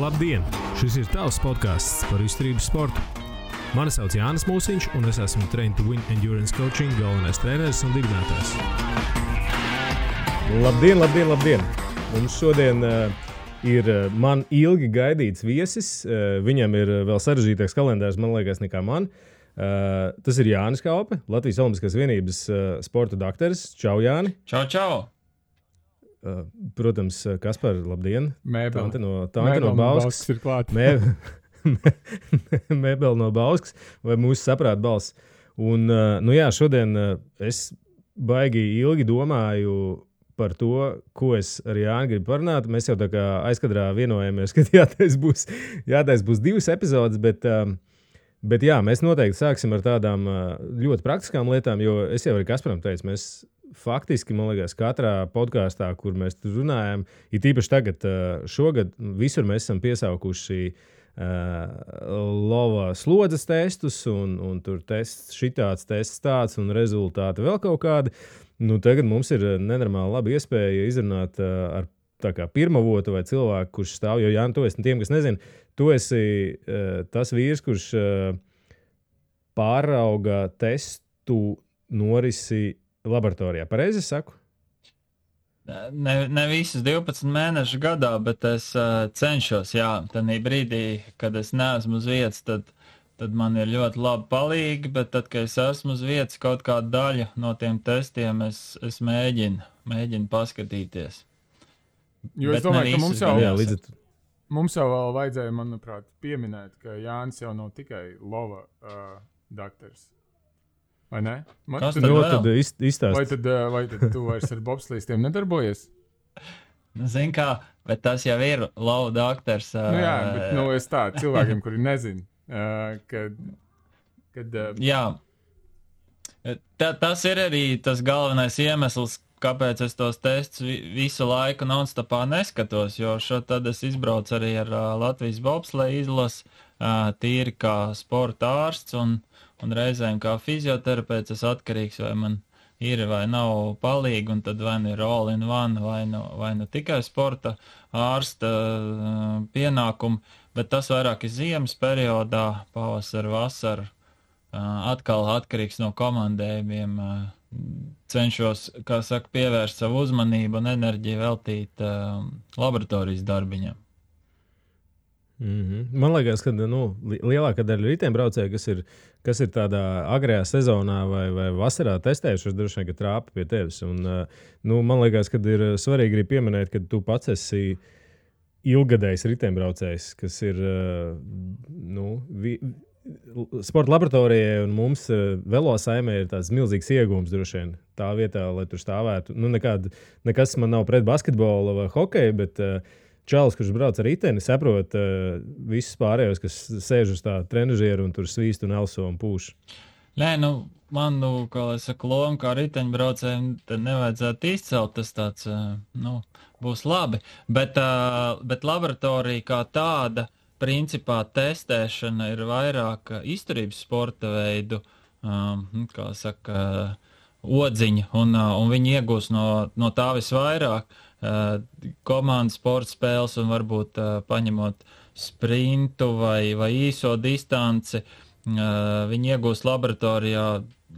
Labdien! Šis ir tavs podcasts par izturības sportu. Mani sauc Jānis Mūsiņš, un es esmu Train to Win Endurance Coaching galvenais treneris un dibinātājs. Labdien! Mums šodien ir man ilgi gaidīts viesis. Viņam ir vēl sarežģītāks kalendārs, man liekas, nekā man. Tas ir Jānis Kaupe, Latvijas Olimpiskās vienības sporta dakteris. Čau, Jāni! Čau! Protams, Kaspar, labdien! Mēbeli. Tante no Bauskas ir klāt. Mēbeli no Bauskas vai mūsu saprāta balss. Un, šodien es baigi ilgi domāju par to, ko es ar Jāni gribu parunāt. Mēs jau tā kā aizkadrā vienojamies, ka jātais būs 2 epizodes, bet jā, mēs noteikti sāksim ar tādām ļoti praktiskām lietām, jo es jau arī Kasparam teicu, mēs faktiski, man liekas, katrā podkāstā, kur mēs tur runājam, ir tīpaši tagad, šogad, visur mēs esam piesaukuši lova slodzes testus, un tur tests šitāds, tests tāds, un rezultāti vēl kaut kādi. Nu, tagad mums ir nenormāli laba iespēja izrunāt ar tā kā pirmavotu vai cilvēku, kurš stāv, jo Jāni, tu esi tiem, kas nezina, tu esi tas vīrs, kurš pārauga testu norisi laboratorijā. Pareizi es saku? Ne visas 12 mēnešu gadā, bet es cenšos, jā. Tanī brīdī, kad es neesmu uz vietas, tad man ir ļoti labi palīgi, bet tad, kad es esmu uz vietas, kaut kādu daļu no tiem testiem es mēģinu paskatīties. Jo Bet es domāju, ka ne mums jau vēl vajadzēja, manuprāt, pieminēt, ka Jānis jau nav tikai lova dakteris. Vai ne? Kas tad Nu, vēl? tad izstāst. Vai tad tu vairs ar bobslīstiem nedarbojies? Zin kā, bet tas jau ir lova daktars. Jā, bet es tā cilvēkiem, kuri nezin, kad Jā. Tas ir arī tas galvenais iemesls, kāpēc es tos testus visu laiku non-stopā neskatos, jo tad es izbraucu arī ar Latvijas bobsleja izlasi, tīri kā sporta ārsts un reizēm kā fizioterapeits es atkarīgs, vai man ir vai nav palīgi, un tad vai nu ir all in one, vai nu tikai sporta ārsta pienākumi, bet tas vairāk ir ziemas periodā, pavasar, vasar, atkal atkarīgs no komandējumiem, cenšos, kā saka, pievērst savu uzmanību un enerģiju veltīt laboratorijas darbiņam. Man liekas, ka lielākā daļa riteņbraucēju, kas ir tādā agrajā sezonā vai vasarā testējušies, droši vien, ka trāpa pie tevis. Un, man liekas, ka ir svarīgi arī pieminēt, ka tu pats esi ilgadējs riteņbraucējs, kas ir sporta laboratorijai un mums velosaimē ir tāds milzīgs iegūms droši vien tā vietā, lai tur stāvētu. Nekas man nav pret basketbolu vai hokeju, bet čalis, kurš brauc ar riteni, saprot visus pārējos, kas sēž uz tā trenažieru un tur svīst un elso un pūš. Nē, man, kā lai saka, loma kā riteņbraucējiem, tad nevajadzētu izcelt, tas tāds, būs labi. Bet laboratorija kā tāda, principā testēšana ir vairāk izturības sporta veidu, kā saka, odziņa, un viņi iegūs no tā visvairāk. Komandas sporta spēles un varbūt paņemot sprintu vai īso distanci, viņi iegūst laboratorijā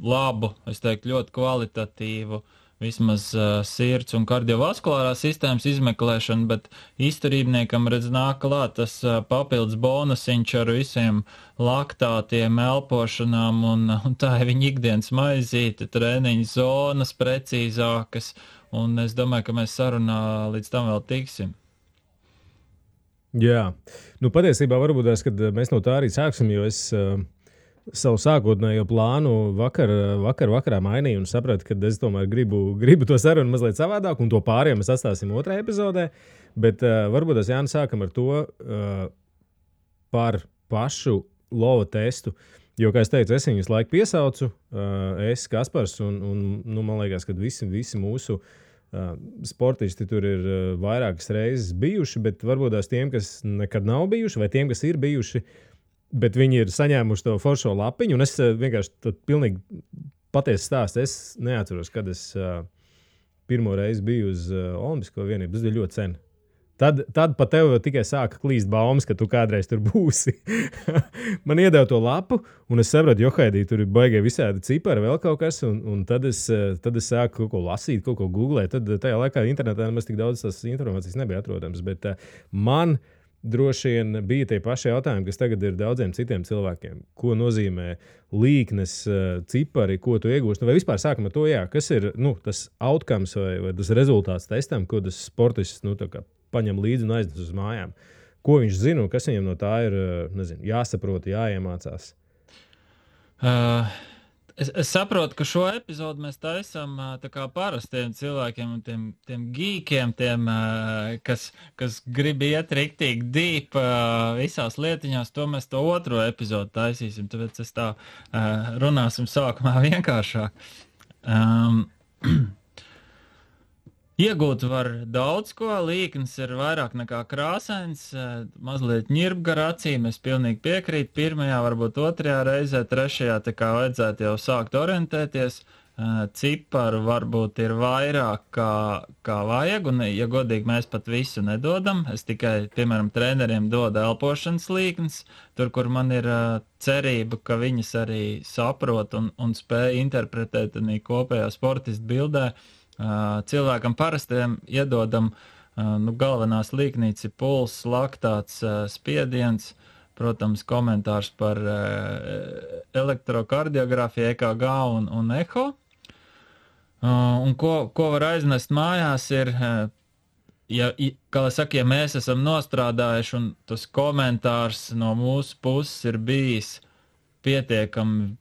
labu, es teiktu, ļoti kvalitatīvu vismaz sirds un kardiovaskulārās sistēmas izmeklēšanu, bet izturībniekam redz nāk klāt tas papildus bonusiņš ar visiem laktātiem, elpošanām un tā ir viņa ikdienas maizīte, treniņu zonas precīzākas. Un es domāju, ka mēs sarunā līdz tam vēl tiksim. Jā. Patiesībā varbūt tās, kad mēs no tā arī sāksim, jo es savu sākotnējo plānu vakarā mainīju un sapratu, ka es tomēr gribu to sarunu mazliet savādāk, un to pārējiem mēs atstāsim 2. epizodē. Bet varbūt tās, Jāni, sākam ar to par pašu lova testu. Jo, kā es teicu, es viņus laiku piesaucu, es, Kaspars, un man liekas, ka visi mūsu sportisti tur ir vairākas reizes bijuši, bet varbūt tās tiem, kas nekad nav bijuši, vai tiem, kas ir bijuši, bet viņi ir saņēmuši to foršo lapiņu, un es vienkārši pilnīgi patiesi stāstu. Es neatceros, kad es pirmo reizi biju uz Olimpisko vienību. Tas bija ļoti sen. Tad pa tev tikai sāka klīst baumas, ka tu kādreiz tur būsi. Man iedeva to lapu, un es sapratu, johaidī, tur ir baigie visādi cipari, vēl kaut kas, un tad es sāku kaut ko lasīt, kaut ko googlēt. Tad tajā laikā internetā nemaz tik daudz tās informācijas nebija atrodams, bet man droši vien bija tie paši jautājumi, kas tagad ir daudziem citiem cilvēkiem. Ko nozīmē līknes, cipari, ko tu iegūsti? Vai vispār sākam ar to, kas ir tas outcomes vai tas rezultāts testam, ko tas sportists paņem līdzi un aiznes uz mājām? Ko viņš zina un kas viņam no tā ir jāsaprot, jāiemācās? Es saprotu, ka šo epizodu mēs taisām tā kā parastiem cilvēkiem un tiem geekiem, kas grib iet riktīgi deep visās lietiņās, to mēs to otro epizodu taisīsim, tāpēc es tā runāsim sākumā vienkāršāk. Iegūt var daudz ko, līknes ir vairāk nekā krāsains, mazliet ņirbga ar acīm, es pilnīgi piekrītu, pirmajā, varbūt otrajā reizē, trešajā, tā kā vajadzētu jau sākt orientēties, ciparu varbūt ir vairāk kā vajag, un, ja godīgi, mēs pat visu nedodam, es tikai, piemēram, treneriem dodu elpošanas līknes, tur, kur man ir cerība, ka viņas arī saprot un spēj interpretēt arī kopējā sportista bildē. Cilvēkam parastiem iedodam galvenās līknītes ir pulss, laktāts, spiediens, protams, komentārs par elektrokardiografiju, EKG un eho. Un ko var aiznest mājās ir, ja mēs esam nostrādājuši un tas komentārs no mūsu puses ir bijis pietiekami,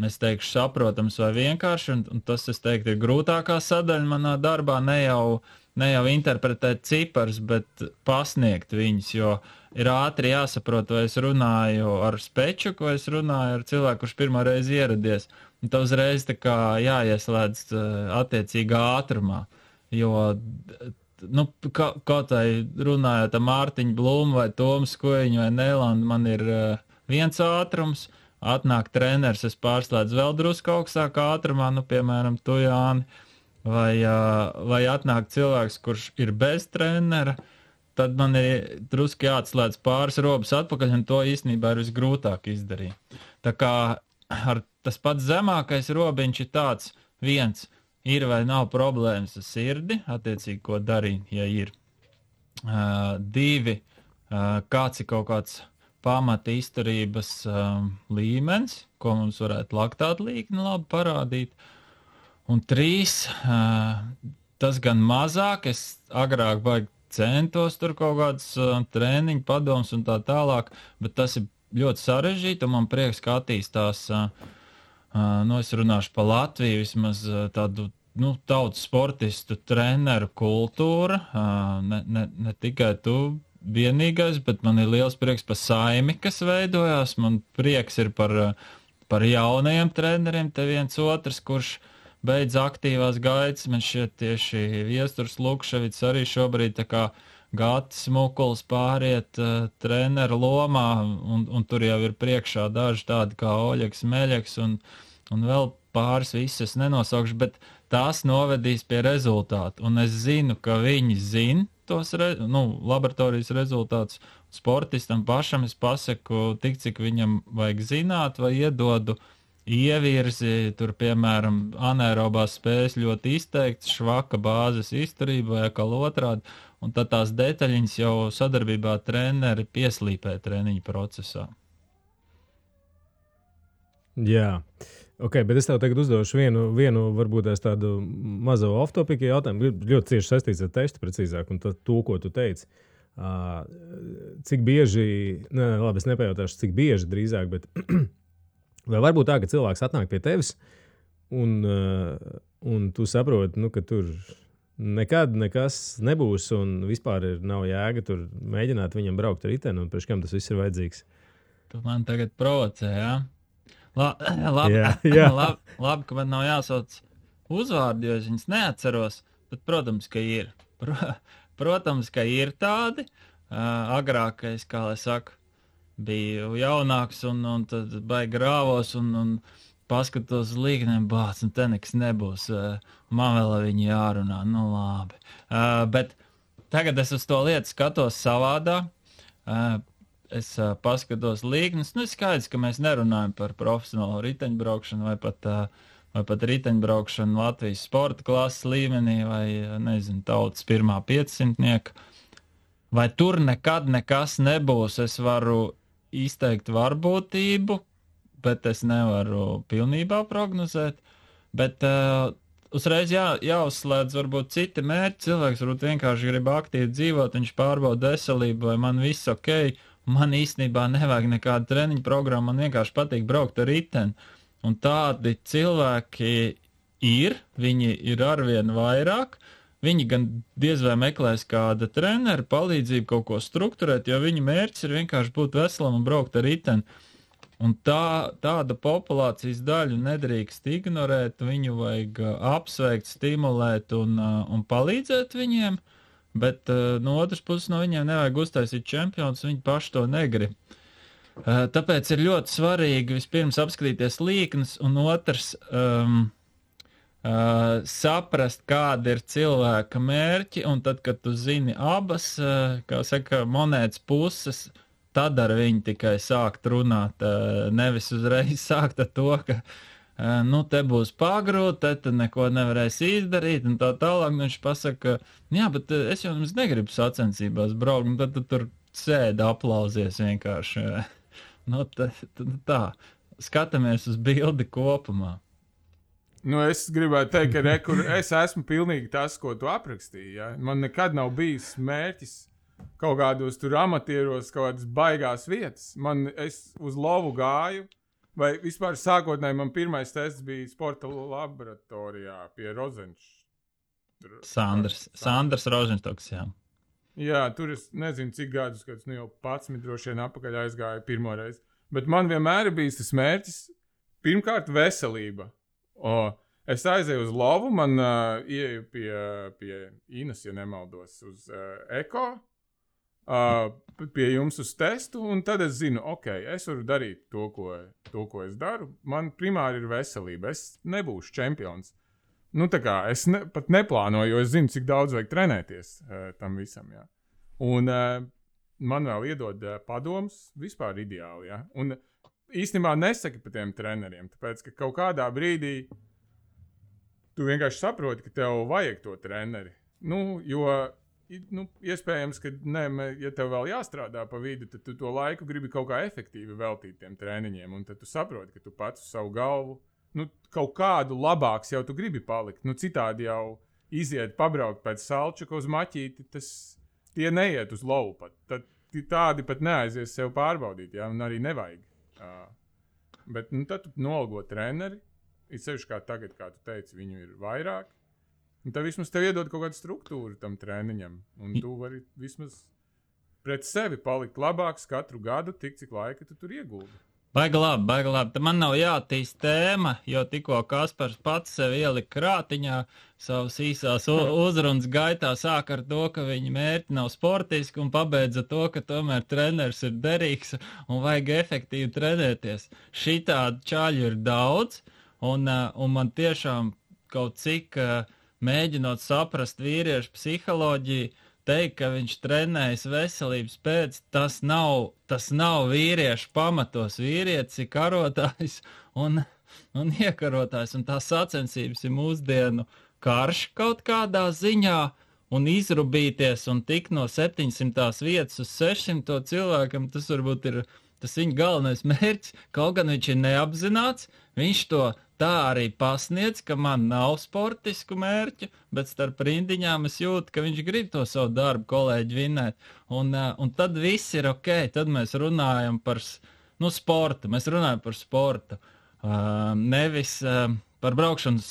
es teikšu, saprotams vai vienkārši, un tas, es teiktu, ir grūtākā sadaļa manā darbā, ne jau interpretēt ciparus, bet pasniegt viņus, jo ir ātri jāsaprot, vai es runāju ar spečuku, vai es runāju ar cilvēku, kurš pirmā reize ieradies, un tā uzreiz tā kā jāieslēdz attiecīgā ātrumā, jo, kaut vai runājot ar Mārtiņu Blumu vai Tomu Skojiņu vai Nēlandu, man ir viens ātrums, atnāk treneris, es pārslēdzu vēl drusku augstākā ātrumā, piemēram, tu, Jāni, vai atnāk cilvēks, kurš ir bez trenera, tad man ir drusku jāatslēdz pāris robas atpakaļ, un to īstenībā ir visgrūtāk izdarīt. Tā kā tas pats zemākais robiņš ir tāds, viens, ir vai nav problēmas ar sirdi, attiecīgi, ko darīt, ja ir. Divi, kāds ir kaut kāds pamata izturības līmenis, ko mums varētu laktāta līkne labi parādīt. Un 3, tas gan mazāk, es agrāk baigi centos tur kaut kādas treniņu padomus un tā tālāk, bet tas ir ļoti sarežģīti, un man prieks, ka attīstās, es runāšu pa Latviju, vismaz tādu, tautas sportistu treneru kultūra, ne tikai tu, vienīgais, bet man ir liels prieks par saimi, kas veidojās. Man prieks ir par jaunajiem treneriem, te viens otrs, kurš beidz aktīvās gaitas. Man šķiet tieši Viesturs Lukševits arī šobrīd tā kā Gatis Mukuls pāriet treneru lomā, un tur jau ir priekšā daži tādi kā Oļeks Meļeks un vēl pāris visas nenosaukšu, bet tās novedīs pie rezultātu. Un es zinu, ka viņi zina tos laboratorijas rezultātus. Sportistam pašam es pasaku tik, cik viņam vajag zināt, vai iedodu ievirzi, tur, piemēram, anaerobās spējas ļoti izteikts, švaka bāzes izturība vai atkal otrādi, un tad tās detaļiņas jau sadarbībā treneri pieslīpē treniņu procesā. Jā. Ok, bet es tev tagad uzdošu vienu varbūt tādu mazo off-topiku jautājumu, ļoti cieši saistīts ar testu precīzāk, un to, ko tu teici. Cik bieži, labi, es nepajautāšu, cik bieži drīzāk, bet vai varbūt tā, ka cilvēks atnāk pie tevis, un tu saproti, ka tur nekad nekas nebūs, un vispār nav jēga tur mēģināt viņam braukt ar riteni, un priekš kam tas viss ir vajadzīgs? Tu man tagad provocē, jā? Labi, ka man nav jāsauc uzvārdi, jo es viņus neatceros, bet, protams, ka ir. Protams, ka ir tādi. Agrākais, kā lai saka, biju jaunāks un tad baigi rāvos un paskatos uz līknēm, te nekas nebūs. Man vēl viņi jārunā, labi. Bet tagad es uz to lietu skatos savādā. Es paskatos līknes. Nu, skaidrs, ka mēs nerunājam par profesionālo riteņbraukšanu vai pat riteņbraukšanu Latvijas sporta klases līmenī vai, nezinu, tautas pirmā 500-nieka. Vai tur nekad nekas nebūs, es varu izteikt varbūtību, bet es nevaru pilnībā prognozēt. Bet uzreiz jāuzslēdz varbūt citi mērķi. Cilvēks varbūt vienkārši grib aktīvi dzīvot, viņš pārbauda veselību, vai man viss ok. Man īstenībā nevajag nekādu treniņu programmu, man vienkārši patīk braukt ar riteni. Un tādi cilvēki viņi ir arvien vairāk. Viņi gan diez vai meklēs kāda trenera palīdzību kaut ko strukturēt, jo viņa mērķis ir vienkārši būt veselam un braukt ar riteni. Un tāda populācijas daļu nedrīkst ignorēt, viņu vajag apsveikt, stimulēt un palīdzēt viņiem, bet no otras puses no viņiem nevajag uztaisīt čempionus, viņi paši to negrib. Tāpēc ir ļoti svarīgi vispirms apskatīties līknes, un otrs saprast, kāda ir cilvēka mērķi, un tad, kad tu zini abas, kā saka, monētas puses, tad ar viņu tikai sākt runāt, nevis uzreiz sākt ar to, ka te būs pagrūti, te neko nevarēs izdarīt, un tā tālāk viņš pasaka, jā, bet es jau jums negribu sacensībās braukt, un tad tu tur sēdi aplausies vienkārši. Tā, skatāmies uz bildi kopumā. Es gribētu teikt, ka es esmu pilnīgi tas, ko tu aprakstīji. Ja? Man nekad nav bijis mērķis kaut kādos tur amatieros, kaut kādas baigās vietas. Es uz lovu gāju, vai vispār sākotnēji man pirmais tests bija sporta laboratorijā pie Rozenčs. Sandrs Rozenštoks, jā. Jā, tur es nezinu, cik gadus, kad jau 11 droši vien apakaļ aizgāju pirmoreiz. Bet man vienmēr ir bijis tas mērķis, pirmkārt, veselība. Es aizēju uz lovu, man ieju pie Inas, ja nemaldos, uz Eko, pie jums uz testu, un tad es zinu, es varu darīt to, ko es daru. Man primāri ir veselība, es nebūšu čempions. Es pat neplānoju, jo es zinu, cik daudz vajag trenēties tam visam, jā. Un man vēl iedod padomus, vispār ideāli, jā. Un īstenībā nesaki par tiem treneriem, tāpēc, ka kaut kādā brīdī tu vienkārši saproti, ka tev vajag to treneri. Jo iespējams, ka ja tev vēl jāstrādā pa vidu, tad tu to laiku gribi kaut kā efektīvi veltīt tiem treniņiem, un tad tu saproti, ka tu pats uz savu galvu, kaut kādu labāks jau tu gribi palikt. Citādi jau iziet pabraukt pēc salčaka uz maķīti, tie neiet uz lovu pat. Tad tādi pat neaizies sev pārbaudīt, jā, un arī nevajag. Bet tad tu nolgo treneri, it sevišķi kā tagad, kā tu teici, viņu ir vairāk, un tad vismaz tev iedod kaut kādu struktūru tam treniņam, un tu vari vismaz pret sevi palikt labāks katru gadu, tik cik laika tu tur ieguldi. Baigi labi. Man nav jātīst tēma, jo tikko Kaspars pats sev ielika krātiņā savas īsās uzrunas gaitā, sāk ar to, ka viņa mērķi nav sportiski un pabeidza to, ka tomēr treneris ir derīgs un vajag efektīvi trenēties. Šitādi čaļu ir daudz, un man tiešām kaut cik mēģinot saprast vīriešu psiholoģiju, teikt, ka viņš trenējas veselības pēc, tas nav vīriešu pamatos. Vīrietis ir karotājs un iekarotājs, un tās sacensības ir mūsdienu karš kaut kādā ziņā, un izrubīties un tikt no 700 vietas uz 600 cilvēkam, tas varbūt ir tas viņa galvenais mērķis, kaut gan viņš ir neapzināts, viņš to tā arī pasniedz, ka man nav sportisku mērķu, bet starp rindiņām es jūtu, ka viņš grib to savu darbu kolēģi vinēt. Un tad viss ir ok, tad mēs runājam par sportu, nevis par braukšanu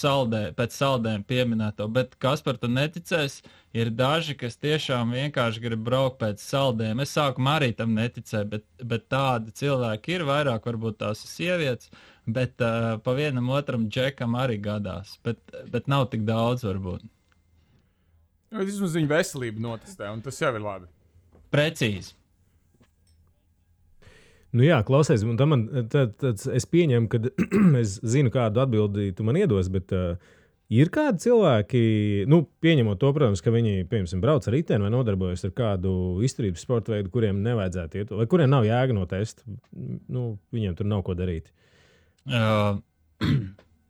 pēc saldēm pieminēto, bet Kaspar, tu neticēs, ir daži, kas tiešām vienkārši grib braukt pēc saldēm. Es sākumā arī tam neticēju, bet tādi cilvēki ir vairāk, varbūt tās ir sievietes, bet pa vienam otram džekam arī gadās, bet nav tik daudz varbūt. Vismaz viņa veselību notestē, un tas jau ir labi. Precīzi. Jā, klausies, un tad es pieņemu, ka es zinu, kādu atbildi tu man iedos, bet Ir kādi cilvēki, pieņemot to, protams, ka viņi, piemēram, brauc ar riteni vai nodarbojas ar kādu izturības sporta veidu, kuriem nevajadzētu iet, vai kuriem nav jēga no testa, viņiem tur nav ko darīt?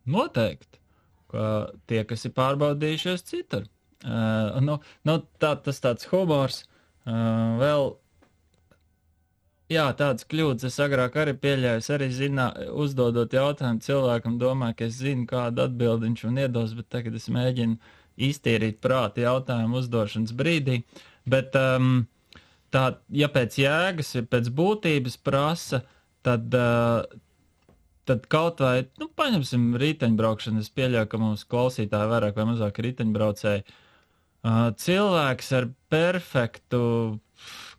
Noteikti, ka tie, kas ir pārbaudījušies citur. Tas tāds humors vēl. Jā, tādas kļūdas es agrāk arī pieļāju. Es arī uzdodot jautājumu cilvēkam, domāju, ka es zinu, kādu atbildi viņš man iedos, bet tagad es mēģinu iztīrīt prāti jautājumu uzdošanas brīdī. Bet ja pēc jēgas, ja pēc būtības prasa, tad kaut vai, paņemsim riteņbraukšanu, es pieļauju, ka mums klausītāji vairāk vai mazāk riteņbraucēji. Cilvēks ar perfektu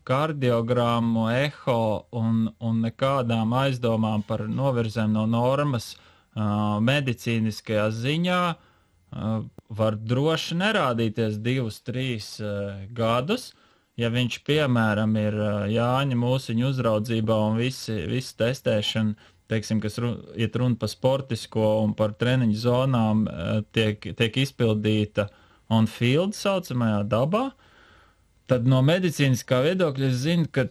kardiogrammu, eho un nekādām aizdomām par novirzēm no normas medicīniskajā ziņā var droši nerādīties 2-3 gadus. Ja viņš, piemēram, ir Jāņa Mūsiņa uzraudzībā un visi testēšana, teiksim, kas iet runa par sportisko un par treniņu zonām, tiek izpildīta on field saucamajā dabā, tad no medicīniskā viedokļa es zinu, ka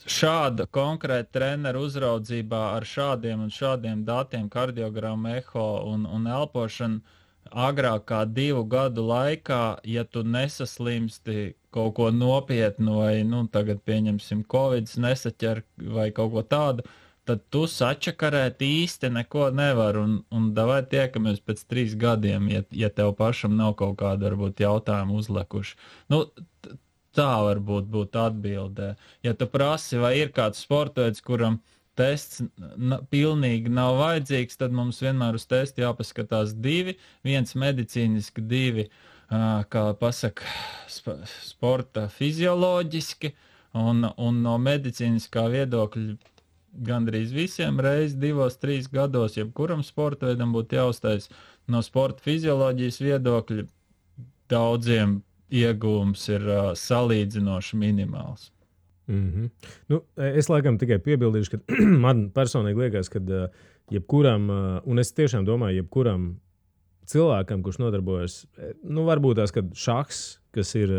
šāda konkrēta treneru uzraudzībā ar šādiem un šādiem datiem, kardiogramu, eho un elpošanu, agrāk kā 2 gadu laikā, ja tu nesaslimsti kaut ko nopietnu vai, tagad pieņemsim Covid, nesaķer vai kaut ko tādu, tad tu sačakarēt īsti neko nevar un davai tiekamies pēc 3 gadiem, ja tev pašam nav kaut kāda, varbūt, jautājuma uzlekuši. Tā varbūt būtu atbildē. Ja tu prasi, vai ir kāds sportveids, kuram tests pilnīgi nav vajadzīgs, tad mums vienmēr uz testu jāpaskatās 2, viens medicīniski, 2, kā pasaka, sporta fizioloģiski, un no medicīniskā viedokļa gandrīz visiem reiz 2-3 gados, jebkuram sporta veidam būtu jāuztais no sporta fizioloģijas viedokļa, daudziem iegūms ir salīdzinoši minimāls. Es laikam tikai piebildīšu, ka man personīgi liekas, ka jebkuram, un es tiešām domāju, jebkuram cilvēkam, kurš nodarbojas, varbūt tās, kad šahs, kas ir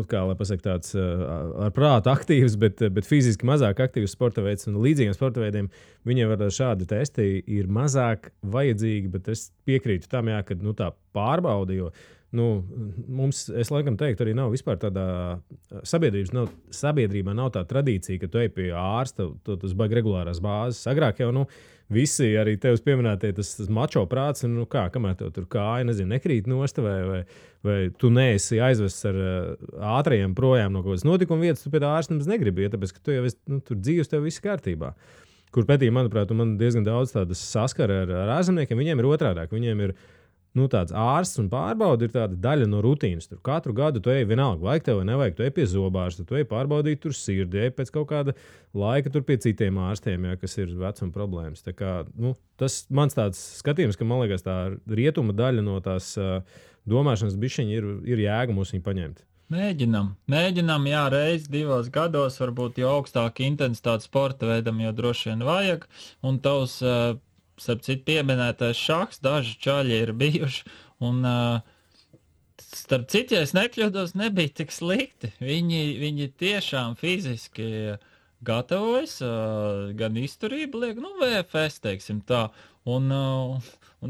kā lai pasaka, tāds ar prātu aktīvs, bet fiziski mazāk aktīvs sporta veids un līdzīgiem sporta veidiem, viņiem var šādi testi ir mazāk vajadzīgi, bet es piekrītu tam, ka tā pārbauda, jo mums, es laikam teiktu, arī nav vispār tādā sabiedrībā nav tā tradīcija, ka tu ej pie ārsta, tas baigi regulārās bāzes. Agrāk jau, visi arī tevis pieminētie tas mačo prāts, un kamēr tev tur kāja, nekrīt nost, vai tu neesi aizvests ar ātrajiem projām no kaut kādas notikuma vietas, tu pie tā ārsta nemaz negribi, tāpēc, ka tu jau esi, tur dzīves tev viss kārtībā. Kur pētī, manuprāt, man diezgan daudz tādas saskara ar ārzemniekiem, viņiem ir otrādāk, viņiem ir tāds ārsts un pārbauda ir tāda daļa no rutīnas. Tur katru gadu tu ej vienalga, vajag tev vai nevajag, tu ej pie zobārsta, tu ej pārbaudīt tur sirdi, ej pēc kaut kāda laika tur pie citiem ārstiem, kas ir vecuma problēmas. Tā kā, tas mans tāds skatījums, ka man liekas tā rietuma daļa no tās domāšanas bišķiņa ir jēga mums viņu paņemt. Mēģinam, jā, reiz 2 gados, varbūt jau augstāk intensitāte sporta veidam, jo droši vien vajag, un tavs starp citu pieminētais šahs, daži čaļi ir bijuši, un starp citu, ja es nekļūdos, nebija tik slikti. Viņi tiešām fiziski gatavojas, gan izturību liek, VFS, teiksim tā, un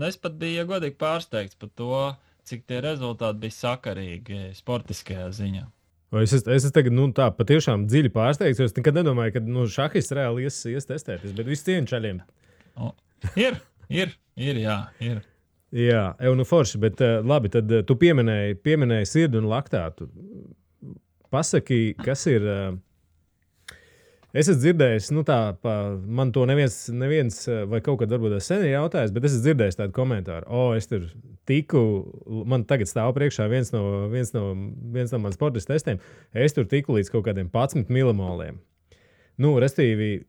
es pat biju, ja godīgi, pārsteigts par to, cik tie rezultāti bija sakarīgi sportiskajā ziņā. Es esmu tagad tā patiešām dziļi pārsteigts, jo es nekad nedomāju, ka šahists reāli ies testēties, bet visu cienu čaļiem. Ir, jā, ir. Jā, forši, bet labi, tad tu pieminēji sirdi un laktātu. Pasaki, kas ir... Es esmu dzirdējis, man to neviens vai kaut kad varbūt sen ir jautājis, bet es esmu dzirdējis tādu komentāru. Es tur tiku, man tagad stāv priekšā viens no man sportistu testiem, es tur tiku līdz kaut kādiem 11 milimoliem. Restīvi,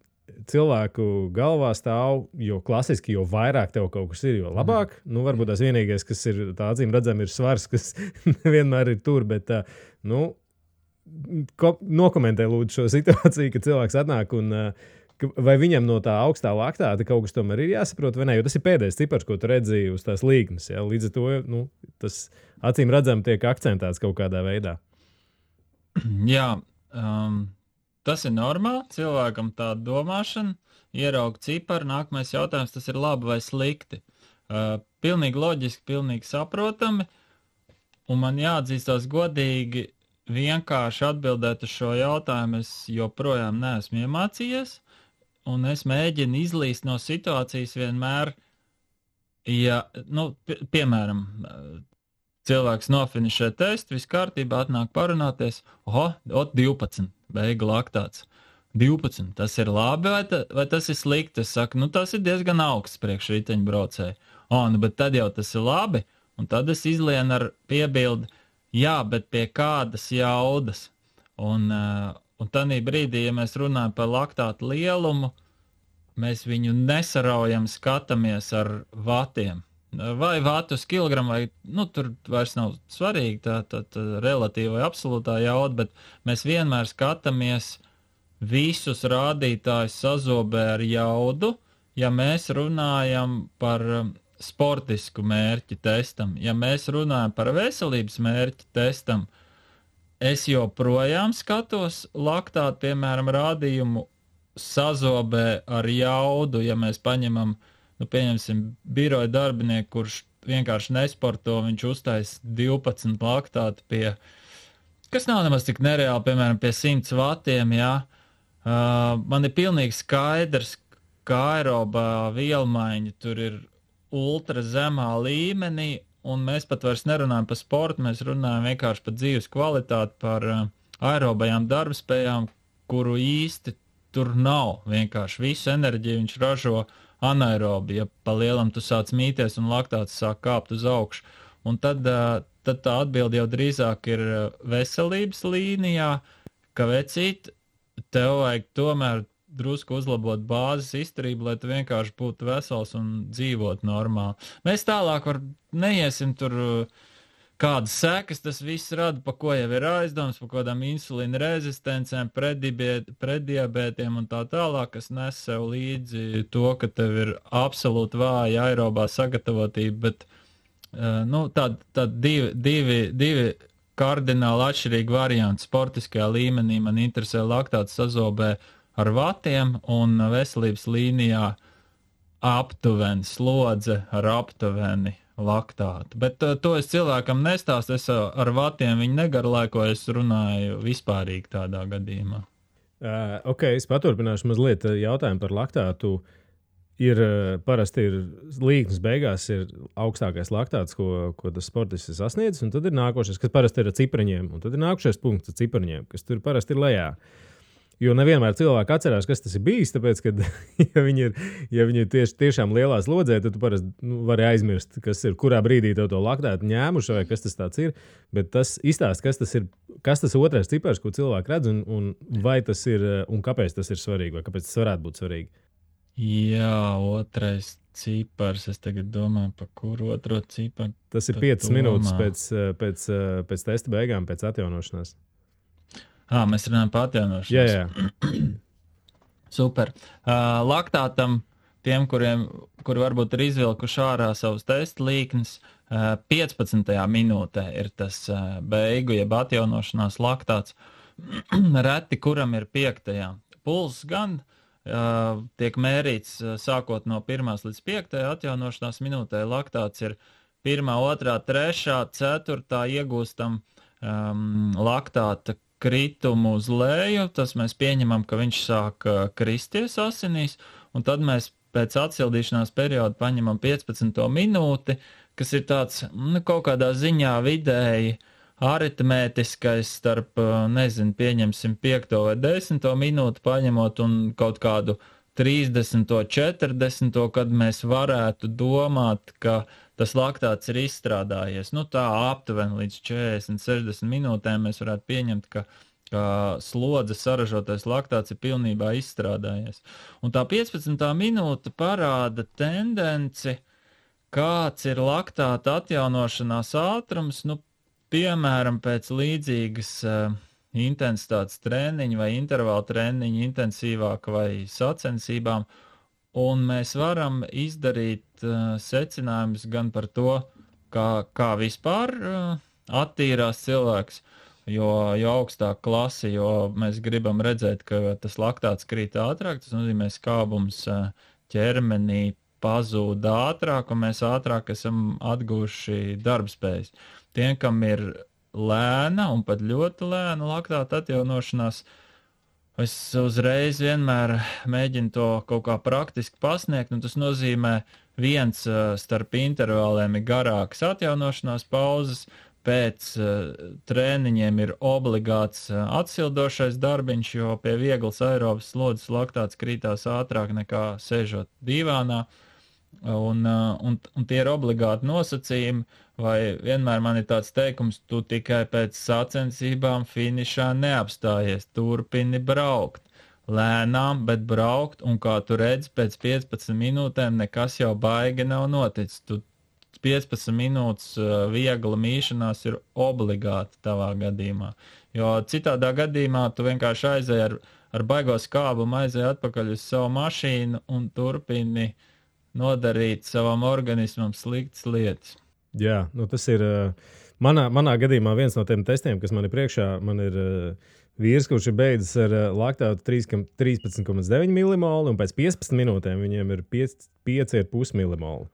cilvēku galvā stāv, jo klasiski, jo vairāk tev kaut kas ir, jo labāk. Varbūt tās vienīgais, kas ir tā acīm redzam, ir svars, kas nevienmēr ir tur, bet, nokomentē lūdzu šo situāciju, ka cilvēks atnāk un vai viņam no tā augstā laktāta kaut kas tomēr ir jāsaprot, vai ne? Jo tas ir pēdējais cipars, ko tu redzēji uz tās līknes. Ja? Līdz ar to tas acīm redzam tiek akcentēts kaut kādā veidā. Jā, tas ir normāli. Cilvēkam tāda domāšana, ierauga ciparu, nākamais jautājums, tas ir labi vai slikti. Pilnīgi loģiski, pilnīgi saprotami, un man jāatzīstās godīgi, vienkārši atbildēt uz šo jautājumu es joprojām neesmu iemācījies, un es mēģinu izlīst no situācijas vienmēr, ja, piemēram, cilvēks nofinišē testu, viss kārtībā, atnāk parunāties, 12, beiga laktāts. 12, tas ir labi vai tas ir slikti? Es saku, tas ir diezgan augsts priekš riteņbraucēju. Bet tad jau tas ir labi, un tad es izlienu ar piebildi, jā, bet pie kādas jaudas. Un tādī brīdī, ja mēs runājam par laktātu lielumu, mēs viņu nesaraujam, skatāmies ar vatiem. Vai vatu uz kilogramu, vai tur vairs nav svarīgi tā relatīva vai absolūtā jauda, bet mēs vienmēr skatāmies visus rādītājus sazobē ar jaudu, ja mēs runājam par sportisku mērķi testam. Ja mēs runājam par veselības mērķi testam, es joprojām skatos laktātu, piemēram, rādījumu sazobē ar jaudu, ja mēs paņemam, pieņemsim, biroja darbinieku, kurš vienkārši nesporto, viņš uztais 12 laktātu pie, kas nav nemaz tik nereāli, piemēram, pie 100 vatiem, jā. Man ir pilnīgi skaidrs, ka aerobā vielmaiņa tur ir ultra zemā līmenī, un mēs pat vairs nerunājam par sportu, mēs runājam vienkārši par dzīves kvalitāti, par aerobajām darbspējām, kuru īsti tur nav. Vienkārši visu enerģiju viņš ražo anaerobi, ja pa lielam tu sāc mīties un laktāts sāk kāpt uz augšu. Un tad tā atbilde jau drīzāk ir veselības līnijā, ka vecīt, tev vajag tomēr drusku uzlabot bāzes izturību, lai tu vienkārši būtu vesels un dzīvot normāli. Mēs tālāk neiesim tur, kādas sekas tas viss rada, pa ko jau ir aizdoms, pa kādām insulīna rezistencēm, preddiabētiem un tā tālāk, kas nes sev līdzi to, ka tev ir absolūti vāja aerobā sagatavotība, bet divi kardināli atšķirīgi varianti sportiskajā līmenī. Man interesē laktāts sazobē ar vatiem un veselības līnijā aptuveni slodze ar aptuveni laktātu. Bet to es cilvēkam nestāstu, es ar vatiem viņu negarlaikoju, es runāju vispārīgi tādā gadījumā. Es paturpināšu mazliet jautājumu par laktātu. Parasti ir līknes beigās ir augstākais laktāts, ko tas sportists ir sasniedzis, un tad ir nākošais, kas parasti ir ar cipariņiem, un tad ir nākošais punkts ar cipariņiem, kas tur parasti ir lejā. Jo nevienmēr cilvēki atcerās, kas tas ir bijis, tāpēc, ka, ja viņi ir tiešām lielā slodzē, tad tu parasti vari aizmirst, kurā brīdī tev to laktātu ņēmuši, vai kas tas tāds ir. Bet tas izstāst, kas tas otrais cipars, ko cilvēki redz, un vai tas ir, un kāpēc tas ir svarīgi, vai kāpēc tas varētu būt svarīgi. Jā, otrais cipars, es tagad domāju, par kuru otro ciparu. Tas ir 5 minūtes pēc testa beigām, pēc atjaunošanās. Mēs runājam par atjaunošanos. Jā. Super. Laktātam, tiem, kuri varbūt ir izvilkuši ārā savus testa līknes, 15. minūtē ir tas beigu, jeb atjaunošanās laktāts. Reti, kuram ir 5. Puls gan tiek mērīts sākot no 1. līdz 5. atjaunošanās minūtē. Laktāts ir 1., 2., 3., 4. iegūstam laktāta kritumu uz leju, tas mēs pieņemam, ka viņš sāk kristies asinīs, un tad mēs pēc atsildīšanās perioda paņemam 15. minūti, kas ir tāds, kaut kādā ziņā vidēji aritmētiskais starp, pieņemsim 5. vai 10. minūti paņemot un kaut kādu 30. 40. kad mēs varētu domāt, ka tas laktāts ir izstrādājies. Tā aptuveni līdz 40, 60 minūtēm mēs varētu pieņemt, ka slodzes saražotais laktāts ir pilnībā izstrādājies. Un tā 15. minūte parāda tendenci, kāds ir laktāta atjaunošanās ātrums, piemēram, pēc līdzīgas intensitātes treniņi vai intervāla treniņi intensīvāk vai sacensībām, un mēs varam izdarīt secinājumus gan par to, kā vispār attīrās cilvēks, jo augstāk klasi, jo mēs gribam redzēt, ka tas laktāts krīt ātrāk, tas nozīmē skābums ķermenī pazūd ātrāk, un mēs ātrāk esam atguvuši darbspējas. Tiem, kam ir lēna un pat ļoti lēna laktāta atjaunošanās, es uzreiz vienmēr mēģinu to kaut kā praktiski pasniegt, un tas nozīmē viens starp intervāliem ir garāks atjaunošanās pauzes, pēc trēniņiem ir obligāts atsildošais darbiņš, jo pie vieglas aerobas slodzes laktāts krītās ātrāk nekā sēžot divānā, un tie ir obligāti nosacījumi, vai vienmēr man ir tāds teikums, tu tikai pēc sacensībām finišā neapstājies, turpini braukt. Lēnām, bet braukt, un kā tu redzi, pēc 15 minūtēm nekas jau baigi nav noticis. Tu 15 minūtes viegla mīšanās ir obligāti tavā gadījumā. Jo citādā gadījumā tu vienkārši aizēji ar baigo skābumu, aizēji atpakaļ uz savu mašīnu un turpini nodarīt savam organismam sliktas lietas. Jā, nu tas ir manā gadījumā viens no tiem testiem, kas man ir priekšā. Man ir vīrs, kurš ir beidzis ar laktātu 13,9 milimolu, un pēc 15 minūtēm viņiem ir 5,5 milimolu.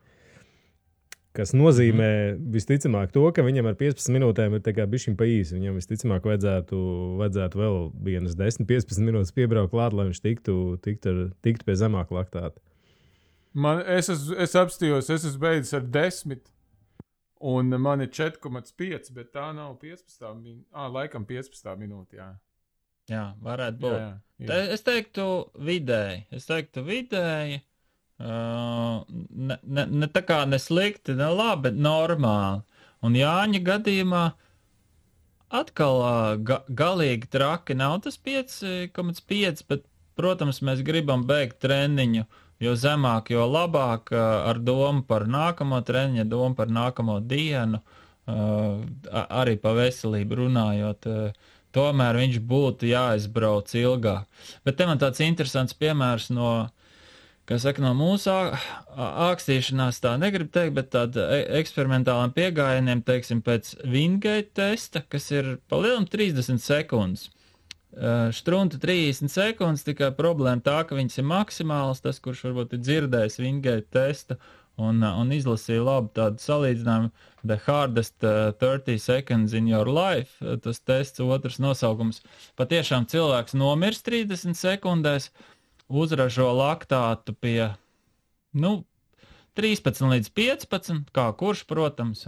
Kas nozīmē visticamāk to, ka viņam ar 15 minūtēm ir bišķiņ pa īsi. Viņam visticamāk vajadzētu vēl vienas 10-15 minūtes piebraukt klāt, lai viņš tiktu pie zemāka laktāta. Es apstījos, es esmu beidzis ar 10, un man ir 4,5, bet tā nav 15 minūte. Laikam 15 minūte, jā. Jā, varētu būt. Jā. Es teiktu vidēji. Ne tā kā neslikti, ne labi, bet normāli. Un Jāņa gadījumā atkal galīgi traki nav tas 5,5, bet, protams, mēs gribam beigt treniņu, jo zemāk, jo labāk, ar domu par nākamo treniņu, domu par nākamo dienu, arī pa veselību runājot, tomēr viņš būtu jāizbrauc ilgāk. Bet te man tāds interesants piemērs no mūsu ākstīšanās, tā negribu teikt, bet tāda eksperimentālām piegājieniem, teiksim, pēc Wingate testa, kas ir pa lielam 30 sekundes. Štrunta 30 sekundes, tikai problēma tā, ka viņas ir maksimāls, tas, kurš varbūt ir dzirdējis Wingate testa un izlasīja labu tādu salīdzinājumu, The Hardest 30 Seconds in Your Life, tas tests otrs nosaukums. Patiešām cilvēks nomirst 30 sekundēs, uzražo laktātu pie 13 līdz 15, kā kurš, protams,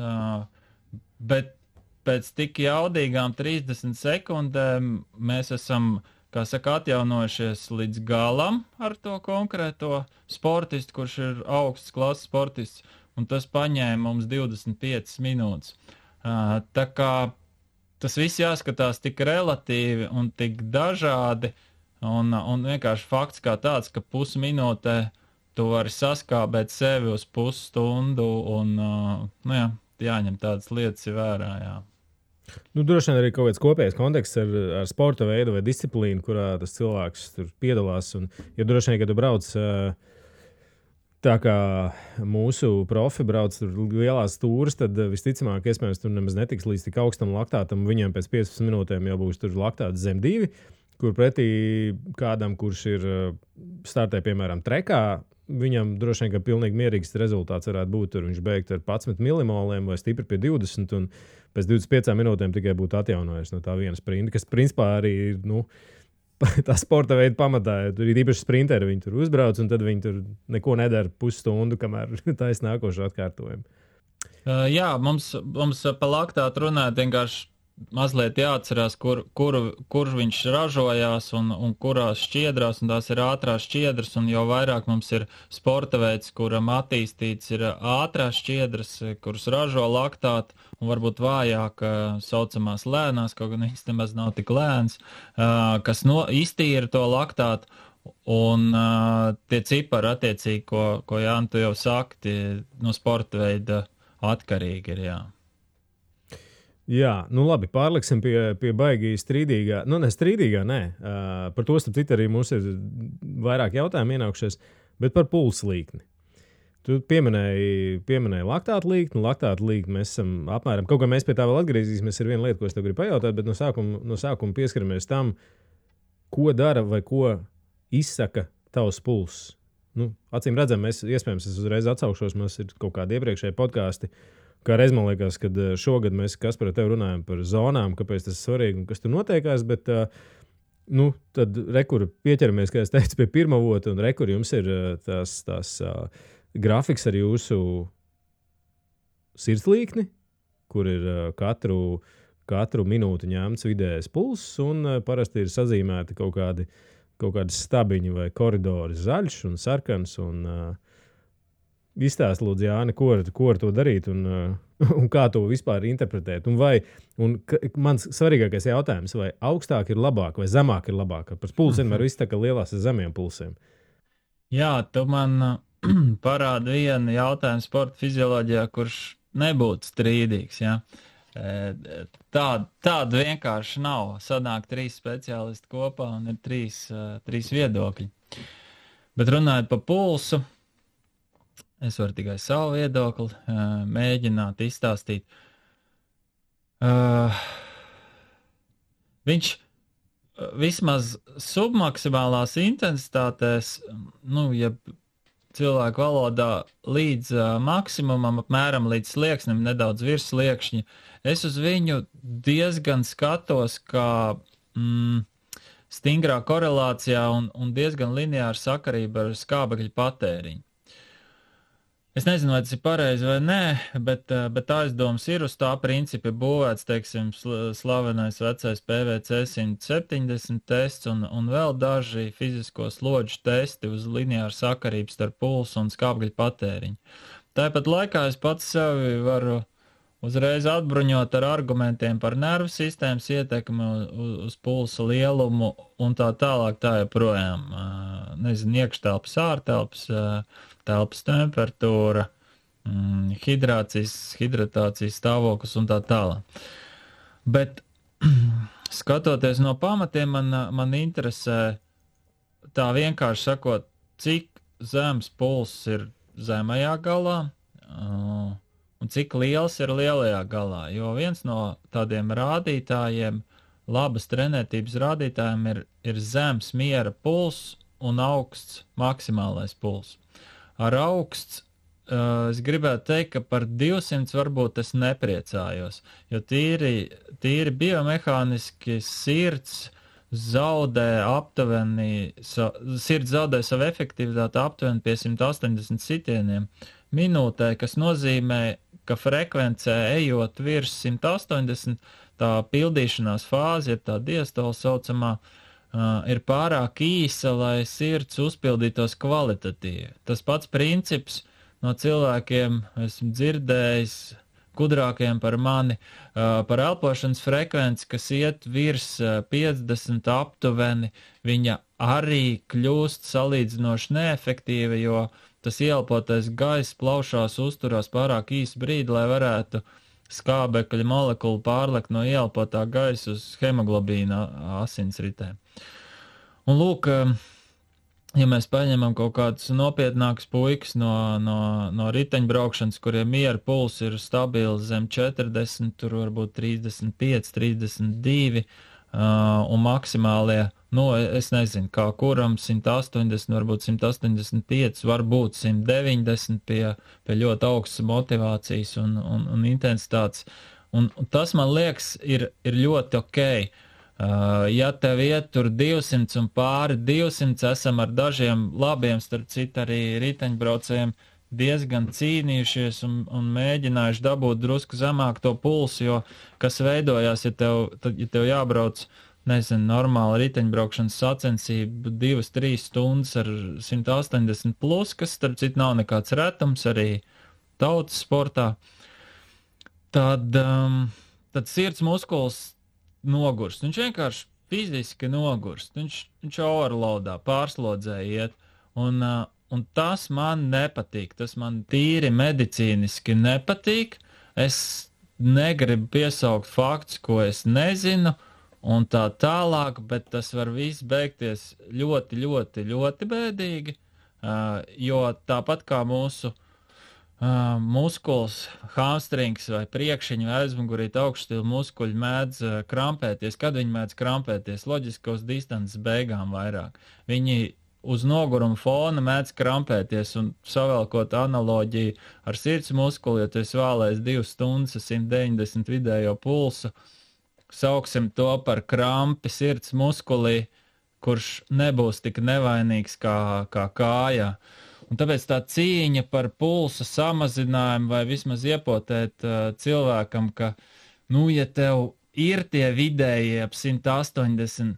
bet pēc tik jaudīgām 30 sekundēm mēs esam, atjaunojušies līdz galam ar to konkrēto sportistu, kurš ir augsts klases sportists, un tas paņēma mums 25 minūtes. Tā kā tas viss jāskatās tik relatīvi un tik dažādi, un vienkārši fakts kā tāds, ka pusminūtē tu vari saskābēt sevi uz pusstundu, un jāņem tādas lietas vērā, jā. Droši vien arī kaut kāds kopējs konteksts ar sporta veidu vai disciplīnu, kurā tas cilvēks tur piedalās. Jo droši vien, kad tu brauc tā kā mūsu profi brauc tur lielās stūras, tad visticamāk, iespējams, tur nemaz netiks līdz tik augstam laktātam. Viņiem pēc 15 minūtēm jau būs tur laktāts zem 2, kur pretī kādam, kurš ir startē, piemēram, trekā, viņam droši vien, ka pilnīgi mierīgs rezultāts varētu būt. Tur viņš beigt ar 11 milimoliem vai stipri pie 20, un pēc 25 minūtēm tikai būtu atjaunojies no tā viena sprinta, kas principā arī ir, tā sporta veida pamatā. Tur ir īpaši sprinteri, viņi tur uzbrauc, un tad viņi tur neko nedara pusstundu, kamēr taisa nākošo atkārtojumu. Jā, mums pa laktātu runāt vienkārši mazliet jāatcerās, kur viņš ražojās un kurās šķiedrās, un tās ir ātrās šķiedras, un jo vairāk mums ir sporta veids, kuram attīstīts ir ātrās šķiedras, kuras ražo laktātu, un varbūt vājāk saucamās lēnās, kaut gan viņas nemaz nav tik lēns, kas iztīra to laktātu, un tie cipari attiecīgi, ko Jāni, tu jau saki, no sporta veida atkarīgi ir, jā. Jā, nu labi, pārliksim pie baigi strīdīgā. Nu, ne strīdīgā, nē. Par to, starp citu, arī mums ir vairāk jautājumu ienākušies, bet par pulsa līkni. Tu pieminēji laktātu līkni. Laktātu līkni mēs esam apmēram, kaut kā mēs pie tā vēl atgriezīsimies, ir viena lieta, ko es tev gribu pajautāt, bet no sākuma pieskaramies tam, ko dara vai ko izsaka tavs pulss. Nu, acīm redzam, iespējams, es uzreiz atsaukšos, mums ir kaut kādi iepriekšēji podkāsti. Kā reiz man liekas, kad šogad mēs Kaspar ar tevi runājam par zonām, kāpēc tas ir svarīgi un kas tur notiekās, bet tad rekur pieķeramies, kā es teicu, pie pirmā vota, un rekur jums ir tās grafiks ar jūsu sirdslīkni, kur ir katru minūti ņemts vidējais pulss, un parasti ir sazīmēti kaut kādi stabiņi vai koridori zaļš un sarkans, un izstāst, lūdzu, Jāni, ko ar to darīt un kā to vispār interpretēt. Mans svarīgākais jautājums, vai augstāk ir labāk vai zemāk ir labāk? Par pulsu vienmēr viss tā kā lielās ar zemiem pulsiem. Jā, tu man parādi vienu jautājumu sporta fizioloģijā, kurš nebūtu strīdīgs. Ja? Tāda vienkārši nav. Sanāk 3 speciālisti kopā un ir 3 viedokļi. Bet runājot par pulsu, es varu tikai savu viedokli mēģināt izstāstīt. Viņš vismaz submaksimālās intensitātēs, ja cilvēku valodā līdz maksimumam, apmēram līdz slieksnim, nedaudz virs sliekšņa, es uz viņu diezgan skatos, kā stingrā korelācijā un diezgan lineāra sakarība ar skābekļa patēriņu. Es nezinu, vai tas ir pareizi vai nē, bet aizdoms ir uz tā principa būvēts, teiksim, slavenais vecais PVC 170 tests un vēl daži fizisko slodžu testi uz lineāru sakarību starp pulsu un skābekļa patēriņu. Tāpat laikā es pats sevi varu uzreiz atbruņot ar argumentiem par nervu sistēmas ietekmi uz pulsa lielumu un tā tālāk tā joprojām. Nezinu, iekštelpas, ārtelpas, telpas temperatūra, hidratācijas stāvoklis un tā tālāk. Bet skatoties no pamatiem, man interesē tā vienkārši sakot, cik zems pulss ir zemajā galā un cik liels ir lielajā galā. Jo viens no tādiem rādītājiem, labas trenētības rādītājiem ir zems miera pulss un augsts maksimālais pulss. Ar augsts es gribētu teikt, ka par 200 varbūt es nepriecājos, jo tīri biomehāniski sirds zaudē savu efektivitāti aptuveni pie 180 sitieniem minūtē, kas nozīmē, ka frekvencē ejot virs 180, tā pildīšanās fāze, tā diastola saucamā, ir pārāk īsa, lai sirds uzpildītos kvalitatīvi. Tas pats princips no cilvēkiem esmu dzirdējis, gudrākiem par mani, par elpošanas frekvenci, kas iet virs 50 aptuveni, viņa arī kļūst salīdzinoši neefektīva, jo tas ieelpotais gaiss plaušās uzturās pārāk īsu brīdi, lai varētu skābekļa molekulu pārlekt no ieelpotā gaisa uz hemoglobīna asinsritēm. Un lūk, ja mēs paņemam kaut kādus nopietnākus puikas no riteņbraukšanas, kuriem miera puls ir stabils zem 40, tur varbūt 35, 32, un maksimālie, es nezinu, kā kuram 180, varbūt 185, varbūt 190 pie ļoti augstas motivācijas un intensitātes. Un tas, man liekas, ir ļoti okei. Ja tev iet tur 200 un pāri 200, esam ar dažiem labiem, starp citu arī riteņbraucējiem, diezgan cīnījušies un mēģinājuši dabūt drusku zemāk to pulsu, jo kas veidojās, ja tev jābrauc, nezinu, normāla riteņbraukšanas sacensība 2-3 stundas ar 180 plus, kas starp citu nav nekāds retums arī tautas sportā, tad sirds muskuls nogurst. Viņš vienkārši fiziski nogurst. Viņš overloadā, pārslodzē iet. Un tas man nepatīk. Tas man tīri medicīniski nepatīk. Es negribu piesaukt faktus, ko es nezinu, un tā tālāk, bet tas var viss beigties ļoti, ļoti, ļoti bēdīgi, jo tāpat kā mūsu muskuls, hamstrings vai priekšiņu vai aizmugurīt augšstilu muskuļi mēdz krampēties. Kad viņi mēdz krampēties? Loģiski uz distances beigām vairāk. Viņi uz noguruma fona mēdz krampēties, un savēlkot analoģiju ar sirds muskuli, ja tu esi vālējis 2 stundas 190 vidējo pulsu, sauksim to par krampi sirds muskulī, kurš nebūs tik nevainīgs kā kājā. Un tāpēc tā cīņa par pulsa samazinājumu vai vismaz iepotēt cilvēkam, ka, ja tev ir tie vidēji ap 180,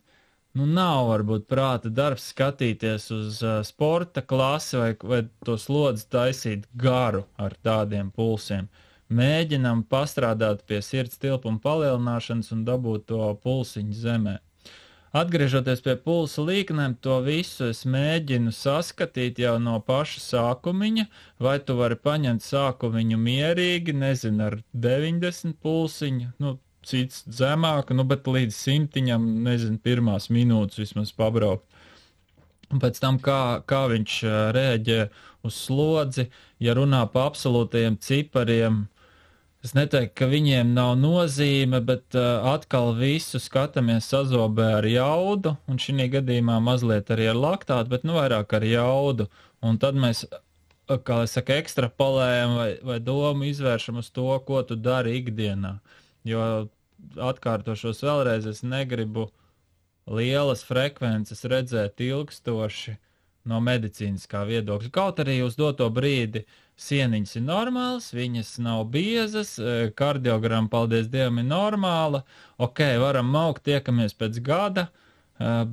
nav varbūt prāta darbs skatīties uz sporta klasi vai to slodzi taisīt garu ar tādiem pulsiem. Mēģinam pastrādāt pie sirds tilpuma palielināšanas un dabūt to pulsiņu zemē. Atgriežoties pie pulsa līknēm, to visu es mēģinu saskatīt jau no paša sākumiņa, vai tu vari paņemt sākumiņu mierīgi, nezinu, ar 90 pulsiņu, cits zemāk, bet līdz 100, nezinu, pirmās minūtes vismaz pabraukt. Un pēc tam, kā viņš rēģē uz slodzi, ja runā pa absolūtajiem cipariem, es neteiktu, ka viņiem nav nozīme, bet atkal visu skatāmies sazobē ar jaudu, un šī gadījumā mazliet arī ar laktātu, bet vairāk ar jaudu. Un tad mēs, kā es saku, ekstrapolējam vai domu izvēršam uz to, ko tu dari ikdienā. Jo atkārtošos vēlreiz, es negribu lielas frekvences redzēt ilgstoši no medicīniskā viedokļa. Kaut arī uz doto brīdi sieniņas ir normālas, viņas nav biezas, kardiogramma, paldies Dievam, ir normāla, varam maukt, tiekamies pēc gada,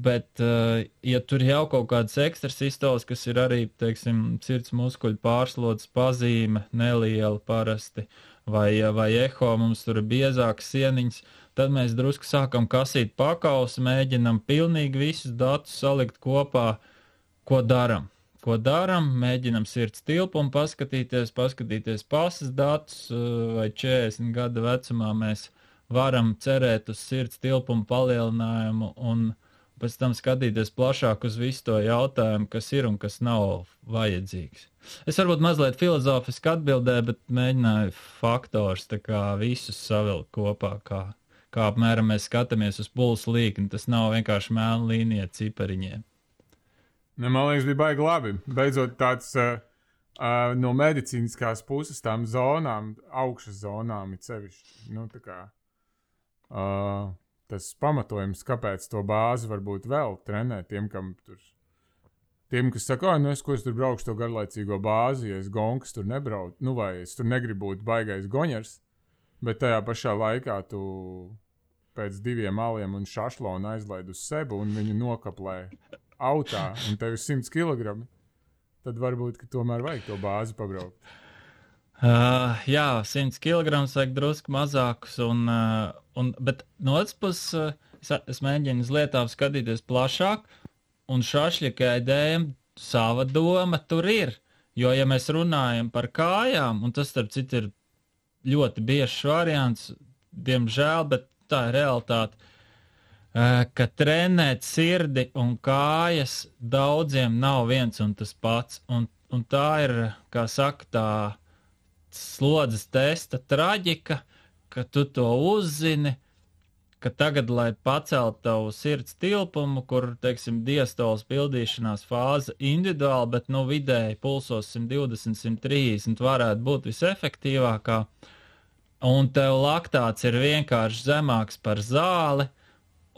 bet, ja tur jau kaut kādas ekstrasistoles, kas ir arī, teiksim, sirds muskuļu pārslodzes pazīme, neliela parasti, vai eho, mums tur ir biezākas sieniņas, tad mēs drusku sākam kasīt pakausi, mēģinam pilnīgi visus datus salikt kopā, ko daram. Mēģinam sirds tilpumu paskatīties pasas datus, vai 40 gada vecumā mēs varam cerēt uz sirds tilpumu palielinājumu un pēc tam skatīties plašāk uz visu to jautājumu, kas ir un kas nav vajadzīgs. Es varbūt mazliet filozofiski atbildēju, bet mēģināju faktors tā kā visus savilkt kopā, kā apmēram mēs skatāmies uz pulsa līkni. Tas nav vienkārši melna līnija cipariņiem. Man liekas, bija baigi labi. Beidzot tāds no medicīniskās puses tām zonām, augšas zonām ir sevišķi. Tas pamatojums, kāpēc to bāzi varbūt vēl trenēt tiem, kas saka, es tur braukšu to garlaicīgo bāzi, ja es gonkas tur nebraucu, vai es tur negribu būt baigais goņers, bet tajā pašā laikā tu pēc 2 aliem un šašlonu aizlaid uz sebu un viņu nokaplē autā, un tev ir 100 kg, tad varbūt, ka tomēr vajag to bāzi pabraukt. Jā, 100 kg vajag drusku mazākus, bet no otras puses es mēģinu uz lietām skatīties plašāk, un šašļikai dēļ sava doma tur ir. Jo, ja mēs runājam par kājām, un tas, starp citu, ir ļoti biežs variants, diemžēl, bet tā ir realitāte, ka trenēt sirdi un kājas daudziem nav viens un tas pats. Un tā ir, kā saka, tā slodzes testa traģika, ka tu to uzzini, ka tagad, lai paceltu tavu sirds tilpumu, kur, teiksim, diastolas pildīšanās fāze individuāli, bet, vidēji pulsos 120, 130 varētu būt visefektīvākā, un tev laktāts ir vienkārši zemāks par zāli,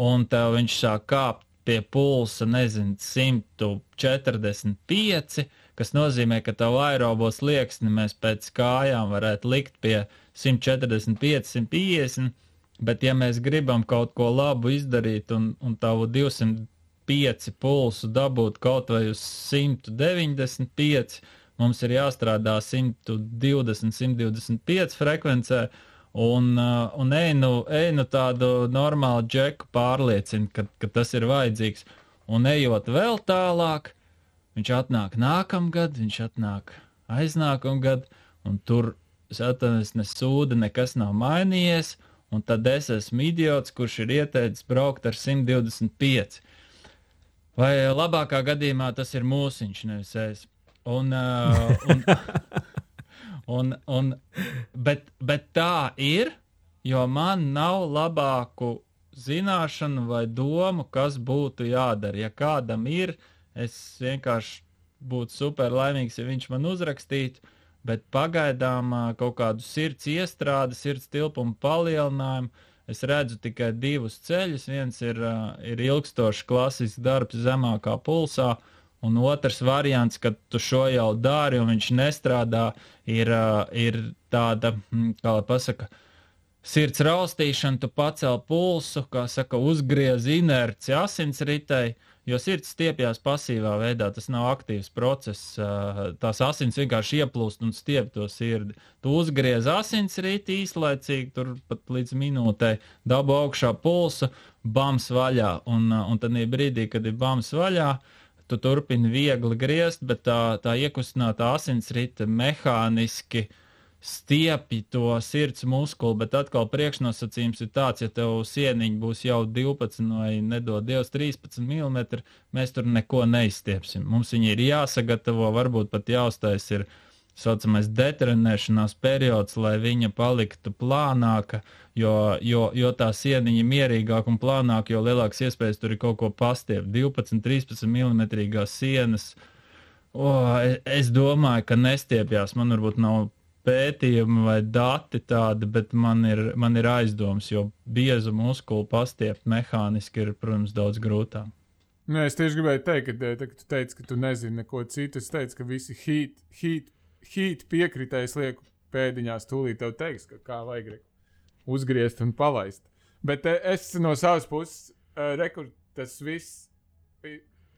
un tev viņš sāk kāpt pie pulsa, 145, kas nozīmē, ka tavu aerobo slieksni mēs pēc kājām varētu likt pie 145, 150, bet ja mēs gribam kaut ko labu izdarīt un tavu 205 pulsu dabūt kaut vai uz 195, mums ir jāstrādā 120, 125 frekvencē, un einu tādu normālu džeku pārliecina, ka tas ir vajadzīgs. Un ejot vēl tālāk, viņš atnāk nākamgad, viņš atnāk aiznākamgad, un tur atvainojies, ne sūda, nekas nav mainījies, un tad es esmu idiots, kurš ir ieteicis braukt ar 125. Vai labākā gadījumā tas ir mūsiņš, nevis es. Bet tā ir, jo man nav labāku zināšanu vai domu, kas būtu jādara. Ja kādam ir, es vienkārši būtu super laimīgs, ja viņš man uzrakstītu, bet pagaidām kaut kādu sirds iestrādi, sirds tilpumu palielinājumu, es redzu tikai divus ceļus. Viens ir ilgstošs klasisks darbs zemākā pulsā, un otrs variants, kad tu šo jau dari un viņš nestrādā, ir tāda, kā lai pasaka, sirds raustīšana, tu pacel pulsu, kā saka, uzgriez inerci asinsritei, jo sirds stiepjās pasīvā veidā, tas nav aktīvs process, tās asins vienkārši ieplūst un stiep to sirdi. Tu uzgriez asinsriti īslaicīgi, tur pat līdz minūtei, dabu augšā pulsu, bams vaļā, un tad brīdī, kad ir bams vaļā, tu turpini viegli griezt, bet tā iekustinātā asinsrite mehāniski stiepj to sirds muskuli, bet atkal priekšnosacījums ir tāds, ja tev sieniņi būs jau 12 vai nedod Dievs 13 mm, mēs tur neko neizstiepsim. Mums viņi ir jāsagatavo, varbūt pat jāuztais ir saucamais detrenēšanās periods, lai viņa paliktu plānāka, jo tā sieniņa mierīgāk un plānāk, jo lielāks iespējas tur ir kaut ko pastiept. 12-13 mm sienas, es domāju, ka nestiepjās, man varbūt nav pētījumi vai dati tādi, bet man ir aizdoms, jo biezu muskulu pastiept mehāniski ir, protams, daudz grūtāk. Nu, es tieši gribēju teikt, ka tu teici, ka tu nezini neko citu. Es teicu, ka visi heat piekritējs lieku pēdiņās tūlīt tev teiks, ka kā vajag uzgriezt un palaist. Bet es no savas puses, tas viss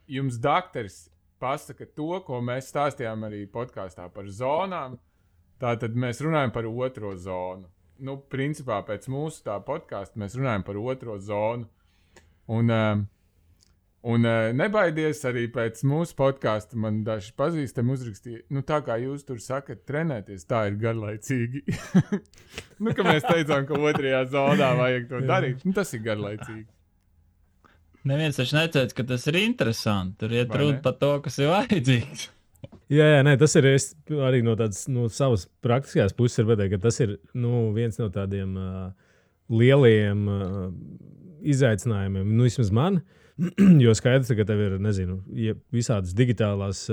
jums daktars pasaka to, ko mēs stāstījām arī podkāstā par zonām. Tātad mēs runājam par otro zonu. Nu, principā pēc mūsu tā podkāsta mēs runājam par otro zonu. Un nebaidies arī pēc mūsu podkāsta. Man daži pazīstami uzrakstīja, nu tā kā jūs tur sakat trenēties, tā ir garlaicīgi. Nu, ka mēs teicām, ka otrajā zonā vajag to darīt. Nu, tas ir garlaicīgi. Neviens taču neteica, ka tas ir interesanti. Tur iet runa par to, kas ir vajadzīgs. Jā, nē, tas ir arī no savas praktiskās puses, ka tas ir viens no tādiem lieliem izaicinājumiem, vismaz man, jo skaidrs, ka tev ir, nezinu, visādas digitālās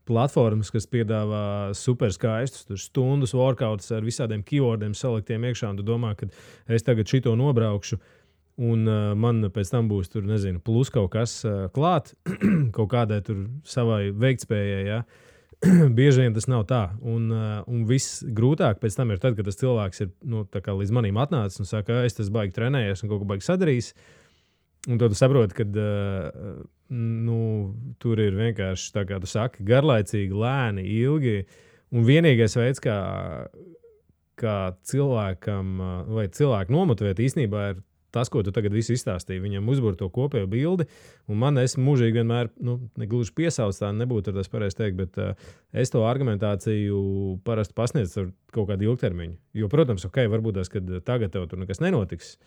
platformas, kas piedāvā super skaistus, stundas workouts ar visādiem keywordiem saliktiem iekšā, un tu domā, ka es tagad šito nobraukšu, un man pēc tam būs tur, nezinu, plus kaut kas klāt, kaut kādai tur savai veiktspējai, ja? Bieži vien tas nav tā. Un viss grūtāk pēc tam ir tad, kad tas cilvēks ir līdz manim atnācis un saka, es tas baigi trenējies un kaut ko baigi sadarījis. Un tad tu saproti, ka tur ir vienkārši, tā kā tu saki, garlaicīgi, lēni, ilgi. Un vienīgais veids, kā cilvēkam vai cilvēku nomotivēt īstenībā ir tas, ko tu tagad visu izstāstīji, viņam uzbūr to kopējo bildi, un man es mūžīgi vienmēr, negluži piesauc tā, nebūtu tas pareizi teikt, bet es to argumentāciju parasti pasniedzu ar kaut kādu ilgtermiņu. Jo, protams, varbūt tas, kad tagad tev tur nekas nenotiks,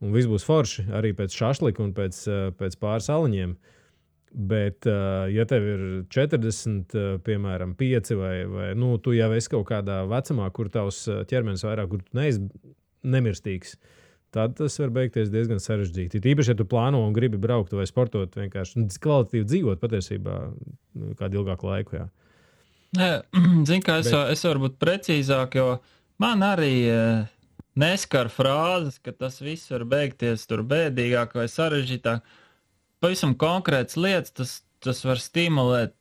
un viss būs forši, arī pēc šašlika un pēc pāris aliņiem, bet, ja tev ir 40, piemēram, 5 vai tu jau esi kaut kādā vecumā, kur tavs ķermenis vairāk, kur tu neesi nemirstīgs, tad tas var beigties diezgan sarežģīti. Tīpaši, ja tu plāno un gribi braukt vai sportot, vienkārši kvalitatīvi dzīvot patiesībā kādu ilgāku laiku. Jā. Zini, kā es varu būt precīzāk, jo man arī neskar frāzes, ka tas viss var beigties tur bēdīgāk vai sarežģītāk. Pavisam konkrētas lietas, tas var stimulēt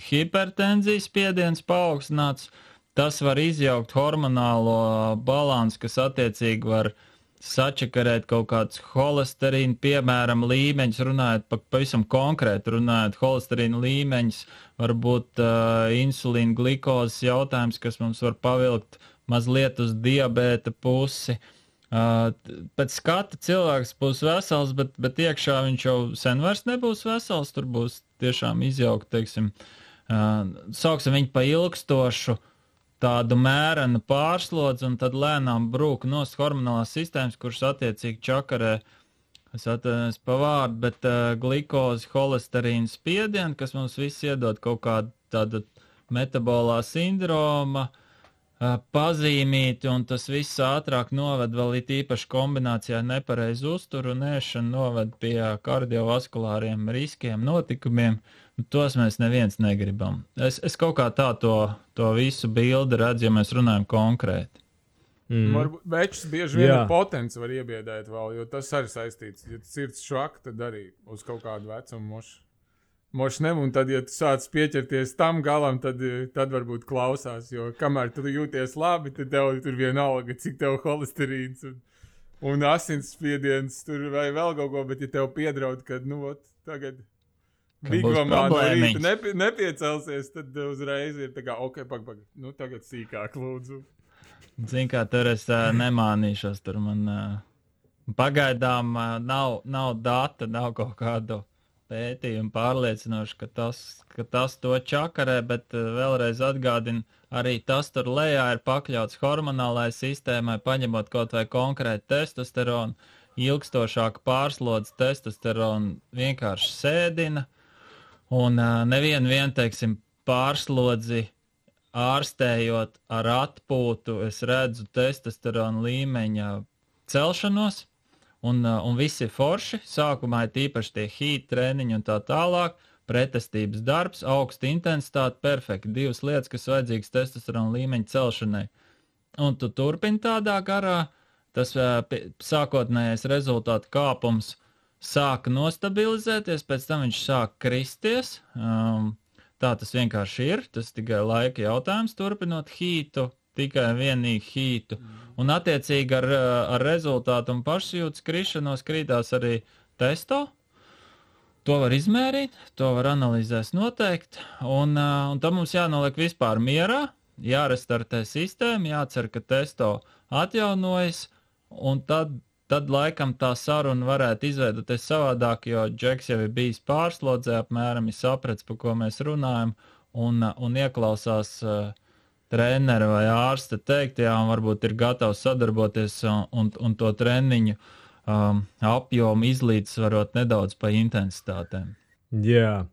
hipertenzijas spiediens paaugstināts, tas var izjaukt hormonālo balansu, kas attiecīgi var sačakarēt kaut kādus holesterīnu, piemēram, līmeņus, runājot pavisam konkrēti, runājot holesterīnu līmeņus, varbūt insulīna glikozes jautājums, kas mums var pavilkt mazliet uz diabēta pusi. Pēc skata cilvēks būs vesels, bet iekšā viņš jau sen vairs nebūs vesels, tur būs tiešām izjaukt, teiksim, sauksim viņu pa ilgstošu tādu mērenu pārslodzi un tad lēnām brūk nost hormonālās sistēmas, kuras attiecīgi čakarē, es atvainojos pa vārdu, bet glikozi, holesterīnu spiedienu, kas mums viss iedod kaut kādu tādu metabolā sindroma, pazīmīti, un tas viss ātrāk noved vēl it īpaši kombinācijā nepareizu uzturu un ēšanu noved pie kardiovaskulāriem riskiem, notikumiem. Tos mēs neviens negribam. Es kaut kā tā to visu bildi redzu, ja mēs runājam konkrēti. Varbūt večus bieži vien ar potenci var iebiedēt vēl, jo tas arī saistīts. Ja sirds švaka, tad arī uz kaut kādu vecumu mošnem, un tad, ja tu sāc pieķerties tam galam, tad varbūt klausās, jo kamēr tu jūties labi, tad tev tur vienalga, cik tev holesterīns un asinsspiediens tur vai vēl kaut ko, bet ja tev piedraud, kad, tagad Bigvamā no rīta nepiecelsies, tad uzreiz ir tā kā, pag, tagad sīkāk lūdzu. Zin kā, tur es nemānīšos, tur man pagaidām nav data, nav kaut kādu pētījumu pārliecinoši, ka tas to čakarē, bet vēlreiz atgādinu, arī tas tur lejā ir pakļauts hormonālai sistēmai, paņemot kaut vai konkrēti testosteronu, ilgstošāku pārslodzi testosteronu vienkārši sēdina, un nevienu, teiksim, pārslodzi ārstējot ar atpūtu, es redzu testosterona līmeņa celšanos, un viss ir forši. Sākumā ir tīpaši tie heat treniņi un tā tālāk, pretestības darbs, augsta intensitāte, perfekti. 2 lietas, kas vajadzīgas testosterona līmeņa celšanai. Un tu turpini tādā garā, tas sākotnējais rezultātu kāpums sāka nostabilizēties, pēc tam viņš sāka kristies. Tā tas vienkārši ir, tas tikai laika jautājums, turpinot hītu, tikai vienīgi hītu. Un attiecīgi ar rezultātu un pašsajūtas krišanos krītās arī testo. To var izmērīt, to var analizēs noteikti, un tam mums jānoliek vispār mierā, jārestartē sistēma, jācer, ka testo atjaunojas, un tad laikam tā saruna varētu izveidoties savādāk, jo Džeks jau ir bijis pārslodzē, apmēram ir saprats, par ko mēs runājam, un ieklausās trenera vai ārsta teiktajā, un varbūt ir gatavs sadarboties un to treniņu apjomu izlīdzsvarot nedaudz pa intensitātēm. Jā.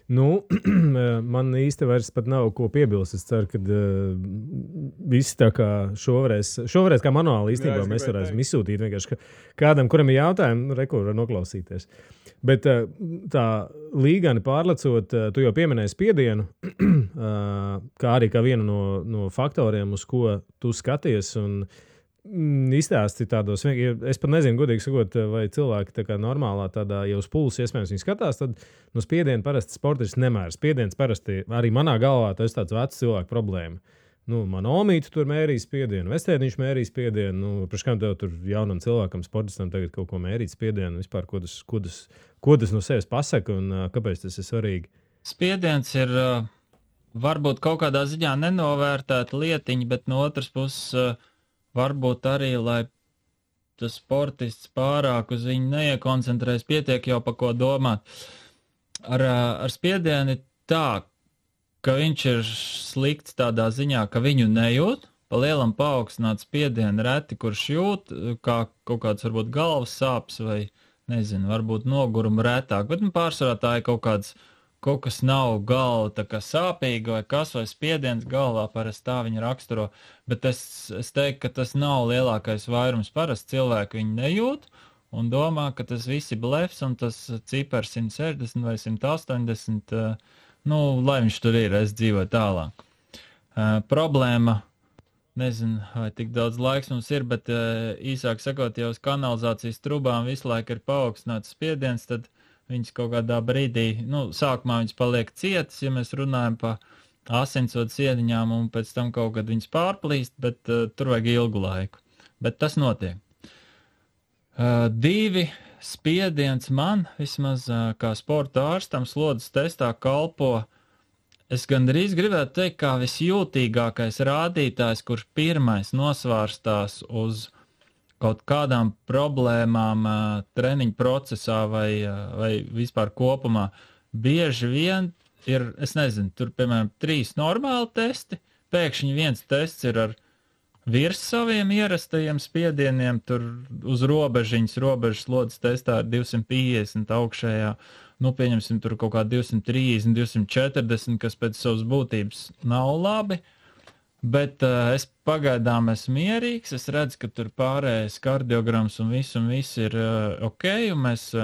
Man īsti vairs pat nav ko piebilst. Es ceru, ka visi tā kā šoreiz kā manuāli īstenībā mēs varēsim izsūtīt vienkārši kādam, kuram ir jautājumi, kur var noklausīties. Bet tā līgani pārlecot, tu jau pieminēji spiedienu, kā arī kā vienu no faktoriem, uz ko tu skaties un izstāsti tādos, es pat nezinu, godīgi sakot, vai cilvēki tā kā normālā tādā jau uz pulsa iespējams viņi skatās, tad no spiediena parasti sportists nemēra. Spiediens parasti arī manā galvā tas tāds vecs cilvēku problēma. Man omīte tur mērīja spiedienu, vestēniņš mērīja spiedienu, priekš kam tev tur jaunam cilvēkam, sportistam tagad kaut ko mērīt spiedienu, vispār, ko tas no sevis pasaka un kāpēc tas ir svarīgi? Spiediens ir varbūt kaut kādā ziņā nenovērtēta lietiņa, bet no otras puses varbūt arī, lai tas sportists pārāk uz viņu neiekoncentrēs, pietiek jau pa ko domāt. Ar spiedienu ir tā, ka viņš ir slikts tādā ziņā, ka viņu nejūt, pa lielam paaugstināt spiedienu reti, kurš jūt, kā kaut kāds varbūt galvas sāpes vai, nezinu, varbūt nogurumu retāk, bet pārsvarā tā ir kaut kas nav galva tā kā sāpīga vai kas vai spiediens galvā, parasti tā viņa raksturo, bet es teiktu, ka tas nav lielākais vairums, parasti cilvēki viņu nejūt un domā, ka tas viss ir blefs un tas cipars 160 vai 180, lai viņš tur ir, es dzīvoju tālāk. Problēma, nezinu, vai tik daudz laiks mums ir, bet īsāk sakot, ja uz kanalizācijas trubām visu laiku ir paaugstināts spiediens, tad viņas kaut kādā brīdī, sākumā viņas paliek cietas, ja mēs runājam pa asinsvadu sieniņām, un pēc tam kaut kad viņas pārplīst, bet tur vajag ilgu laiku. Bet tas notiek. 2 spiediens man, vismaz kā sporta ārstam, slodzes testā kalpo, es gandrīz gribētu teikt, kā visjūtīgākais rādītājs, kurš pirmais nosvārstās uz kaut kādām problēmām treniņu procesā vai vispār kopumā. Bieži vien ir, es nezinu, tur, piemēram, 3 normāli testi, pēkšņi viens tests ir ar virs saviem ierastajiem spiedieniem, tur uz robežas slodzes testā ir 250 augšējā, nu, pieņemsim, tur kaut kā 230, 240, kas pēc savas būtības nav labi, bet es pagaidām esmu mierīgs, es redzu, ka tur pārējais kardiograms un viss ir ok, un mēs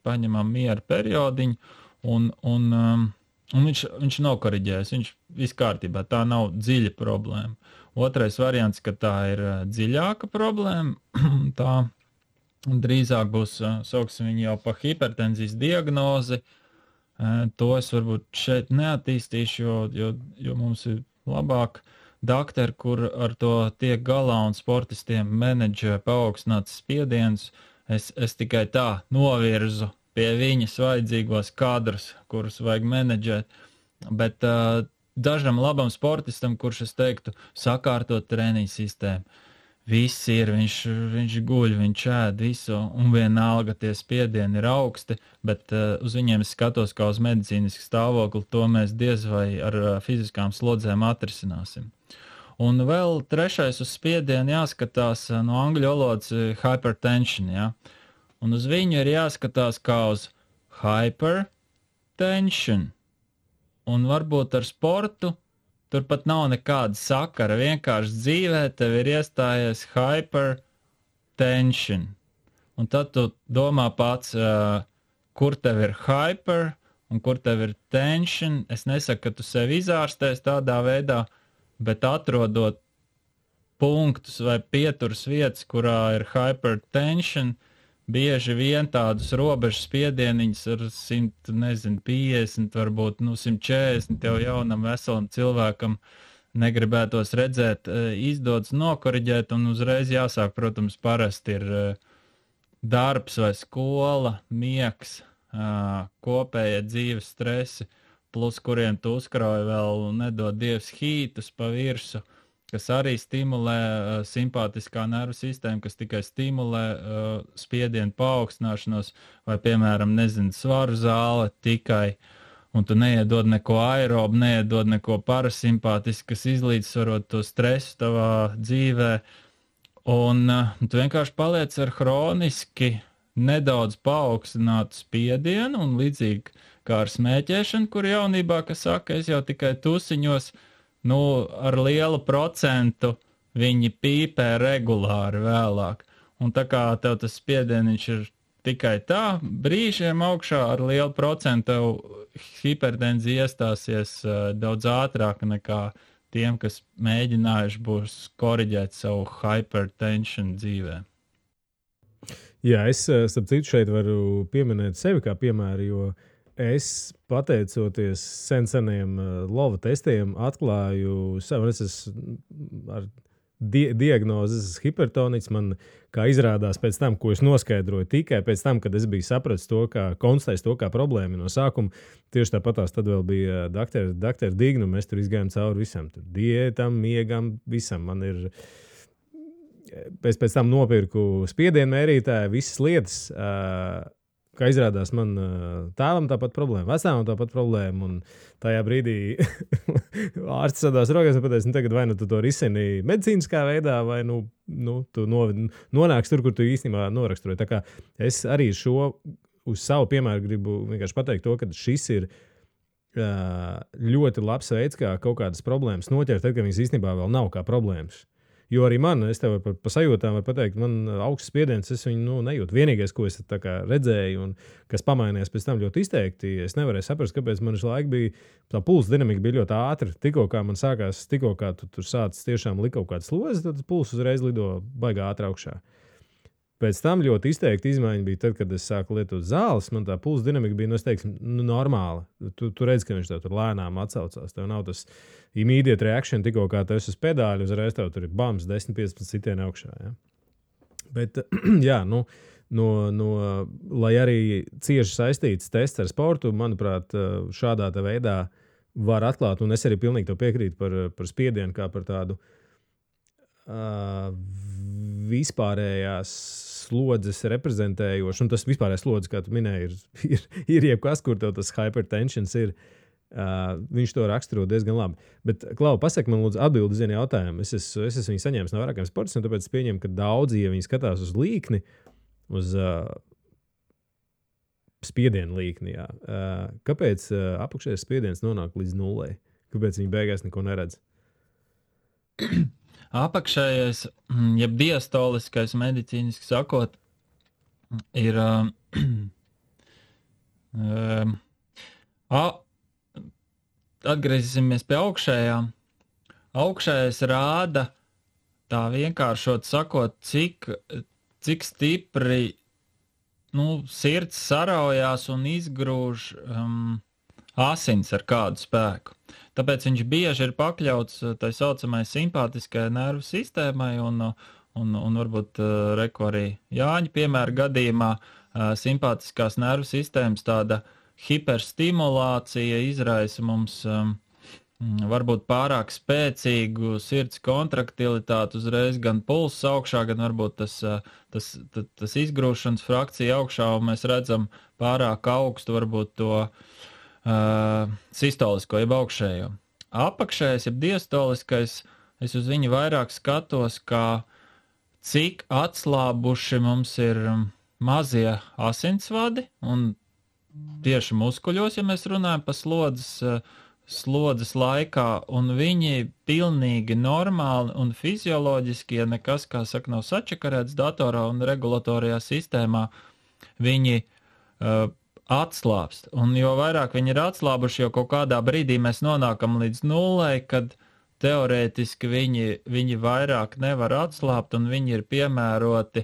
paņemam mieru periodiņu, un viņš nav koriģējis, viņš viss kārtībā, tā nav dziļa problēma. Otrais variants, ka tā ir dziļāka problēma, tā drīzāk būs, sauksim viņu jau pa hipertenzijas diagnozi, to es varbūt šeit neattīstīšu, jo mums ir labāk dakteri, kur ar to tiek galā un sportistiem menedžē paaugstināts spiediens, es tikai tā novirzu pie viņas vajadzīgos kadrus, kurus vajag menedžēt, bet dažam labam sportistam, kurš es teiktu, sakārtot treniņu sistēmu. Viss ir, viņš guļ, viņš ēd visu, un vienalga tie spiedieni ir augsti, bet uz viņiem es skatos kā uz medicīnisku stāvokli, to mēs diez vai ar fiziskām slodzēm atrisināsim. Un vēl trešais uz spiedienu jāskatās no angļu valodas hypertension, ja? Un uz viņu ir jāskatās kā uz hypertension. Un varbūt ar sportu tur pat nav nekāda sakara, vienkārši dzīvē tev ir iestājies hypertension. Un tad tu domā pats, kur tev ir hyper un kur tev ir tension. Es nesaku, ka tu sevi izārstēs tādā veidā, bet atrodot punktus vai pieturas vietas, kurā ir hypertension, bieži vien tādus robežas spiedieniņus ar 150, varbūt 140 jau jaunam veselam cilvēkam negribētos redzēt, izdodas nokoriģēt un uzreiz jāsāk, protams, parasti ir darbs vai skola, miegs, kopējie dzīves stresi, plus kuriem tu uzkrauj vēl nedod Dievs hītus pa virsu, kas arī stimulē simpātiskā nervu sistēmu, kas tikai stimulē spiedienu paaugstināšanos, vai, piemēram, svaru zāle tikai, un tu neiedod neko aerobu, neiedod neko parasimpātisku, kas izlīdzsvarot to stresu tavā dzīvē, un tu vienkārši paliec ar hroniski nedaudz paaugstinātu spiedienu, un līdzīgi kā ar smēķēšanu, kur jaunībā, kas saka, es jau tikai tusiņos, ar lielu procentu viņi pīpē regulāri vēlāk. Un tā kā tev tas spiedieniņš ir tikai tā, brīžiem augšā ar lielu procentu hipertenzija iestāsies daudz ātrāk nekā tiem, kas mēģinājuši būs koriģēt savu hypertension dzīvē. Jā, es starp citu šeit varu pieminēt sevi kā piemēru, jo es, pateicoties seniem lova testiem, atklāju sev, es esmu ar diagnozes hipertoniķis. Man, kā izrādās pēc tam, ko es noskaidroju tikai pēc tam, kad es biju sapratis to, konstatējis to kā problēmu no sākuma, tieši tāpatās tad vēl bija doktora Dignu, mēs tur izgājām cauri visam, tur diētam, miegam, visam. Man ir, pēc tam nopirku spiedienu mērītāju, visas lietas, kā izrādās, man tēvam tāpat problēma, vecāvam tāpat problēma, un tajā brīdī ārsts sadās rokās un pateica, tagad vai tu to risini medicīniskā veidā, vai tu nonāks tur, kur tu īstenībā noraksturoji. Tā kā es arī uz savu piemēru gribu vienkārši pateikt to, ka šis ir ļoti labs veids, kā kaut kādas problēmas noķert, tad, kad viņas īstenībā vēl nav kā problēmas. Jo arī man, es tev pa sajūtām varu pateikt, man augsts spiediens, es viņu nejūtu. Vienīgais, ko es redzēju un kas pamainījās pēc tam ļoti izteikti, es nevarēju saprast, kāpēc man šī laika bija, tā pulsa dinamika bija ļoti ātra. Tikko kā man sākās, tikko kā tu tur sācis tiešām likt kaut kādas slozes, tad pulsa uzreiz lido baigā ātri augšā. Pēc tam ļoti izteikti izmaiņa bija tad, kad es sāku lietot zāles, man tā pulsa dinamika bija, es teiktu, normāla. Tu redzi, ka viņš tev tur lēnām atsaucās. Tev nav tas immediate reaction, tikko kā tu esi uz pedāļu, uzreiz tev tur ir bams, 10-15 sitieni augšā. Ja? Bet, jā, lai arī cieši saistīts tests ar sportu, manuprāt, šādā veidā var atklāt, un es arī pilnīgi to piekrītu par spiedienu, kā par tādu vispārējās slodzes reprezentējoši, un tas vispārējais slodzes, kā tu minēji, ir jebkas, kur tev tas hypertensions ir. Viņš to raksturo diezgan labi. Bet, Klau, pasaki man lūdzu atbildi uz vienu jautājumu. Es esmu viņu saņēmis no vairākiem sportistiem, tāpēc es pieņemu, ka daudzi, ja viņi skatās uz līkni, uz spiedienu līkni, jā. Kāpēc apakšējais spiediens nonāk līdz nullei? Kāpēc viņi beigās neko neredz? Apakšējais, jeb diastoliskais medicīniski sakot, ir atgriezīsimies pie augšējām. Augšējais rāda, tā vienkāršot sakot, cik stipri sirds saraujās un izgrūž asins ar kādu spēku. Tāpēc viņš bieži ir pakļauts tai saucamai simpātiskajai nervu sistēmai un varbūt reku arī Jāņa piemēra gadījumā simpātiskās nervu sistēmas tāda hiperstimulācija izraisa mums varbūt pārāk spēcīgu sirds kontraktilitāti, uzreiz gan pulss augšā, gan varbūt tas izgrūšanas frakcija augšā, un mēs redzam pārāk augstu varbūt to sistolisko, jeb augšējo. Apakšējais, jeb diastoliskais, es uz viņu vairāk skatos, kā cik atslābuši mums ir mazie asinsvadi, un tieši muskuļos, ja mēs runājam par slodzes laikā, un viņi pilnīgi normāli un fizioloģiski, ja nekas, kā saka, nav sačakarēts datorā un regulatorijā sistēmā, viņi atslābst. Un jo vairāk viņi ir atslābuši, jo kaut kādā brīdī mēs nonākam līdz nullei, kad teorētiski viņi vairāk nevar atslābt, un viņi ir piemēroti,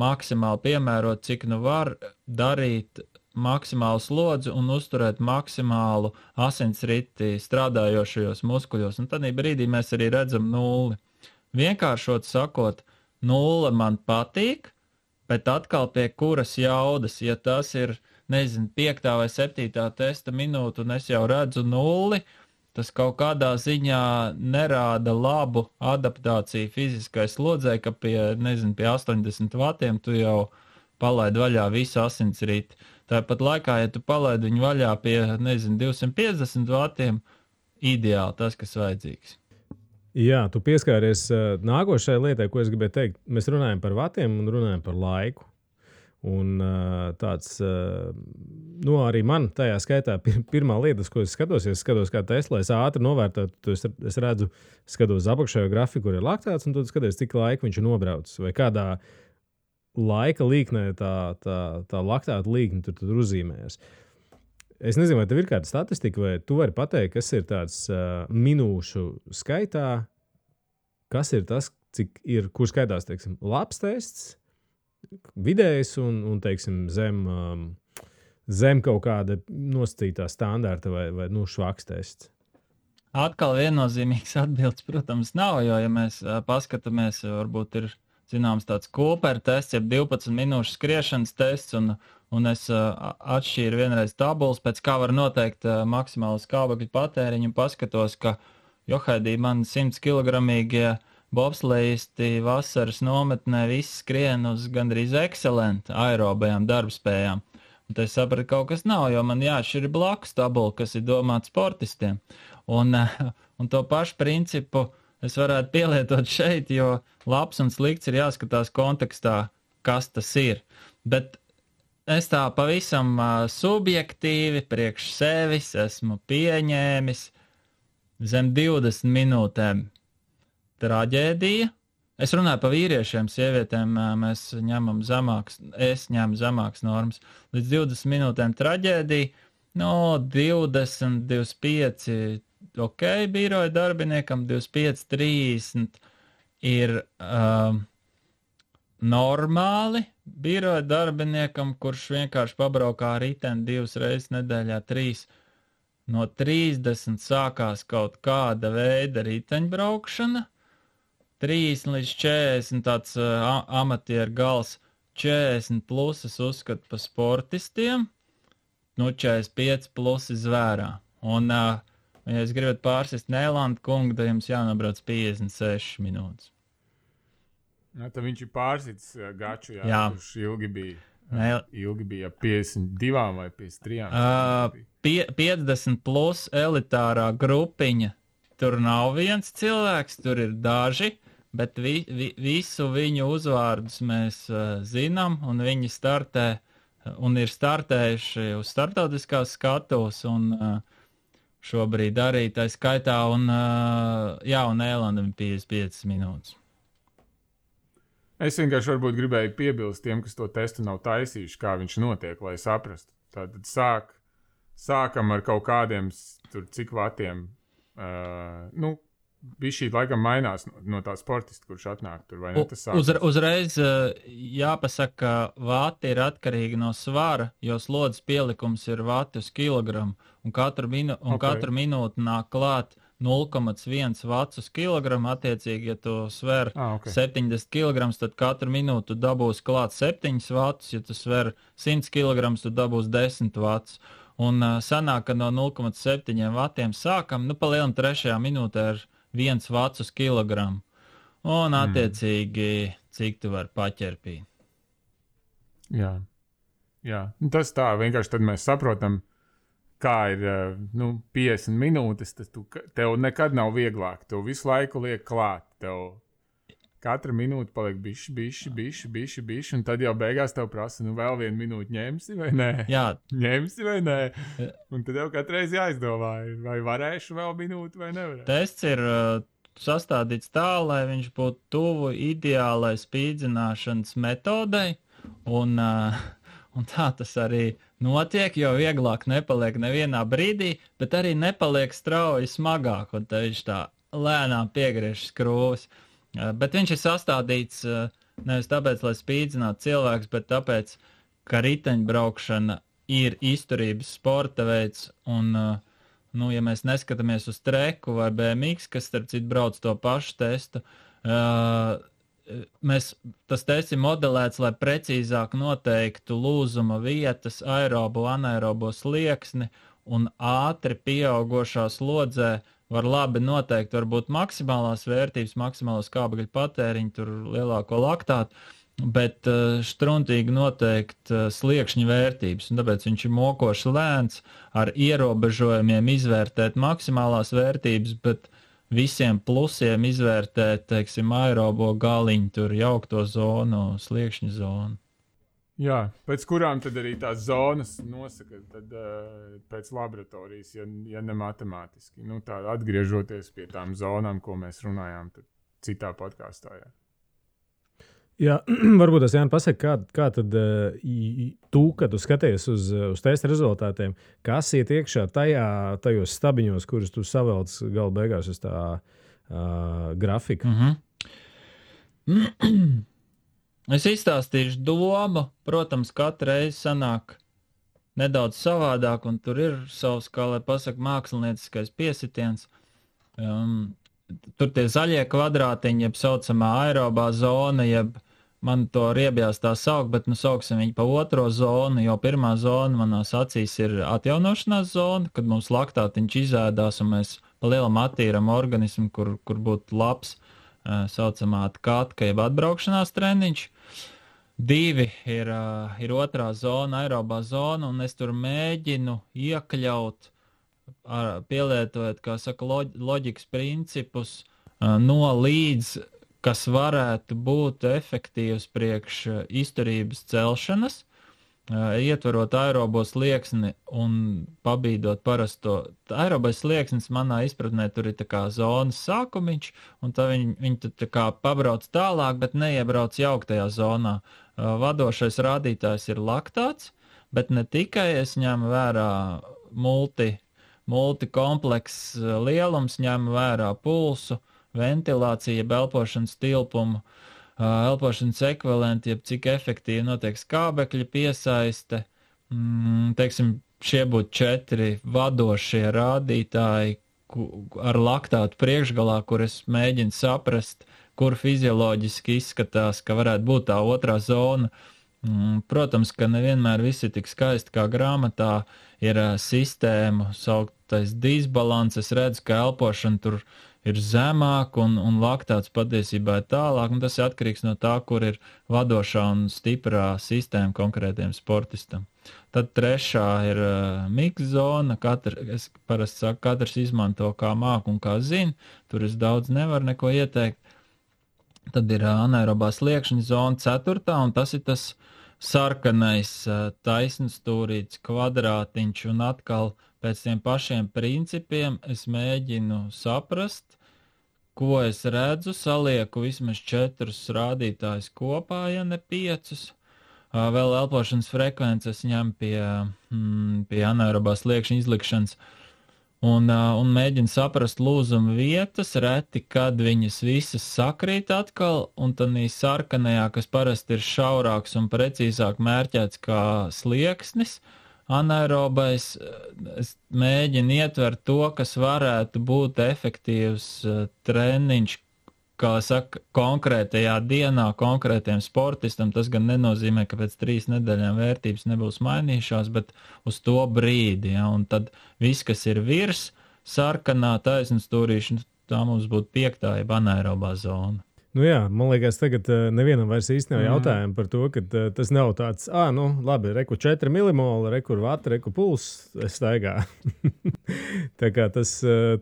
maksimāli piemēroti, cik var darīt maksimālu slodzi un uzturēt maksimālu asinsriti strādājošajos muskuļos. Un tad brīdī mēs arī redzam nulli. Vienkāršot sakot, nulle man patīk, bet atkal pie kuras jaudas, ja tas ir, 5. vai 7. testa minūte un es jau redzu nulli, tas kaut kādā ziņā nerāda labu adaptāciju fiziskai slodzei, ka pie 80 vatiem tu jau palaid vaļā visu asinsriti. Tāpat laikā, ja tu palaidi viņu vaļā pie, 250 vatiem, ideāli tas, kas vajadzīgs. Jā, tu pieskāries nākošajai lietai, ko es gribēju teikt. Mēs runājam par vatiem un runājam par laiku. Un tāds, arī man tajā skaitā pirmā lieta, ko es skatos kā Tesla, es ātri novērtēju, es redzu, skatos apakšējo grafiku, kur ir laktāts, un tad skaties, cik laika viņš ir nobraucis, vai kādā laika līknē tā laktāta līkne tur uzzīmējas. Es nezinu, vai tev ir kāda statistika, vai tu vari pateikt, kas ir tāds minūšu skaitā, kas ir tas, kur skaitās, teiksim, labs tests, vidējs un teiksim, zem kaut kāda nosacītā standarta vai švaks tests. Atkal viennozīmīgs atbildes, protams, nav, jo, ja mēs paskatāmies, varbūt ir zināms tāds Cooper tests, jeb 12 minūšu skriešanas tests, un es atšķīru vienreiz tabulas, pēc kā var noteikt maksimālu skābekļu patēriņu, un paskatos, ka Johaidī man 100 kilogramīgie bobslejisti vasaras nometnē visi skrien uz gandrīz ekscelenti aerobajām darbspējām. Un tad es sapratu, kaut kas nav, jo man jāšķir blakus tabula, kas ir domāta sportistiem. Un to pašu principu es varētu pielietot šeit, jo labs un slikts ir jāskatās kontekstā, kas tas ir. Bet es tā pavisam subjektīvi priekš sevis esmu pieņēmis zem 20 minūtēm traģēdija. Es runāju par vīriešiem, sievietēm mēs ņemam es ņemu zemākas normas. Līdz 20 minūtēm traģēdija, 20, 25, ok, biroja darbiniekam, 25, 30 ir normāli biroja darbiniekam, kurš vienkārši pabraukā riteni 2 reizes nedēļā, 3. No 30 sākās kaut kāda veida riteņbraukšana, 30 līdz 40 tāds amatieru gals, 40 plus es uzskatu par sportistiem, 45 plus zvērā. Un, ja es gribat pārsist Nēlandu kungu, tad jums jānobrauc 56 minūtes. Tad viņš ir pārsits gaču, jā. Kurš ilgi bija. ilgi bija 52 vai 53. 50 plus elitārā grupiņa. Tur nav viens cilvēks, tur ir daži, bet visu viņu uzvārdus mēs zinām, un viņi startē un ir startējuši uz startautiskās skatuves, un šobrīd arī tā skaitā, un Ēlandam 55 minūtes. Es vienkārši varbūt gribēju piebilst tiem, kas to testu nav taisījuši, kā viņš notiek, lai saprastu. Tātad sākam ar kaut kādiem tur cik vatiem, bišķīt laikam mainās no tā sportista, kurš atnāk tur, vai ne? Uzreiz jāpasaka, ka vati ir atkarīgi no svara, jo slodzes pielikums ir vati uz kilogramu, un katru minūti nāk klāt 0,1 vats uz kilogramu, attiecīgi, ja tu sver 70 kg, tad katru minūtu dabūs klāt 7 vatus, ja tu sver 100 kg, tu dabūs 10 vatus. Un sanāk, ka no 0,7 vatiem sākam, palielam 3. minūtē ar 1 vats uz kilogramu. Un attiecīgi, cik tu vari paķerpīt. Jā. Tas tā, vienkārši tad mēs saprotam, kā ir 50 minūtes, tad tev nekad nav vieglāk. Tev visu laiku liek klāt. Tev katra minūte paliek bišķi, un tad jau beigās tev prasa, vēl 1 minūti ņemsi vai nē? Jā. Ņemsi vai nē? Un tad jau katreiz jāizdomā, vai varēšu vēl minūti vai nevarēšu. Tests ir sastādīts tā, lai viņš būtu tuvu ideālai spīdzināšanas metodei, un tā tas arī notiek, jo vieglāk nepaliek nevienā brīdī, bet arī nepaliek strauji smagāk, un te viņš tā lēnām piegriež skrūves. Bet viņš ir sastādīts nevis tāpēc, lai spīdzinātu cilvēks, bet tāpēc, ka riteņbraukšana ir izturības sporta veids, un, ja mēs neskatāmies uz treku vai BMX, kas, starp citu, brauc to pašu testu, tas tests ir modelēts, lai precīzāk noteiktu lūzuma vietas, aerobo, anaerobo slieksni, un ātri pieaugošā slodzē var labi noteikt varbūt maksimālās vērtības, maksimālo skābekļa patēriņu, tur lielāko laktātu, bet štruntīgi noteikt sliekšņa vērtības, un tāpēc viņš ir mokoši lēns, ar ierobežojumiem izvērtēt maksimālās vērtības, bet visiem plusiem izvērtēt, teiksim, aerobo galiņu, tur jaukto zonu, sliekšņa zonu. Jā, pēc kurām tad arī tās zonas nosaka, tad pēc laboratorijas, ja ne matemātiski. Tā atgriežoties pie tām zonām, ko mēs runājām citā podkāstā. Jā, varbūt tas Jānis pasaka, kā tad tu, kad tu skaties uz testa rezultātiem, kas iet iekšā tajos stabiņos, kurus tu savelc gala beigās uz tā grafika? Es izstāstīšu domu, protams, katru reizi sanāk nedaudz savādāk, un tur ir savs, kā lai pasaka, mākslinieckais piesitiens. Tur tie zaļie kvadrātiņi, jeb saucamā aerobā zona, jeb man to riebjās tā saukt, bet sauksim viņu pa otro zonu, jo pirmā zona manās acīs ir atjaunošanās zona, kad mums laktātiņš izēdās un mēs pa lielam attīram organismu, kur būtu labs, saucamā katka, jeb atbraukšanās treniņš. 2 ir otrā zona, aerobā zona, un es tur mēģinu iekļaut, pielietojot, kā saka, loģikas principus, no līdz, kas varētu būt efektīvs priekš izturības celšanas, ietverot aerobo slieksni un pabīdot parasto. Aerobais slieksnis manā izpratnē tur ir tā kā zonas sākumiņš, un tā viņi tā kā pabrauc tālāk, bet neiebrauc jauktajā zonā. Vadošais rādītājs ir laktāts, bet ne tikai es ņemu vērā multikompleks lielums, ņemu vērā pulsu, ventilācija, elpošanas tilpumu, elpošanas ekvivalenti, jeb cik efektīvi notiek skābekļa piesaiste. Teiksim, šie būtu 4 vadošie rādītāji ar laktātu priekšgalā, kur es mēģinu saprast, kur fizioloģiski izskatās, ka varētu būt tā otrā zona. Protams, ka nevienmēr viss ir tik skaisti kā grāmatā, ir sistēmu sauktais disbalans, es redzu, ka elpošana tur ir zemāk un laktāts patiesībā ir tālāk, un tas ir atkarīgs no tā, kur ir vadošā un stiprā sistēma konkrētiem sportistam. Tad trešā ir mix zona, es parasti saku, katrs izmanto kā māk un kā zina, tur es daudz nevaru neko ieteikt. Tad ir anaerobā sliekšņa zona ceturtā, un tas ir tas sarkanais taisnstūrīts kvadrātiņš, un atkal pēc tiem pašiem principiem es mēģinu saprast, ko es redzu, salieku vismaz 4 rādītājus kopā, ja ne 5. Vēl elpošanas frekvences ņem pie anaerobā sliekšņa izlikšanas un mēģinu saprast lūzuma vietas, reti, kad viņas visas sakrīt atkal, un tad sarkanajā, kas parasti ir šaurāks un precīzāk mērķēts kā slieksnis, anaerobais, es mēģinu ietvert to, kas varētu būt efektīvs treniņš, kā saka, konkrētajā dienā, konkrētiem sportistam. Tas gan nenozīmē, ka pēc 3 nedēļām vērtības nebūs mainījušās, bet uz to brīdi, ja, un tad viss, kas ir virs sarkanā taisnstūrīša, tā mums būtu 5. jeb anaerobā zona. Nu jā, man liekas, tagad nevienam vairs īsti nav jautājumu par to, ka tas nav tāds, labi, reku 4 milimoli, reku vata, reku puls, es staigā. Tā kā tas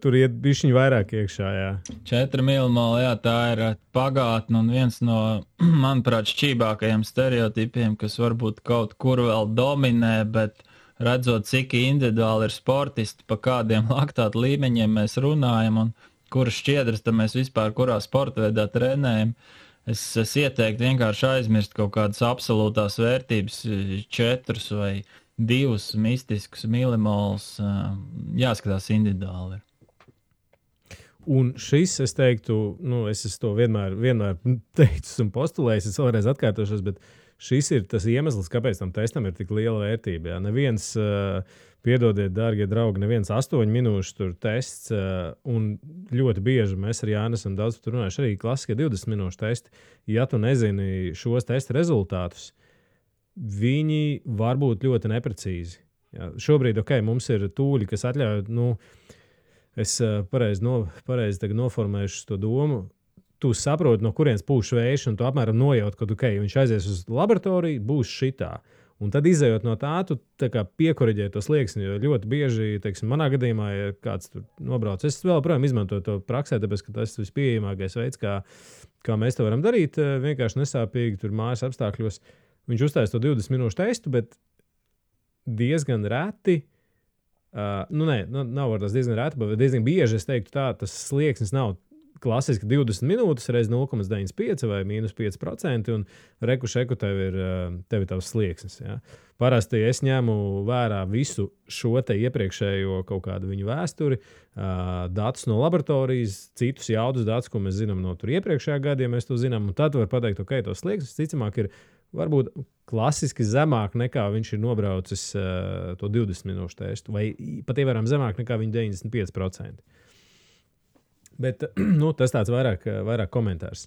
tur iet bišķiņ vairāk iekšā, jā. 4 milimoli, jā, tā ir pagātne un viens no, manuprāt, šķībākajiem stereotipiem, kas varbūt kaut kur vēl dominē, bet redzot, cik individuāli ir sportisti, pa kādiem laktātu līmeņiem mēs runājam un kuras šķiedras, tad mēs vispār kurā sporta veidā trenējam. Es ieteiktu vienkārši aizmirst kaut kādas absolūtās vērtības, 4 vai 2 mistiskus milimolus, jāskatās individuāli. Un šis, es teiktu, es to vienmēr teicu un postulējis, es vēlreiz atkārtošos, bet šis ir tas iemesls, kāpēc tam testam ir tik liela vērtība. Jā. Neviens, piedodiet, dārgie draugi, neviens 8 minūšu tur tests, un ļoti bieži mēs ar Jāni esam daudz tur runājuši, arī klasiskie 20 minūšu testi. Ja tu nezini šos testa rezultātus, viņi var būt ļoti neprecīzi. Jā. Šobrīd, mums ir tūļi, kas atļauj, es pareizi tagad noformēšu to domu, tu saproti, no kurienes pūš vējš, un tu apmēram nojaut, ka viņš aizies uz laboratoriju, būs šitā. Un tad izējot no tā, tu piekoriģē to slieksni, jo ļoti bieži, teiksim, manā gadījumā, ja kāds tur nobrauc, es vēl projām izmantoju to praksē, tāpēc, ka tas ir vispieejamākais veids, kā mēs to varam darīt, vienkārši nesāpīgi tur mājas apstākļos. Viņš uztājas to 20 minūšu testu, bet diezgan reti, nav var tas diezgan reti, bet diezgan bieži, es teiktu tā, tas slieksnis nav klasiski 20 minūtes reiz 0,95 vai -5%, un reku tev ir tavs slieksnis. Ja. Parasti es ņemu vērā visu šo te iepriekšējo kaut kādu viņu vēsturi, datus no laboratorijas, citus jaudus datus, ko mēs zinām no tur iepriekšējā gada, ja mēs to zinām, un tad var pateikt, to slieksnis ticamāk ir varbūt klasiski zemāk nekā viņš ir nobraucis to 20 minūšu testu, vai pat ievērām zemāk nekā viņa 95%. Bet tas tāds vairāk komentārs.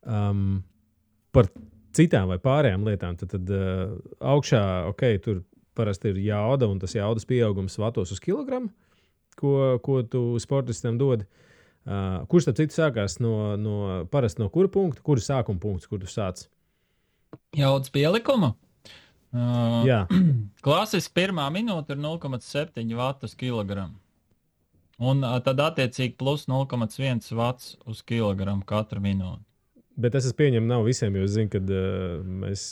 Par citām vai pārējām lietām, tad augšā, tur parasti ir jauda, un tas jaudas pieaugums vatos uz kilogramu, ko tu sportistam dod. Kurš, starp citu, sākās parasti no kura punkta, kura sākuma punkts, kur tu sāc? Jaudas pielikumu? Jā. Klasiski pirmā minūte ir 0,7 vatu uz kilogramu. Un tad attiecīgi plus 0,1 vats uz kilogramu katru minūti. Bet es pieņemu, nav visiem, jo es zinu, kad mēs...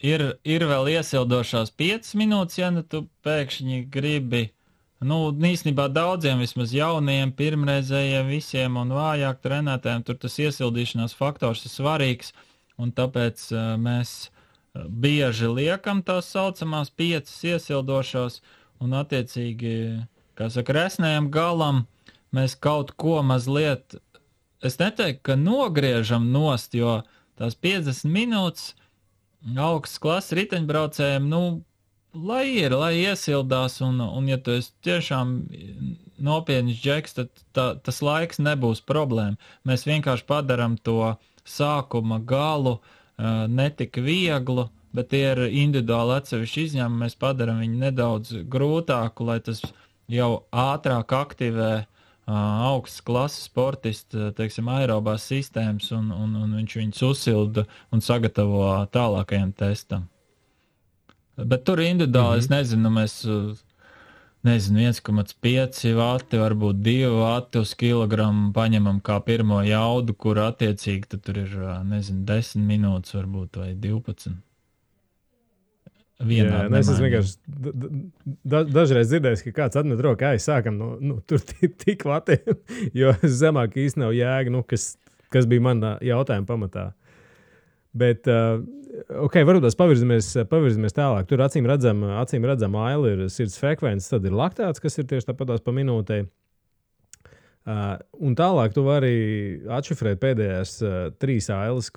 Ir vēl iesildošās 5 minūtes, ja tu pēkšņi gribi, īstenībā daudziem, vismaz jauniem, pirmreizējiem visiem un vājāk trenētājiem, tur tas iesildīšanās faktors ir svarīgs, un tāpēc mēs bieži liekam tās saucamās 5 iesildošās, un attiecīgi, kā saka, resnējam galam, mēs kaut ko mazliet, es neteiktu, ka nogriežam nost, jo tās 50 minūtes augstas klases riteņbraucējiem, lai iesildās, un ja tu esi tiešām nopietnis džeks, tad tas laiks nebūs problēma. Mēs vienkārši padaram to sākuma galu netik vieglu, bet tie ir individuāli atsevišķi izņēmumi, mēs padaram viņu nedaudz grūtāku, lai tas jau ātrāk aktivē augstas klases sportisti, teiksim, aerobās sistēmas, un viņš viņus uzsilda un sagatavo tālākajam testam. Bet tur individuāli, es nezinu, mēs, 1,5 vati, varbūt 2 vati uz kilogramu paņemam kā pirmo jaudu, kur attiecīgi tur ir, 10 minūtes varbūt vai 12. Jā, es esmu vienkārši dažreiz dzirdējis, ka kāds atmet roku, sākam tur tik vatiem, jo zemāk īsti nav jēga, kas bija mana jautājuma pamatā. Bet, varbūt pavirzamies tālāk. Tur acīm redzam aili ir sirds frekvences, tad ir laktāts, kas ir tieši tāpatās pa minūtei. Un tālāk tu vari atšifrēt pēdējās 3 ailes,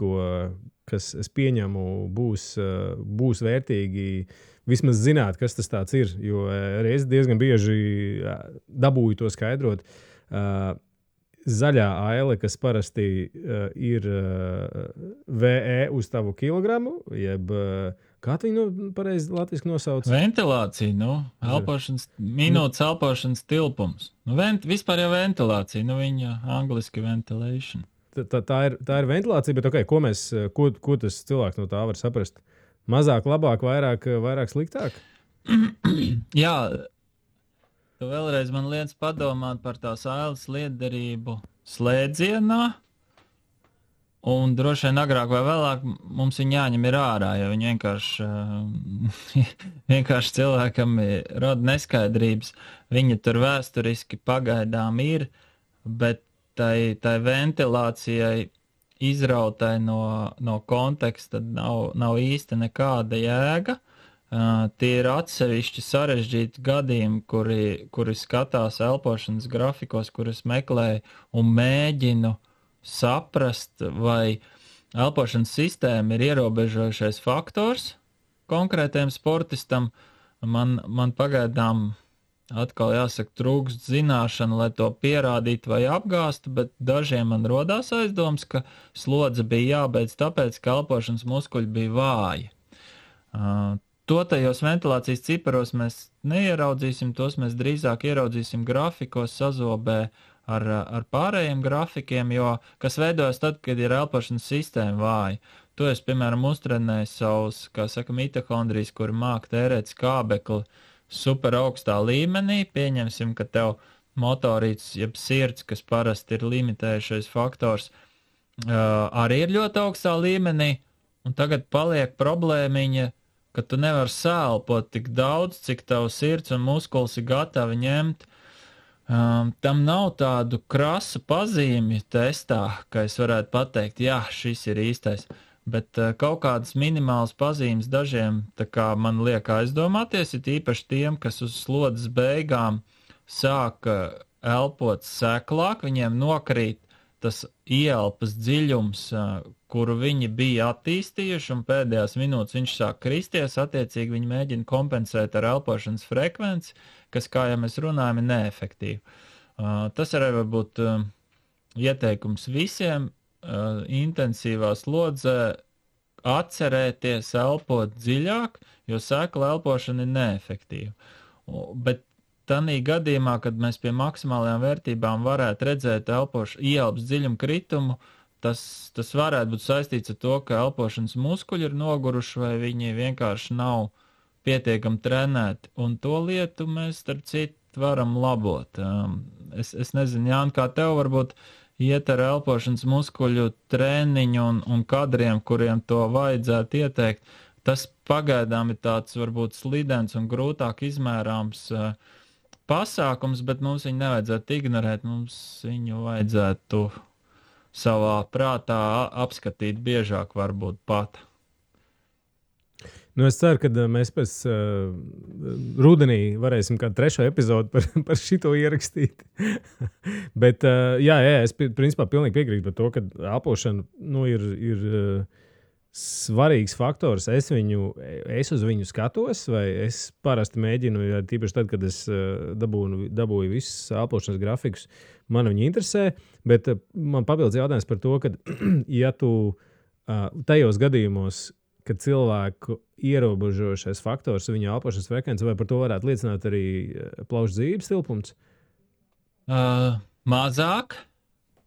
kas, es pieņemu, būs vērtīgi vismaz zināt, kas tas tāds ir, jo reiz diezgan bieži dabūju to skaidrot. Zaļā aile, kas parasti ir VE uz tavu kilogramu, jeb kā tu viņu pareizi latviski nosauc? Ventilācija, elpošanas, minūtes elpošanas tilpums. Vispār jau ventilācija, viņa angliski ventilation. Tā ir ventilācija, bet ko tas cilvēks no tā var saprast? Mazāk, labāk, vairāk sliktāk? Jā, tu vēlreiz man liec padomāt par tās ailes lietderību slēdzienā, un droši vien agrāk vai vēlāk mums viņi jāņem ir ārā, jo viņi vienkārši cilvēkam rada neskaidrības. Viņi tur vēsturiski pagaidām ir, bet tai ventilācijai izrautai no konteksta nav īsti nekāda jēga. Tie ir atsevišķi sarežģīti gadījumi, kuri skatās elpošanas grafikos, kurus meklēju un mēģinu saprast, vai elpošanas sistēma ir ierobežojušais faktors konkrētajam sportistam. Man pagaidām atkal jāsaka trūkst zināšana, lai to pierādītu vai apgāstu, bet dažiem man rodās aizdoms, ka slodze bija jābeidz tāpēc, ka elpošanas muskuļi bija vāji. To tajos ventilācijas ciparos mēs neieraudzīsim, tos mēs drīzāk ieraudzīsim grafikos sazobē ar pārējiem grafikiem, jo kas veidojas tad, kad ir elpošanas sistēma vāja. To es, piemēram, uztrenēju savus, kā saka, mitohondrijas, kuri māk tērēt skābekli super augstā līmenī. Pieņemsim, ka tev motorīts, jeb sirds, kas parasti ir limitējušais faktors, arī ir ļoti augstā līmenī, un tagad paliek problēmiņa, ka tu nevari sēlpot tik daudz, cik tavs sirds un muskulis ir gatavi ņemt. Tam nav tādu krasu pazīmju testā, ka es varētu pateikt, jā, šis ir īstais, bet kaut kādas minimālas pazīmes dažiem tā kā man liek aizdomāties, ir īpaši tiem, kas uz slodzes beigām sāka elpot seklāk, viņiem nokrīt tas ieelpas dziļums, kuru viņi bija attīstījuši, un pēdējās minūtes viņš sāk kristies, attiecīgi viņi mēģina kompensēt ar elpošanas frekvenci, kas, kā jau mēs runājam, ir neefektīvi. Tas arī varbūt ieteikums visiem intensīvā slodzē atcerēties elpot dziļāk, jo sekla elpošana ir neefektīva. Bet tanī gadījumā, kad mēs pie maksimālajām vērtībām varētu redzēt ieelpas dziļumu kritumu, tas varētu būt saistīts ar to, ka elpošanas muskuļi ir noguruši vai viņi vienkārši nav pietiekami trenēti, un to lietu mēs, starp citu, varam labot. Es nezinu, Jāni, kā tev varbūt iet ar elpošanas muskuļu treniņu un kadriem, kuriem to vajadzētu ieteikt. Tas pagaidām ir tāds varbūt slidens un grūtāk izmērāms pasākums, bet mums viņu nevajadzētu ignorēt, mums viņu vajadzētu savā prātā apskatīt biežāk varbūt pat. Es ceru, ka mēs pēc rudenī varēsim kādu 3. epizodu par šito ierakstīt. Bet, jā, es principā pilnīgi piekrītu par to, ka elpošana ir svarīgs faktors. Es uz viņu skatos, vai es parasti mēģinu, tīpaši tad, kad es dabūju visus elpošanas grafikus, man viņi interesē, bet man papildus jautājums par to, ka ja tu tajos gadījumos, kad cilvēku ierobežošais faktors viņa elpošanas frekvence, vai par to varētu liecināt arī plaušu dzīves tilpums? Mazāk.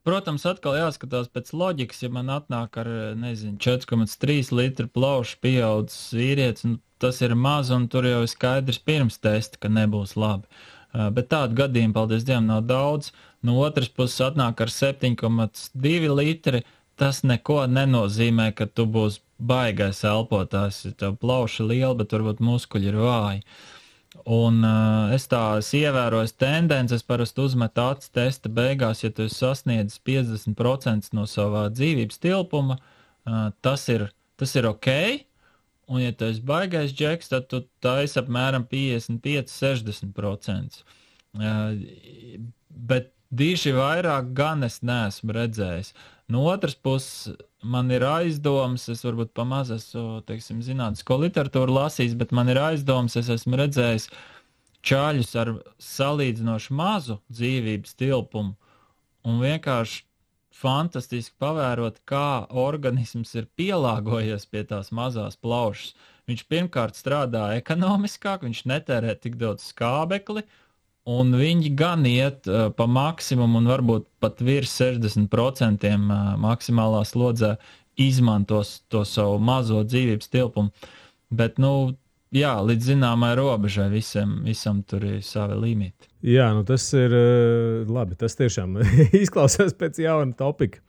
Protams, atkal jāskatās pēc loģikas, ja man atnāk ar, 4,3 litru plaušu pieaudzis vīrietis, tas ir maz, un tur jau ir skaidrs pirms testa, ka nebūs labi. Bet tādu gadījumu, paldies Dievam, nav daudz. No otras puses atnāk ar 7,2 litri, tas neko nenozīmē, ka tu būsi baigais elpotājs, ja tev plauša liela, bet varbūt muskuļi ir vāji. Un es ievēroju tendences, parasti uzmetu acis testa beigās, ja tu sasniedz 50% no savā dzīvības tilpuma, tas ir ok, un ja tu esi baigais džeks, tad tu taisi apmēram 55-60%. Bet diži vairāk gan es neesmu redzējis. No otras puses, man ir aizdomas, es varbūt pamaz esmu, zinātnisko literatūru lasījis, bet man ir aizdomas, es esmu redzējis čaļus ar salīdzinoši mazu dzīvības tilpumu un vienkārši fantastiski pavērot, kā organisms ir pielāgojies pie tās mazās plaušas. Viņš pirmkārt strādā ekonomiskāk, viņš netērē tik daudz skābekli, un viņi gan iet pa maksimumu un varbūt pat virs 60% maksimālā slodzē izmantos to savu mazo dzīvības tilpumu. Bet, jā, līdz zināmai robežai visam tur ir savi limiti. Jā, tas ir labi. Tas tiešām izklausās pēc jauna topika.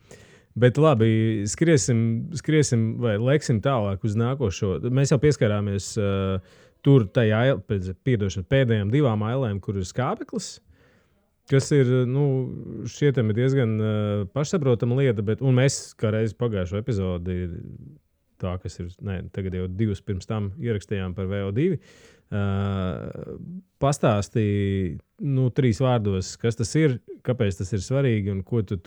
Bet labi, skriesim vai leksim tālāk uz nākošo. Mēs jau pieskarāmies tur tajā pēdējām 2 ailēm, kur ir skābeklis, kas ir, šķietami diezgan pašsaprotama lieta, un mēs kā reiz pagājušo epizodi, tā, kas ir, tagad jau 2 pirms tam ierakstījām par VO2, pastāstīja 3 vārdos, kas tas ir, kāpēc tas ir svarīgi un ko tu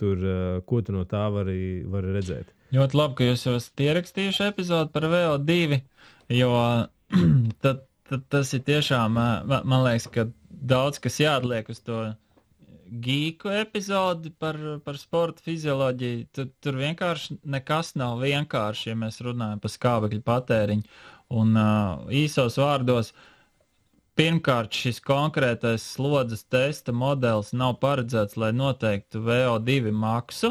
no tā vari redzēt. Ļoti labi, ka jūs jau esat ierakstījuši epizodu par VO2, jo tad tas ir tiešām, man liekas, ka daudz kas jāatliek uz to gīku epizodi par sporta fizioloģiju. Tur vienkārši nekas nav vienkārši, ja mēs runājam par skābekļu patēriņu. Un īsos vārdos, pirmkārt, šis konkrētais slodzes testa modelis nav paredzēts, lai noteiktu VO2 maksu,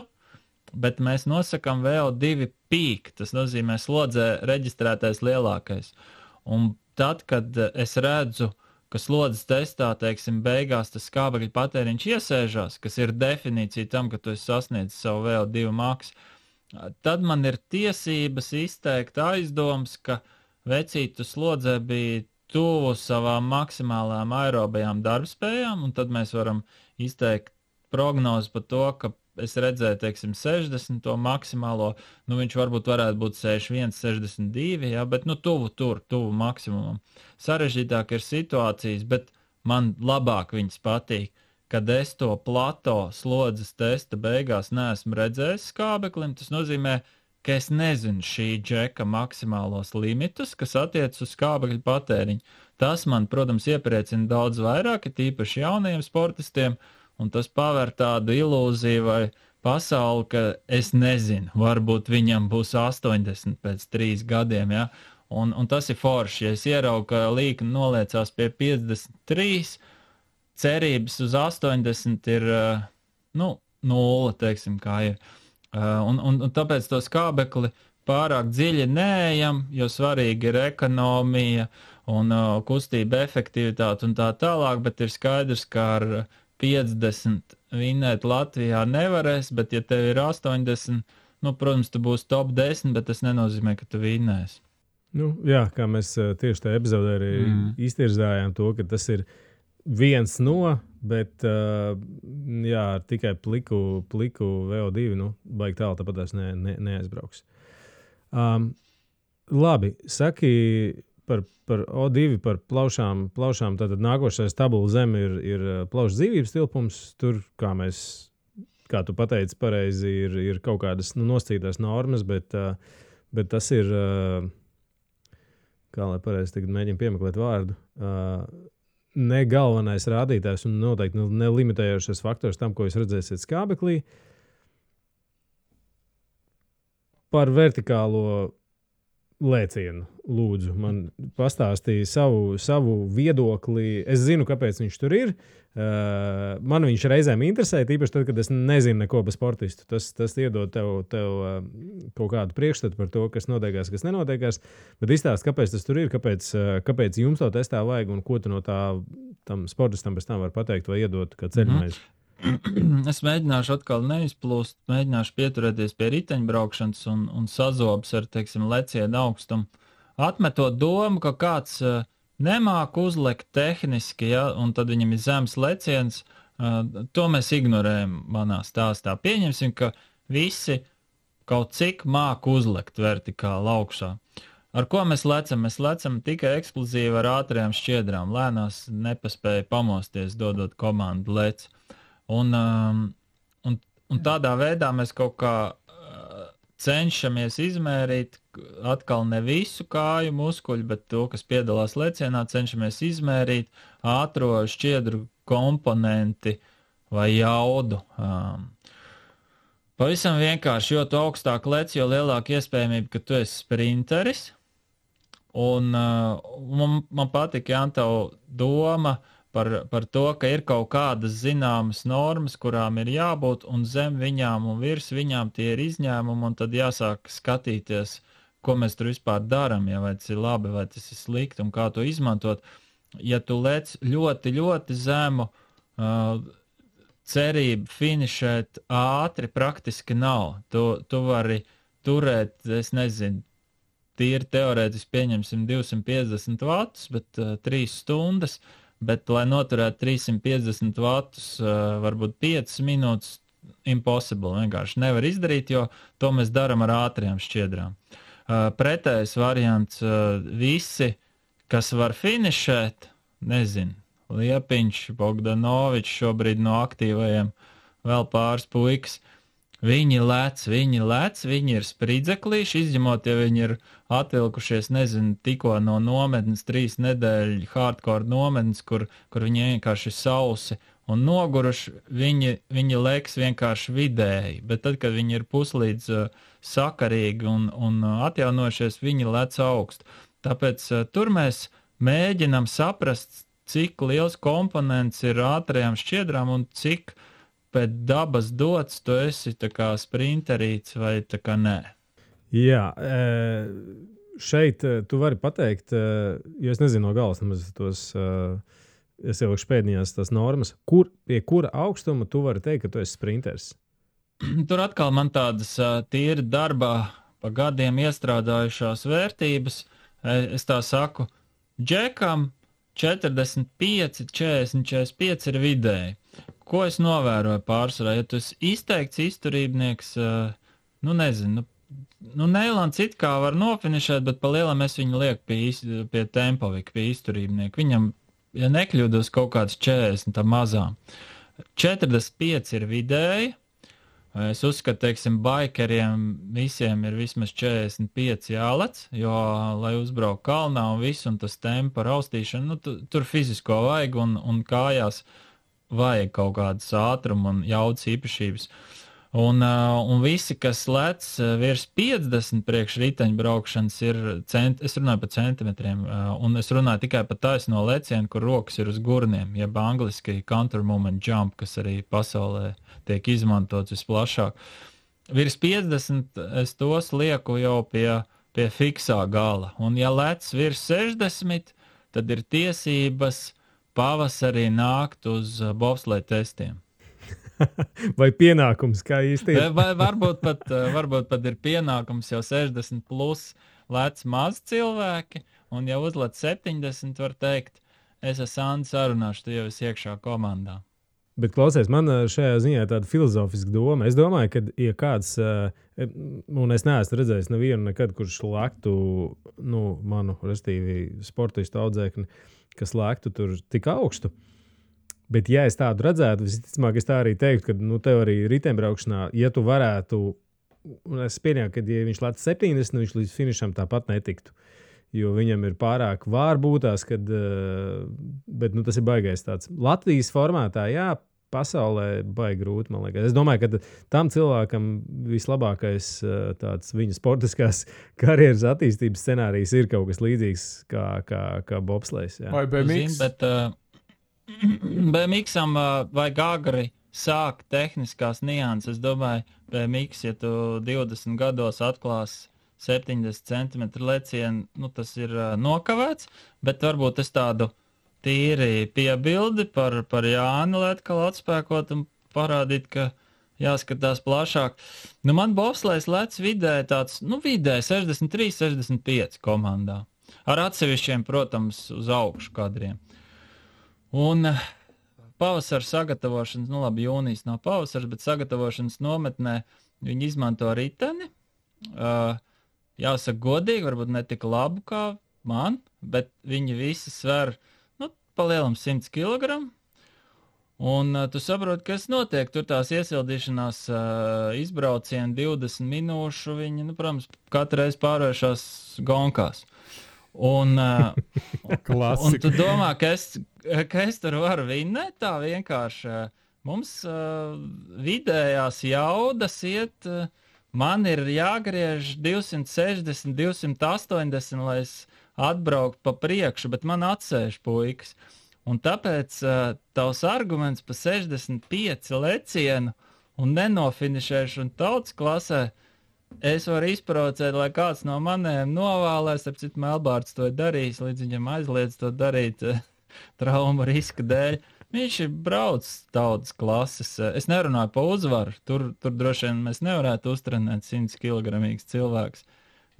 bet mēs nosakam VO2 peak, tas nozīmē slodzē reģistrētais lielākais. Un tad, kad es redzu, ka slodzes testā, beigās tas skābekļu patēriņš iesēžās, kas ir definīcija tam, ka tu esi sasniedzis savu VO2 maksu, tad man ir tiesības izteikt aizdoms, ka vecītu slodzē bija tuvu savām maksimālām aerobajām darbspējām, un tad mēs varam izteikt prognozi par to, ka es redzēju, 60 to maksimālo, viņš varbūt varētu būt 61, 62, jā, bet tuvu maksimumam. Sarežģītāk ir situācijas, bet man labāk viņas patīk, kad es to plato slodzes testa beigās neesmu redzējis skābeklim. Tas nozīmē, ka es nezinu šī džeka maksimālos limitus, kas attiec uz skābekļu patēriņu. Tas man, protams, iepriecina daudz vairāk, tīpaši jaunajiem sportistiem, un tas paver tādu ilūziju vai pasauli, ka es nezinu, varbūt viņam būs 80 pēc 3 gadiem, ja? Un tas ir forši. Ja es ieraugu, ka līkne noliecās pie 53, cerības uz 80 ir, 0, kā ir. Un tāpēc to skābekli pārāk dziļi neejam, jo svarīgi ir ekonomija un kustība efektivitāte un tā tālāk, bet ir skaidrs, ka ar 50 vinnēt Latvijā nevarēs, bet ja tev ir 80, protams, tu būsi top 10, bet tas nenozīmē, ka tu vinnēsi. Jā, kā mēs tieši tajā epizodē arī iztirzājām to, ka tas ir viens no, bet tikai pliku VO2, baigi tālu, tāpat tās neaizbrauks. Labi, saki par O2, par plaušām, tātad nākošais tabula zem ir plaušu dzīvības tilpums, tur, kā tu pateici pareizi, ir kaut kādas nosacītās normas, bet tas ir, kā lai pareizi tagad mēģinu piemeklēt vārdu, ne galvenais rādītājs un noteikti nelimitējošais faktors tam, ko jūs redzēsiet skābeklī. Par vertikālo lēcienu, lūdzu. Man pastāstīja savu viedokli. Es zinu, kāpēc viņš tur ir. Man viņš reizēm interesē, tīpaši tad, kad es nezinu neko par sportistu. Tas iedod tev kaut kādu priekšstatu par to, kas notiekās, kas nenotiekās. Bet izstāst, kāpēc tas tur ir, kāpēc jums to testā vajag un ko tu no tam sportistam pēc tam var pateikt vai iedot kā ceļmaizi. Es mēģināšu atkal neizplūst, mēģināšu pieturēties pie riteņbraukšanas un sazobs ar, teiksim, lecienu augstumu. Atmetot domu, ka kāds nemāk uzlikt tehniski, ja, un tad viņam ir zems leciens, to mēs ignorējam manā stāstā. Pieņemsim, ka visi kaut cik māk uzlikt vertikāli augšā. Ar ko mēs lecam? Mēs lecam tikai eksplozīvi ar ātrajām šķiedrām. Lēnās nepaspēja pamosties, dodot komandu lec. Un tādā veidā mēs kaut kā cenšamies izmērīt atkal ne visu kāju muskuļu, bet to, kas piedalās lecienā, cenšamies izmērīt ātro šķiedru komponenti vai jaudu. Pavisam vienkārši, jo tu augstāk lec, jo lielāka iespējamība, ka tu esi sprinteris. Un man patika, Jāntau, doma par to, ka ir kaut kādas zināmas normas, kurām ir jābūt, un zem viņām un virs viņām tie ir izņēmumi, un tad jāsāk skatīties, ko mēs tur vispār darām, ja vai tas ir labi, vai tas ir slikti, un kā to izmantot. Ja tu lec ļoti, ļoti zemu, cerība finišēt ātri praktiski nav. Tu vari turēt, es nezinu, tīri teorētiski pieņemsim 250 vatus, bet 3 stundas, bet, lai noturētu 350 vatus, varbūt 5 minūtes, impossible, vienkārši nevar izdarīt, jo to mēs darām ar ātrajām šķiedrām. Pretējais variants, visi, kas var finišēt, nezinu, Liepiņš, Bogdanovičs, šobrīd no aktīvajiem vēl pāris puikas, viņi lec, viņi ir spridzeklīši, izņemot, ja viņi ir atvilkušies, nezinu, tikko no nometnes 3 nedēļu hardcore nometnes, kur viņi vienkārši sausi un noguruši, viņi leks vienkārši vidēji, bet tad, kad viņi ir puslīdz sakarīgi un atjaunojušies, viņi lec augstu. Tāpēc tur mēs mēģinam saprast, cik liels komponents ir ātrajām šķiedrām un cik pēc dabas dots, tu esi tā kā sprinterīts vai tā kā nē? Jā, šeit tu vari pateikt, jo es nezinu no galas nemaz tos, es jau pēdējās tās normas, pie kura augstuma tu vari teikt, ka tu esi sprinters? Tur atkal man tādas tīri darbā pa gadiem iestrādājušās vērtības, es tā saku, džekam 45, 40, 45 ir vidēji. Ko es novēroju pārsvarā? Ja tu esi izteikts izturībnieks, nezinu, Neilants it kā var nofinišēt, bet pa lielam es viņu lieku pie tempovika, pie izturībnieka. Viņam, ja nekļūdos, kaut kāds 40, tā mazām. 45 ir vidēji. Es uzskatu, teiksim, baikeriem visiem ir vismaz 45 jālec, jo, lai uzbrauc kalnā un visu, un tas tempa raustīšana, tur fizisko vajag un kājās vajag kaut kādas ātruma un jaudas īpašības. Un visi, kas lec virs 50 priekš riteņbraukšanas, es runāju par centimetriem, un es runāju tikai par taisno lecienu, kur rokas ir uz gurniem, jeb angliski counter moment jump, kas arī pasaulē tiek izmantots visplašāk. Virs 50 es tos lieku jau pie fiksā gala, un ja lec virs 60, tad ir tiesības pavasarī nākt uz bobsleja testiem. Vai pienākums, kā īsti ir? Vai varbūt pat ir pienākums, jau 60 plus lec maz cilvēki, un ja uzlec 70, var teikt, es esmu Andi sarunāšu, tu jau esi iekšā komandā. Bet klausies, man šajā ziņā tāda filozofiska doma. Es domāju, ka, ja kāds, un es neesmu redzējis nevienu nekad, kurš lēktu, manu, restīvi, sportistu audzēkni, kas lēktu tur tik augstu. Bet, ja es tādu redzētu, visticamāk, es tā arī teiktu, ka tev arī riteņbraukšanā, ja tu varētu, un es pieņēmu, ka, ja viņš lēc 70, viņš līdz finišam tāpat netiktu, jo viņam ir pārāk vārbūtās, bet tas ir baigais tāds. Latvijas formātā, jā, pasaulē baigi grūti, man liekas. Es domāju, ka tam cilvēkam vislabākais tāds viņa sportiskās karjeras attīstības scenārijs ir kaut kas līdzīgs kā bobslejs. Vai BMX? Bet BMX-am vajag agri sākt tehniskās nianses. Es domāju, BMX, ja tu 20 gados atklās 70 centimetru lecienu, tas ir nokavēts, bet varbūt es tādu tīri piebildi par Jāni, lai atkal atspēkot un parādīt, ka jāskatās plašāk. Man bobslejs lec vidēji tāds, vidēji 63, 65 komandā. Ar atsevišķiem, protams, uz augšu kadriem. Un pavasara sagatavošanas, labi, jūnijas nav pavasars, bet sagatavošanas nometnē viņi izmanto riteni. Jāsaka godīgi, varbūt ne tik labu kā man, bet viņi visi sver palielam 100 kg. Un tu saproti, kas notiek. Tur tās iesildīšanās izbraucieni 20 minūšu, viņi, protams, katru reizi pārvēršās gonkās. Un tu domā, ka es tur varu vinnēt tā vienkārši. Mums vidējās jaudas iet, man ir jāgriež 260, 280, lai es atbraukt pa priekšu, bet man atsēž puikas. Un tāpēc tavs arguments pa 65 lecienu un nenofinišēšanu tautas klasē, es varu izprovocēt, lai kāds no maniem novēlēs, ap citu Melbārds to darīs, līdz viņam aizliedz to darīt trauma riska dēļ. Viņš ir braucis tautas klases. Es nerunāju pa uzvaru, tur droši vien mēs nevarētu uztrenēt 100 kg cilvēks.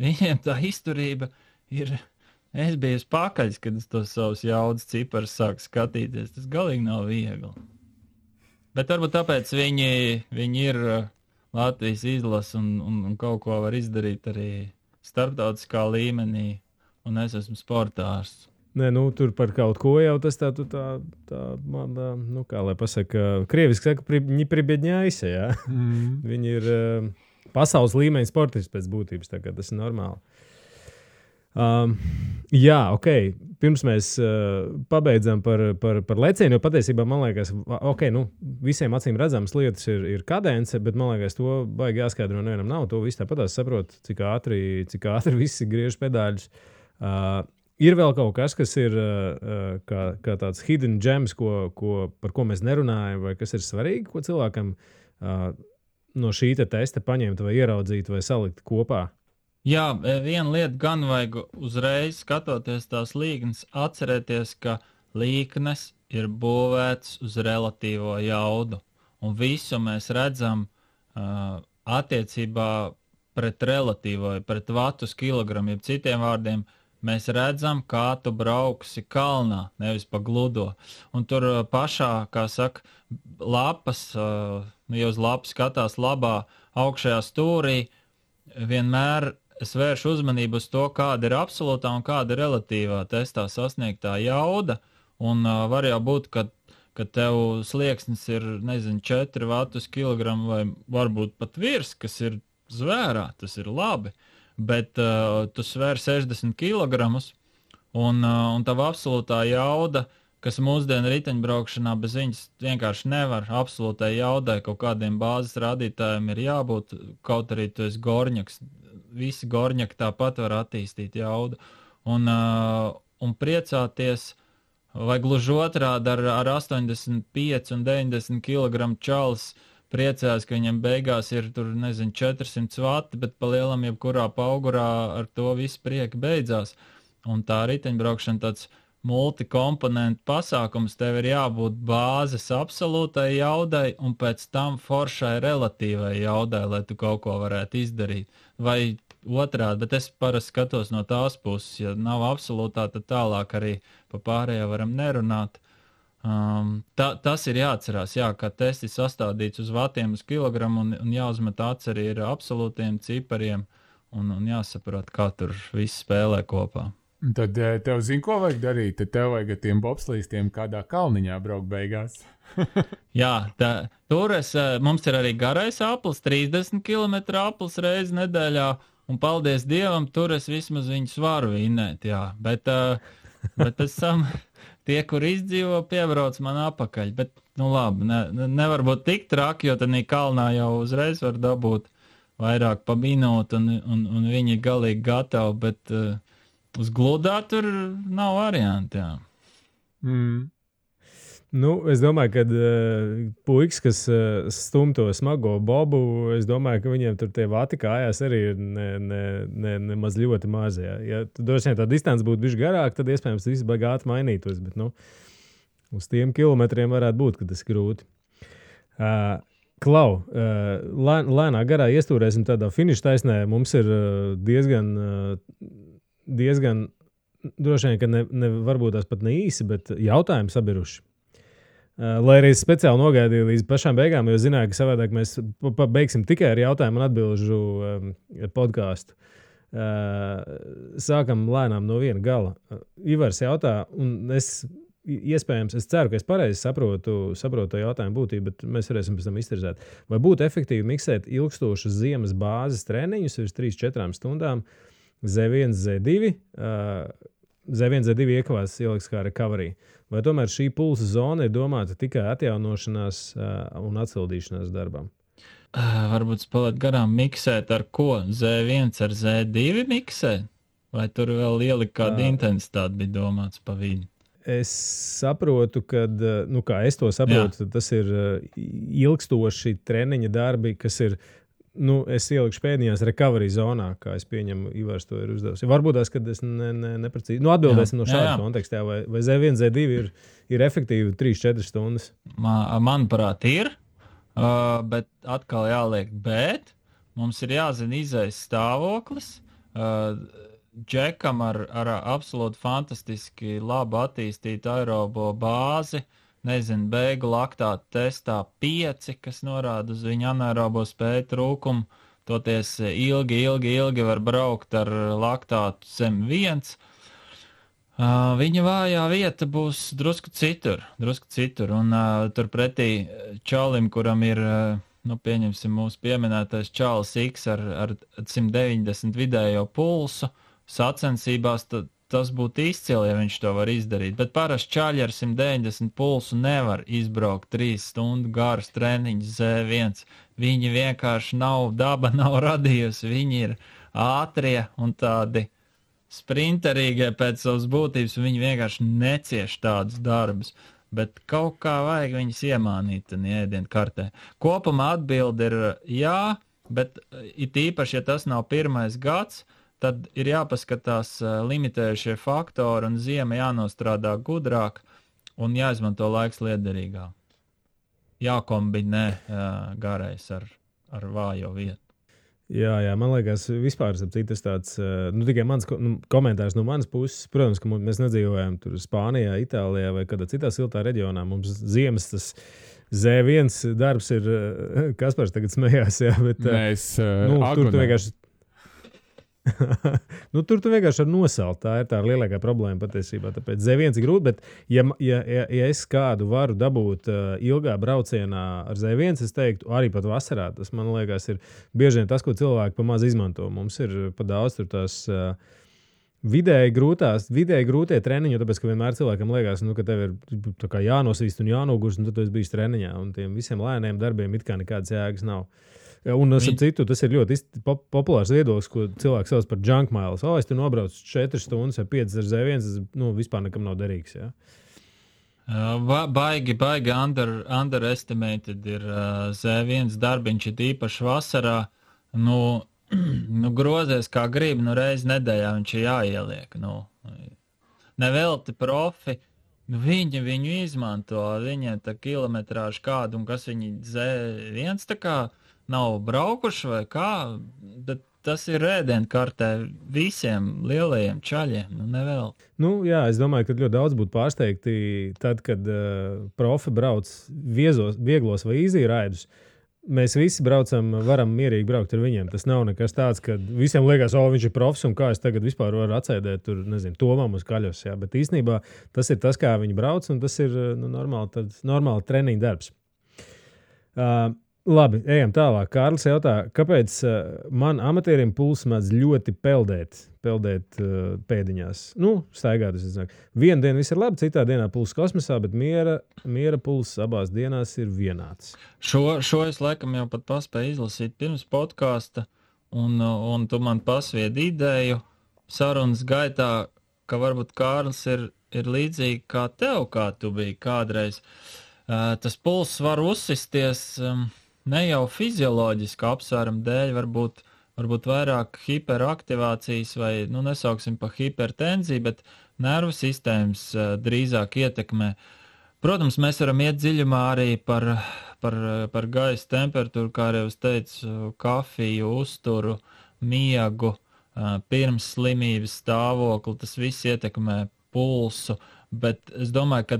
Viņiem tā izturība ir... Es biju pakaļs, kad es tos savus jaudas ciparus sāku skatīties. Tas galīgi nav viegli. Bet varbūt tāpēc viņi ir Latvijas izlase un kaut ko var izdarīt arī starptautiskā līmenī. Un es esmu sportārs. Nē, tur par kaut ko jau tas tā man, kā lai pasaka, krieviski saka, viņi pribiedņājas, jā. Viņi ir pasaules līmeņa sportisti pēc būtības, tā kā tas ir normāli. Jā, ok. Pirms mēs pabeidzam par lecienu, jo patiesībā man liekas, visiem acīm redzams lietas ir kadence, bet man liekas, to baigi jāskaidro nevienam nav. To viss tāpatās saprot, cik ātri visi griež pedāļus. Ir vēl kaut kas, kas ir kā tāds hidden gems, par ko mēs nerunājam, vai kas ir svarīgi, ko cilvēkam no šī testa paņemt vai ieraudzīt vai salikt kopā? Jā, viena lieta gan vajag uzreiz skatoties tās līknes, atcerēties, ka līknes ir būvēts uz relatīvo jaudu. Un visu mēs redzam attiecībā pret relatīvo, pret vatus kilogramu, jeb citiem vārdiem, mēs redzam, kā tu brauksi kalnā, nevis pa gludo. Un tur pašā, kā saka, lapas, ja uz lapas skatās labā augšējā stūrī, vienmēr es vēršu uzmanību uz to, kāda ir absolūtā un kāda ir relatīvā testā sasniegtā jauda. Un var jau būt, ka tev slieksnis ir, 4 vatus kilogramu vai varbūt pat virs, kas ir zvērā, tas ir labi. Bet tu svēr 60 kilogramus un tava absolūtā jauda, kas mūsdienu riteņbraukšanā bez viņas vienkārši nevar. Absolūtai jaudai kaut kādiem bāzes rādītājiem ir jābūt, kaut arī tu esi gorņaks. Visi gorņaki tāpat var attīstīt jaudu. Un priecāties, vai gluži otrādi ar 85 un 90 kg čalis priecājās, ka viņam beigās ir tur, 400 vati, bet pa lielam jebkurā paugurā ar to visu prieki beidzās. Un tā riteņbraukšana tāds multikomponentu pasākums, tev ir jābūt bāzes absolūtai jaudai un pēc tam foršai relatīvai jaudai, lai tu kaut ko varētu izdarīt. Vai otrādi, bet es parasti skatos no tās puses, ja nav absolūtā, tad tālāk arī pa pārējo varam nerunāt. Tas ir jāatcerās, ka tests ir sastādīts uz vatiem uz kilogramu un jāuzmet acis arī ar absolūtiem cipariem un jāsaprot, kā tur viss spēlē kopā. Tad tev zini, ko vajag darīt? Tad tev vajag ar tiem bobslīstiem kādā kalniņā braukt beigās. Jā, tur mums ir arī garais aplis, 30 km aplis reizi nedēļā, un paldies Dievam, tur es vismaz viņus varu vinnēt, jā. Bet pēc tam tie, kur izdzīvo, piebrauc man apakaļ. Bet labi, nevar būt tik traki, jo tad kalnā jau uzreiz var dabūt vairāk pa minūtu, un viņi ir galīgi gatavi, bet uz gludā tur nav varianti, jā. Nu, es domāju, ka puikas, kas stum to smago bobu, es domāju, ka viņiem tur tie vati kājās arī ir nemaz ļoti mazi. Ja droši vien tā distance būtu bišķi garāk, tad iespējams viss bagāti mainītos, bet uz tiem kilometriem varētu būt, ka tas ir grūti. Klau, lēnā garā iestūrēsim tādā finiša taisnē. Mums ir diezgan droši vien, ka varbūt tās pat ne īsi, bet jautājumi sabiruši. Lai arī es speciāli nogaidīju līdz pašām beigām, jo zināju, ka savādāk mēs beigsim tikai ar jautājumu un atbilžu podcastu. Sākam lēnām no viena gala. Ivars jautā, un es ceru, ka es pareizi saprotu to jautājumu būtību, bet mēs varēsim pēc tam iztirzēt. Vai būtu efektīvi miksēt ilgstošas ziemas bāzes treniņus virs 3-4 stundām Z1, Z2? Z1, Z2 iekavās ieliks kā recovery. Vai tomēr šī pulsa zona ir domāta tikai atjaunošanās un atsildīšanās darbam? Varbūt spēlēt garām miksēt ar ko? Z1 ar Z2 miksēt? Vai tur vēl ielikt kādu intensitāti bija domāts pa vidu? Es saprotu, ka, kā es to saprotu, tas ir ilgstoši treniņa darbi, kas ir, es ielikšu pēdējās recovery zonā, kā es pieņemu, Ivars to ir uzdevusi. Varbūt tās, kad es neprecīzi. Atbildēsim no šāda kontekstā, vai Z1, Z2 ir efektīvi 3-4 stundas? Manuprāt, ir, bet atkal jāliek, bet mums ir jāzina izējas stāvoklis. Džekam ar absolūti fantastiski labu attīstītu aerobo bāzi, beigu laktātu testā 5, kas norāda uz viņa anaerobo spēju trūkumu, toties ilgi var braukt ar laktātu zem 1. Viņa vājā vieta būs drusku citur, un turpretī čalim, kuram ir, pieņemsim mūsu pieminētais Čāls X ar 190 vidējo pulsu, sacensībās tas būtu izcili, ja viņš to var izdarīt. Bet parasti čaļi ar 190 pulsu nevar izbraukt 3 stundu garus treniņus Z1. Viņi vienkārši daba nav radījusi. Viņi ir ātrie un tādi sprinterīgie pēc savas būtības. Viņi vienkārši necieš tādus darbus. Bet kaut kā vajag viņus iemānīt ēdienu kartē. Kopumā atbilde ir jā, bet it īpaši, ja tas nav pirmais gads, tad ir jāpaskatās limitējušie faktori un ziema jānostrādā gudrāk un jāizmanto laiks liederīgāk. Jākombinē garais ar vājo vietu. Jā, man liekas, vispār tas tāds, tikai mans komentārs no manas puses. Protams, ka mēs nedzīvojam tur Spānijā, Itālijā vai kādā citā siltā reģionā. Mums ziemas tas Z1 darbs ir, Kaspars tagad smējās, jā, bet mēs tur tu vienkārši tur tu vienkārši var nosalt. Tā ir tā lielākā problēma patiesībā. Tāpēc Z1 ir grūti, bet ja es kādu varu dabūt ilgā braucienā ar Z1, es teiktu, arī pat vasarā, tas man liekas ir bieži vien tas, ko cilvēki pa maz izmanto. Mums ir pa daudz tur tās vidēji grūtie treniņi, tāpēc, ka vienmēr cilvēkam liekas, ka tev ir tā kā jānosvīst un jānogurst, un tad tu esi bijis treniņā, un tiem visiem lēniem darbiem it kā nekādas jēgas nav. Un citu, tas ir ļoti populārs viedoklis, ko cilvēks sauc par junk miles. Es tu nobraucu 4 stundas vai 5 ar Z1, tas vispār nekam nav derīgs. Ja? Baigi underestimated ir Z1 darbiņš, ir īpaši vasarā. Grozies kā gribi, reiz nedēļā viņš ir jāieliek. Nevelti profi, viņu izmanto, viņiem tā kilometrāžu kādu, un kas viņi Z1 tā kā nav braukuši vai kā, bet tas ir ēdienkartē visiem lielajiem čaļiem, nevēl. Jā, es domāju, ka ļoti daudz būtu pārsteigti tad, kad profi brauc vieglos vai easy raidus. Mēs visi varam mierīgi braukt ar viņiem. Tas nav nekas tāds, ka visiem liekas, viņš ir profs un kā es tagad vispār varu atsēdēt tur, tomam uz kaļos. Jā. Bet īstenībā tas ir tas, kā viņi brauc, un tas ir normāli treniņa darbs. Labi, ejam tālāk. Kārlis jautā, kāpēc man amatierim pulss mēdz ļoti peldēt? peldēt pēdiņās. Staigāt. Vienu dienu viss ir labi, citā dienā pulss kosmosā, bet miera pulss abās dienās ir vienāds. Šo es laikam jau pat paspēju izlasīt pirms podkāsta, un tu man pasviedi ideju sarunas gaitā, ka varbūt Kārlis ir līdzīgi kā tev, kā tu biji kādreiz. Tas pulss var uzsisties ne jau fizioloģiski apsvērumu dēļ, varbūt vairāk hiperaktivācijas vai, nesauksim pa hipertenziju, bet nervu sistēmas drīzāk ietekmē. Protams, mēs varam iet dziļumā arī par gaisa temperatūru, kā arī es teicu, kafiju, uzturu, miegu, pirms slimības stāvokli, tas viss ietekmē pulsu, bet es domāju, ka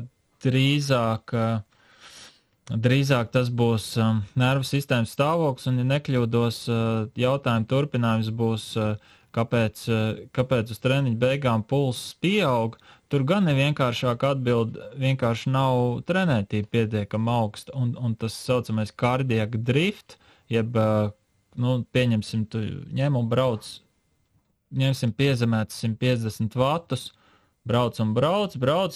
drīzāk tas būs nervu sistēmas stāvoklis, un, ja nekļūdos, jautājumu turpinājums būs, kāpēc uz treniņu beigām pulss pieaug. Tur gan ir vienkāršāk atbild, vienkārši nav trenētība pietiekama augsta, un tas saucamais cardiac drift, jeb, pieņemsim, tu ņem un brauc, ņemsim piezemēts 150 vatus, brauc,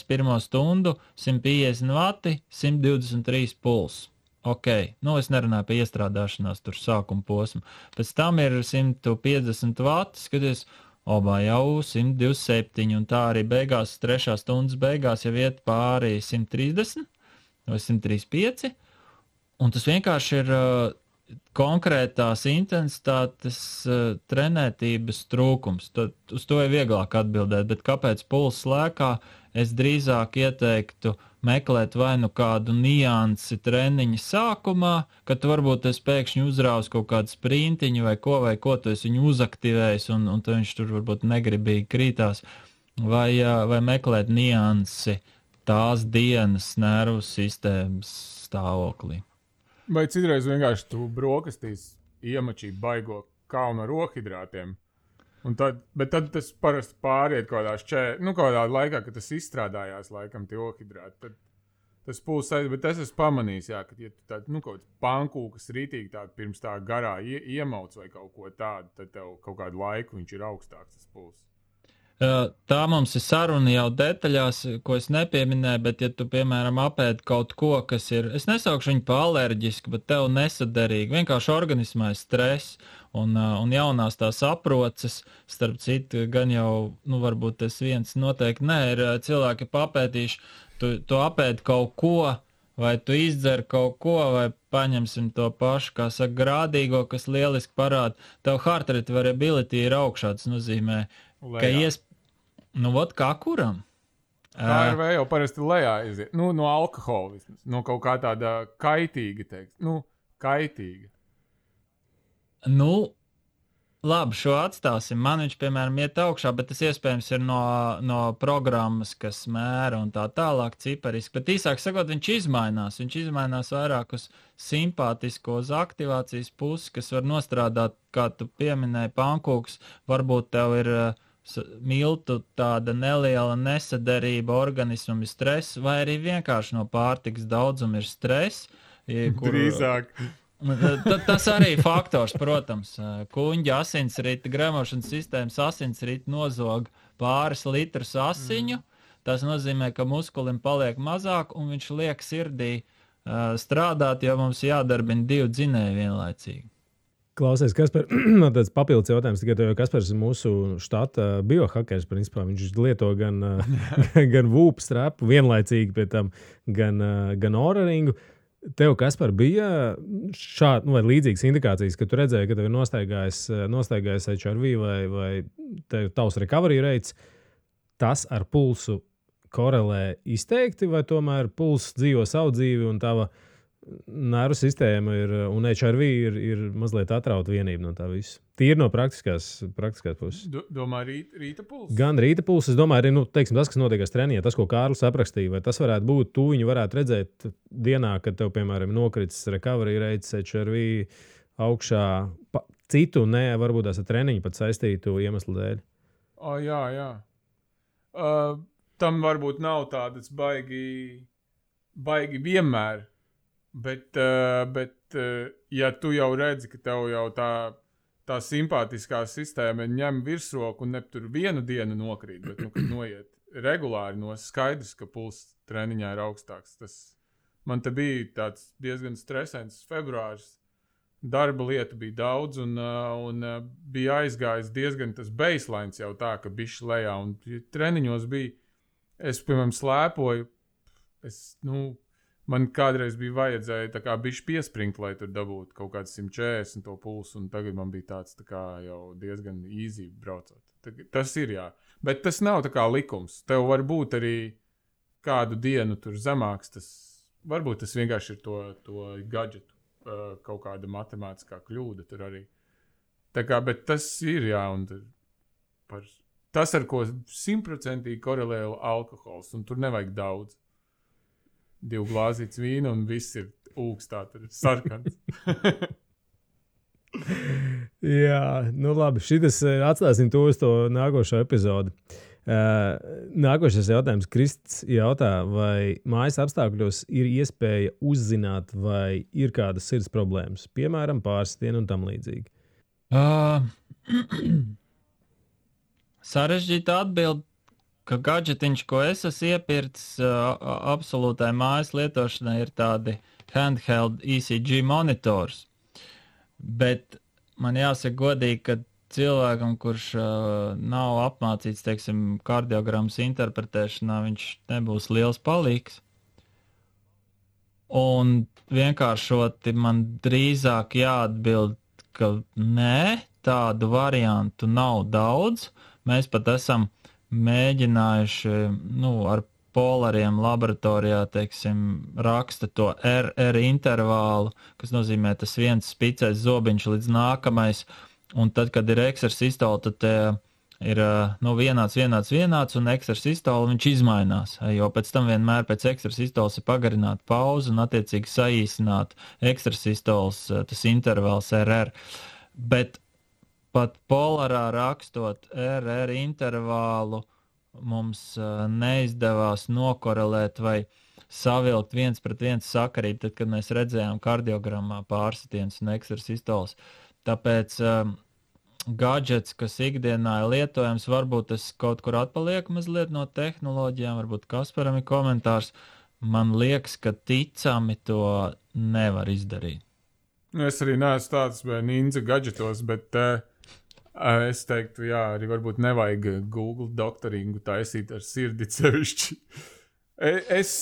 pirmo stundu, 150 vati, 123 puls. Ok, es nerunāju par iestrādāšanās tur sākuma posmu. Pēc tam ir 150 vati, skaties, jau 127, un tā arī beigās, 3. stundas beigās jau iet pāri 130 vai 135, un tas vienkārši ir konkrētās intensitātes trenētības trūkums. Uz to ir vieglāk atbildēt, bet kāpēc pulss lēkā? Es drīzāk ieteiktu meklēt vai kādu niansi treniņa sākumā, kad tu varbūt pēkšņi uzrāvis kaut kādu sprintiņu vai ko tu esi viņu uzaktivējis, un viņš tur varbūt negribīgi krītās, vai meklēt niansi tās dienas nervu sistēmas stāvoklī. Vai citreiz vienkārši tu brokastīs iemačī baigo kalnu ar rohidrātiem, bet tad tas parasti pāriet kādā laikā, kad tas izstrādājās laikam tie rohidrāti, tad tas pulss aiziet, bet es esmu pamanījis, ka ja tu tādu, kaut pankūkas rītīgi tādu pirms tā garā iemauc vai kaut ko tādu, tad tev kaut kādu laiku viņš ir augstāks tas pulss. Tā mums ir saruna jau detaļās, ko es nepieminēju, bet ja tu, piemēram, apēd kaut ko, kas ir, es nesaukšu viņu pa alerģisku, bet tev nesaderīgi, vienkārši organismā ir stress un jaunās tās aproces, starp citu, gan jau, varbūt tas viens noteikti ir cilvēki papētīši, tu apēd kaut ko, vai tu izdzer kaut ko, vai paņemsim to pašu, kā saka, grādīgo, kas lieliski parāda, tev heart rate variability ir augšā, tas nozīmē, ka kā kuram? HRV jau parasti lejā iziet. No alkohola vismaz. No kaut kā tāda kaitīga, teiks. Kaitīga. Labi, šo atstāsim. Man viņš, piemēram, iet augšā, bet tas iespējams ir no programmas, kas mēra un tā tālāk cipariski. Bet īsāk sakot, viņš izmainās. Viņš izmainās vairāk uz simpātisko, uz aktivācijas pusi, kas var nostrādāt, kā tu pieminēji, pankūks. Varbūt tev ir miltu tāda neliela nesaderība, organismam ir stress, vai arī vienkārši no pārtikas daudzuma ir stress. Drīzāk. Tas arī faktors, protams. Kuņģa asinsrita, gremošanas sistēmas asinsrita nozog pāris litrus asiņu. Tas nozīmē, ka muskulim paliek mazāk, un viņš liek sirdī strādāt, jo mums jādarbina 2 dzinēji vienlaicīgi. Klausies, Kaspar, tāds papildus jautājums, tikai tev, Kaspars ir mūsu štata biohakers, principā. Viņš lieto gan VUP strapu vienlaicīgi, pie tam gan Oura-ringu. Tev, Kaspar, bija šāda vai līdzīgas indikācijas, ka tu redzēji, ka tev ir nostaigājis HRV vai tavs recovery rates, tas ar pulsu korelē izteikti, vai tomēr pulss dzīvo savu dzīvi un tava nervu sistēma un HRV ir mazliet atrauta vienība no tā visa. Tīri no praktiskās puses. Domā rīta pulss? Gan rīta pulss, es domāju, arī tas, kas notiekās treniņā, tas, ko Kārlis aprakstīja, vai tas varētu būt, tu viņu varētu redzēt dienā, kad tev, piemēram, nokritis recovery rates, HRV augšā, citu, varbūt tās ar treniņu pat saistītu iemeslu dēļ. Jā. Tam varbūt nav tādas baigi vienmēr. Bet ja tu jau redzi, ka tev jau tā tā simpātiskā sistēma ņem virsroku un ne tur vienu dienu nokrīt, bet, kad noiet regulāri skaidrs, ka pulss treniņā ir augstāks. Man te bija tāds diezgan stresants februāris. Darba lietu bija daudz un bija aizgājis diezgan tas baselines jau tā, ka bišķi lejā. Un treniņos bija, es, piemēram, slēpoju, man kādreiz bija vajadzēja tā kā bišķi piespringt, lai tur dabūtu kaut kāds 140 to pulsu, un tagad man bija tāds tā kā jau diezgan easy braucot. Tas ir, jā. Bet tas nav tā kā likums. Tev var būt arī kādu dienu tur zemāks, varbūt tas vienkārši ir to gadžetu, kaut kāda matemātiskā kļūda tur arī. Tā kā, bet tas ir, jā, un tas, ar ko 100% korelē alkohols, un tur nevajag daudz. 2 glāzītes vīna un viss ir ūkstā, tur ir sarkans. Jā, labi, šitas atstāsim to uz to nākošo epizodu. Nākošais jautājums. Krists jautā, vai mājas apstākļos ir iespēja uzzināt, vai ir kādas sirds problēmas, piemēram, pārsitienu un tam līdzīgi? Sarežģīta atbild, ka gadžetiņš, ko es esmu iepircis absolūtai mājas lietošanai, ir tādi handheld ECG monitors. Bet man jāsaka godīgi, ka cilvēkam, kurš nav apmācīts, teiksim, kardiogrammas interpretēšanā, viņš nebūs liels palīgs. Un vienkāršoti man drīzāk jāatbild, ka nē, tādu variantu nav daudz. Mēs pat esam mēģinājuši, ar polariem laboratorijā, teiksim, raksta to RR intervālu, kas nozīmē tas viens spicais zobiņš līdz nākamais, un tad, kad ir eksersistola, tad ir vienāds, un eksersistola viņš izmainās, jo pēc tam vienmēr pēc eksersistolas ir pagarināta pauze un attiecīgi saīsināt eksersistolas tas intervāls RR. Bet pat polarā rakstot RR intervālu mums neizdevās nokorelēt vai savilkt 1:1 sakarību, tad, kad mēs redzējām kardiogrammā pārsitiens un eksersistols. Tāpēc gadžets, kas ikdienā ir lietojams, varbūt tas kaut kur atpaliek mazliet no tehnoloģijām, varbūt Kasparam ir komentārs. Man liekas, ka ticami to nevar izdarīt. Es arī neesmu tāds ninja gadžetos, bet es teiktu, jā, arī varbūt nevajag Google doktoringu taisīt ar sirdi sevišķi. Es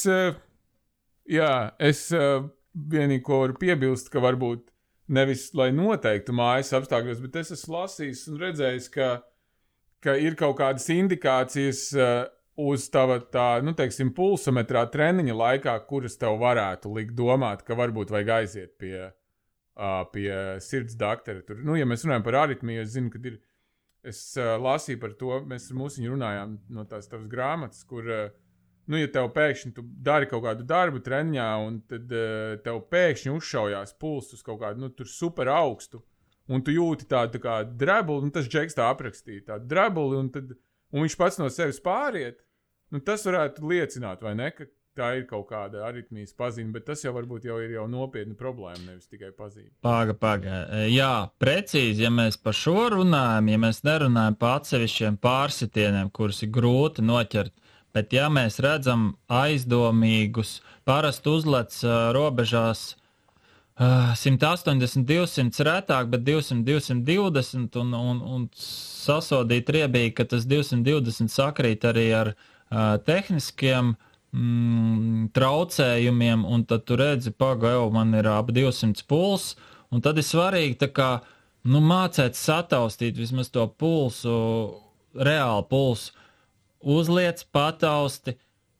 vienīgi ko varu piebilst, ka varbūt nevis, lai noteiktu mājas apstākļos, bet es esmu lasījis un redzējis, ka ir kaut kādas indikācijas uz tava teiksim, pulsometrā treniņa laikā, kuras tev varētu likt domāt, ka varbūt vajag aiziet pie sirds doktora. Tur, ja mēs runājam par aritmiju, es zinu, ka es lasīju par to, mēs ar mūsiņu runājām no tās tavas grāmatas, kur, ja tev pēkšņi tu dari kaut kādu darbu treniņā, un tad tev pēkšņi uzšaujās pulss uz kaut kādu, tur super augstu, un tu jūti tādu tā kā drebuli, un tas džeks tā aprakstīja, tādu drebuli, un viņš pats no sevis pāriet, tas varētu liecināt, vai ne, ka tā ir kaut kāda aritmijas pazīme, bet tas jau varbūt ir nopietna problēma, nevis tikai pazīme. Paga. Jā, precīzi, ja mēs par šo runājam, ja mēs nerunājam par atsevišķiem pārsitieniem, kurus ir grūti noķert, bet ja mēs redzam aizdomīgus, parasti uzlec robežās 180, 200 retāk, bet 200, 220 un sasodīt riebīgi, ka tas 220 sakrīt arī ar tehniskiem traucējumiem, un tad tu redzi, man ir ap 200 puls, un tad ir svarīgi tā kā, mācēt sataustīt vismaz to pulsu, reāli pulsu, uzliec, patausti,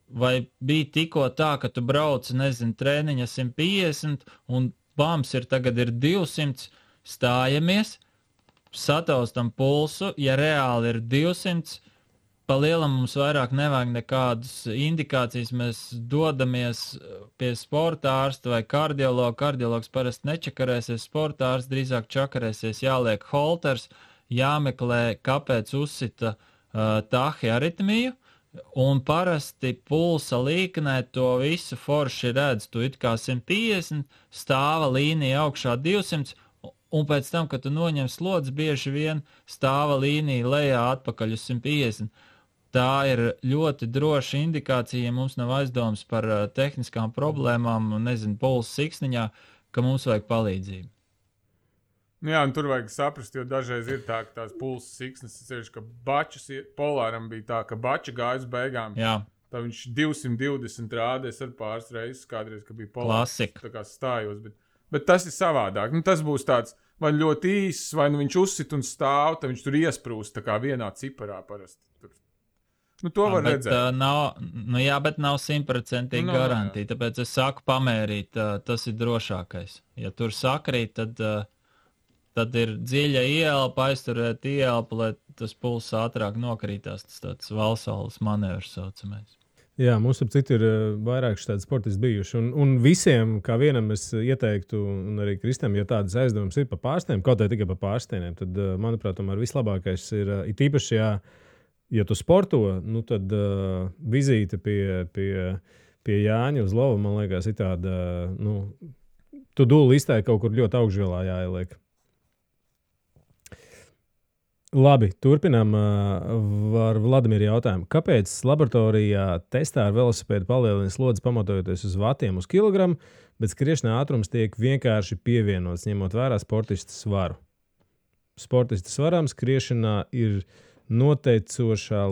vai bija tikko tā, ka tu brauci, treniņa 150, un bams tagad ir 200, stājamies, sataustam pulsu, ja reāli ir 200, pa lielam mums vairāk nevajag nekādas indikācijas, mēs dodamies pie sporta ārsta vai kardiologa. Kardiologs parasti nečakarēsies, sporta ārsts drīzāk čakarēsies, jāliek holters, jāmeklē, kāpēc uzsita tahiaritmiju, un parasti pulsa līknē to visu forši redz. Tu it kā 150, stāva līnija augšā 200, un pēc tam, kad tu noņem slodzi, bieži vien stāva līnija lejā atpakaļ uz 150. Tā ir ļoti droša indikācija, ja mums nav aizdomas par tehniskām problēmām, un nezinu, pulsa siksniņā, ka mums vajag palīdzību. Jā, un tur vajag saprast, jo dažreiz ir tā, ka tās pulsa siksnes, ka bačas, Polāram bija tā, ka bača gāja uz beigām. Jā. Tā viņš 220 rādēs ar pāris reizes, kādreiz, ka bija Polārs. Klasika. Tā kā stājos, bet tas ir savādāk. Nu, tas būs tāds, vai ļoti īss, vai nu viņš uzsit un stāv, tad viņš tur iesprūst tā kā vienā ciparā parasti. Tur. Nu, to var redzēt. Bet nav 100% garantija, tāpēc es saku pamērīt, tas ir drošākais. Ja tur sakrīt, tad ir dziļa ielpa, aizturēt ielpu, lai tas pulss ātrāk nokrītās, tas tāds valsaules manevrs saucamais. Jā, mums ap citu ir vairāk šādi sportisti bijuši. Un visiem, kā vienam, es ieteiktu, un arī Kristam, ja tādas aizdomas ir par pārstiem, kaut vai tikai par pārstieniem, tad, manuprāt, tomēr vislabākais ir īpaši, ja tu sporto, nu tad vizīte pie Jāņa uz lovu, man liekas, ir tāda, tu dūli iztai kaut kur ļoti augšgalā jāieliek. Labi, turpinām ar Vladimiru jautājumu. Kāpēc laboratorijā testā ar velosipēdu palielina slodzi pamatojoties uz vatiem uz kilogramu, bet skriešanā ātrums tiek vienkārši pievienots, ņemot vērā sportista svaru? Sportista svarām skriešanā ir noteicošāka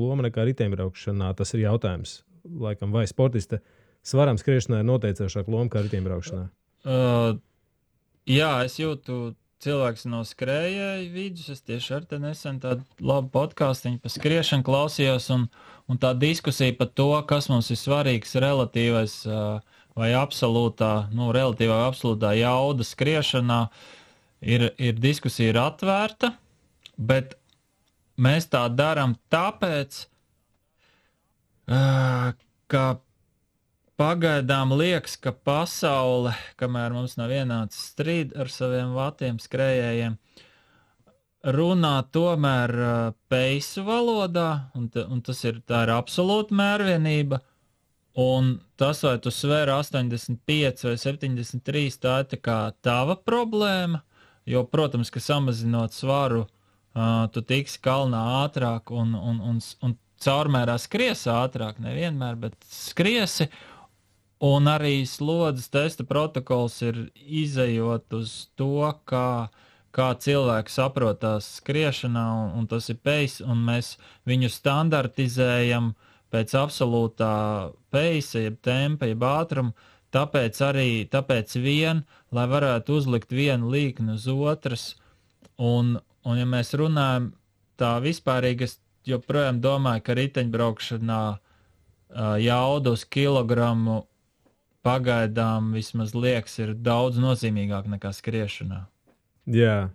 loma nekā riteņbraukšanā. Tas ir jautājums. Laikam, vai sportista svarām skriešanā ir noteicošāka loma kā riteņbraukšanā? Jā, es jūtu cilvēks no skrējēju vidus. Es tieši ar te nesen tādu labu podcastiņu par skriešanu klausījos, un tā diskusija par to, kas mums ir svarīgs relatīvais vai relatīvā vai absolūtā jauda skriešanā, ir diskusija ir atvērta, bet mēs tā darām tāpēc, ka pagaidām liekas, ka pasaule, kamēr mums nav ienācis strīd ar saviem vatiem skrējējiem, runā tomēr peisu valodā, un tā ir absolūta mērvienība, un tas, vai tu svēri 85 vai 73, tā ir tā kā tava problēma, jo, protams, ka samazinot svaru, tu tiksi kalnā ātrāk un caurmērā skries ātrāk, nevienmēr, bet skriesi. Un arī slodzes testa protokols ir izejot uz to, kā cilvēks saprotās skriešanā, un tas ir pace, un mēs viņu standartizējam pēc absolūtā pace, jeb tempa, jeb ātruma, tāpēc vien, lai varētu uzlikt vienu līkni uz otras, un ja mēs runājam tā vispārīgi, es joprojām domāju, ka riteņbraukšanā jauda uz kilogramu pagaidām vismaz liekas ir daudz nozīmīgāk nekā skriešanā. Jā.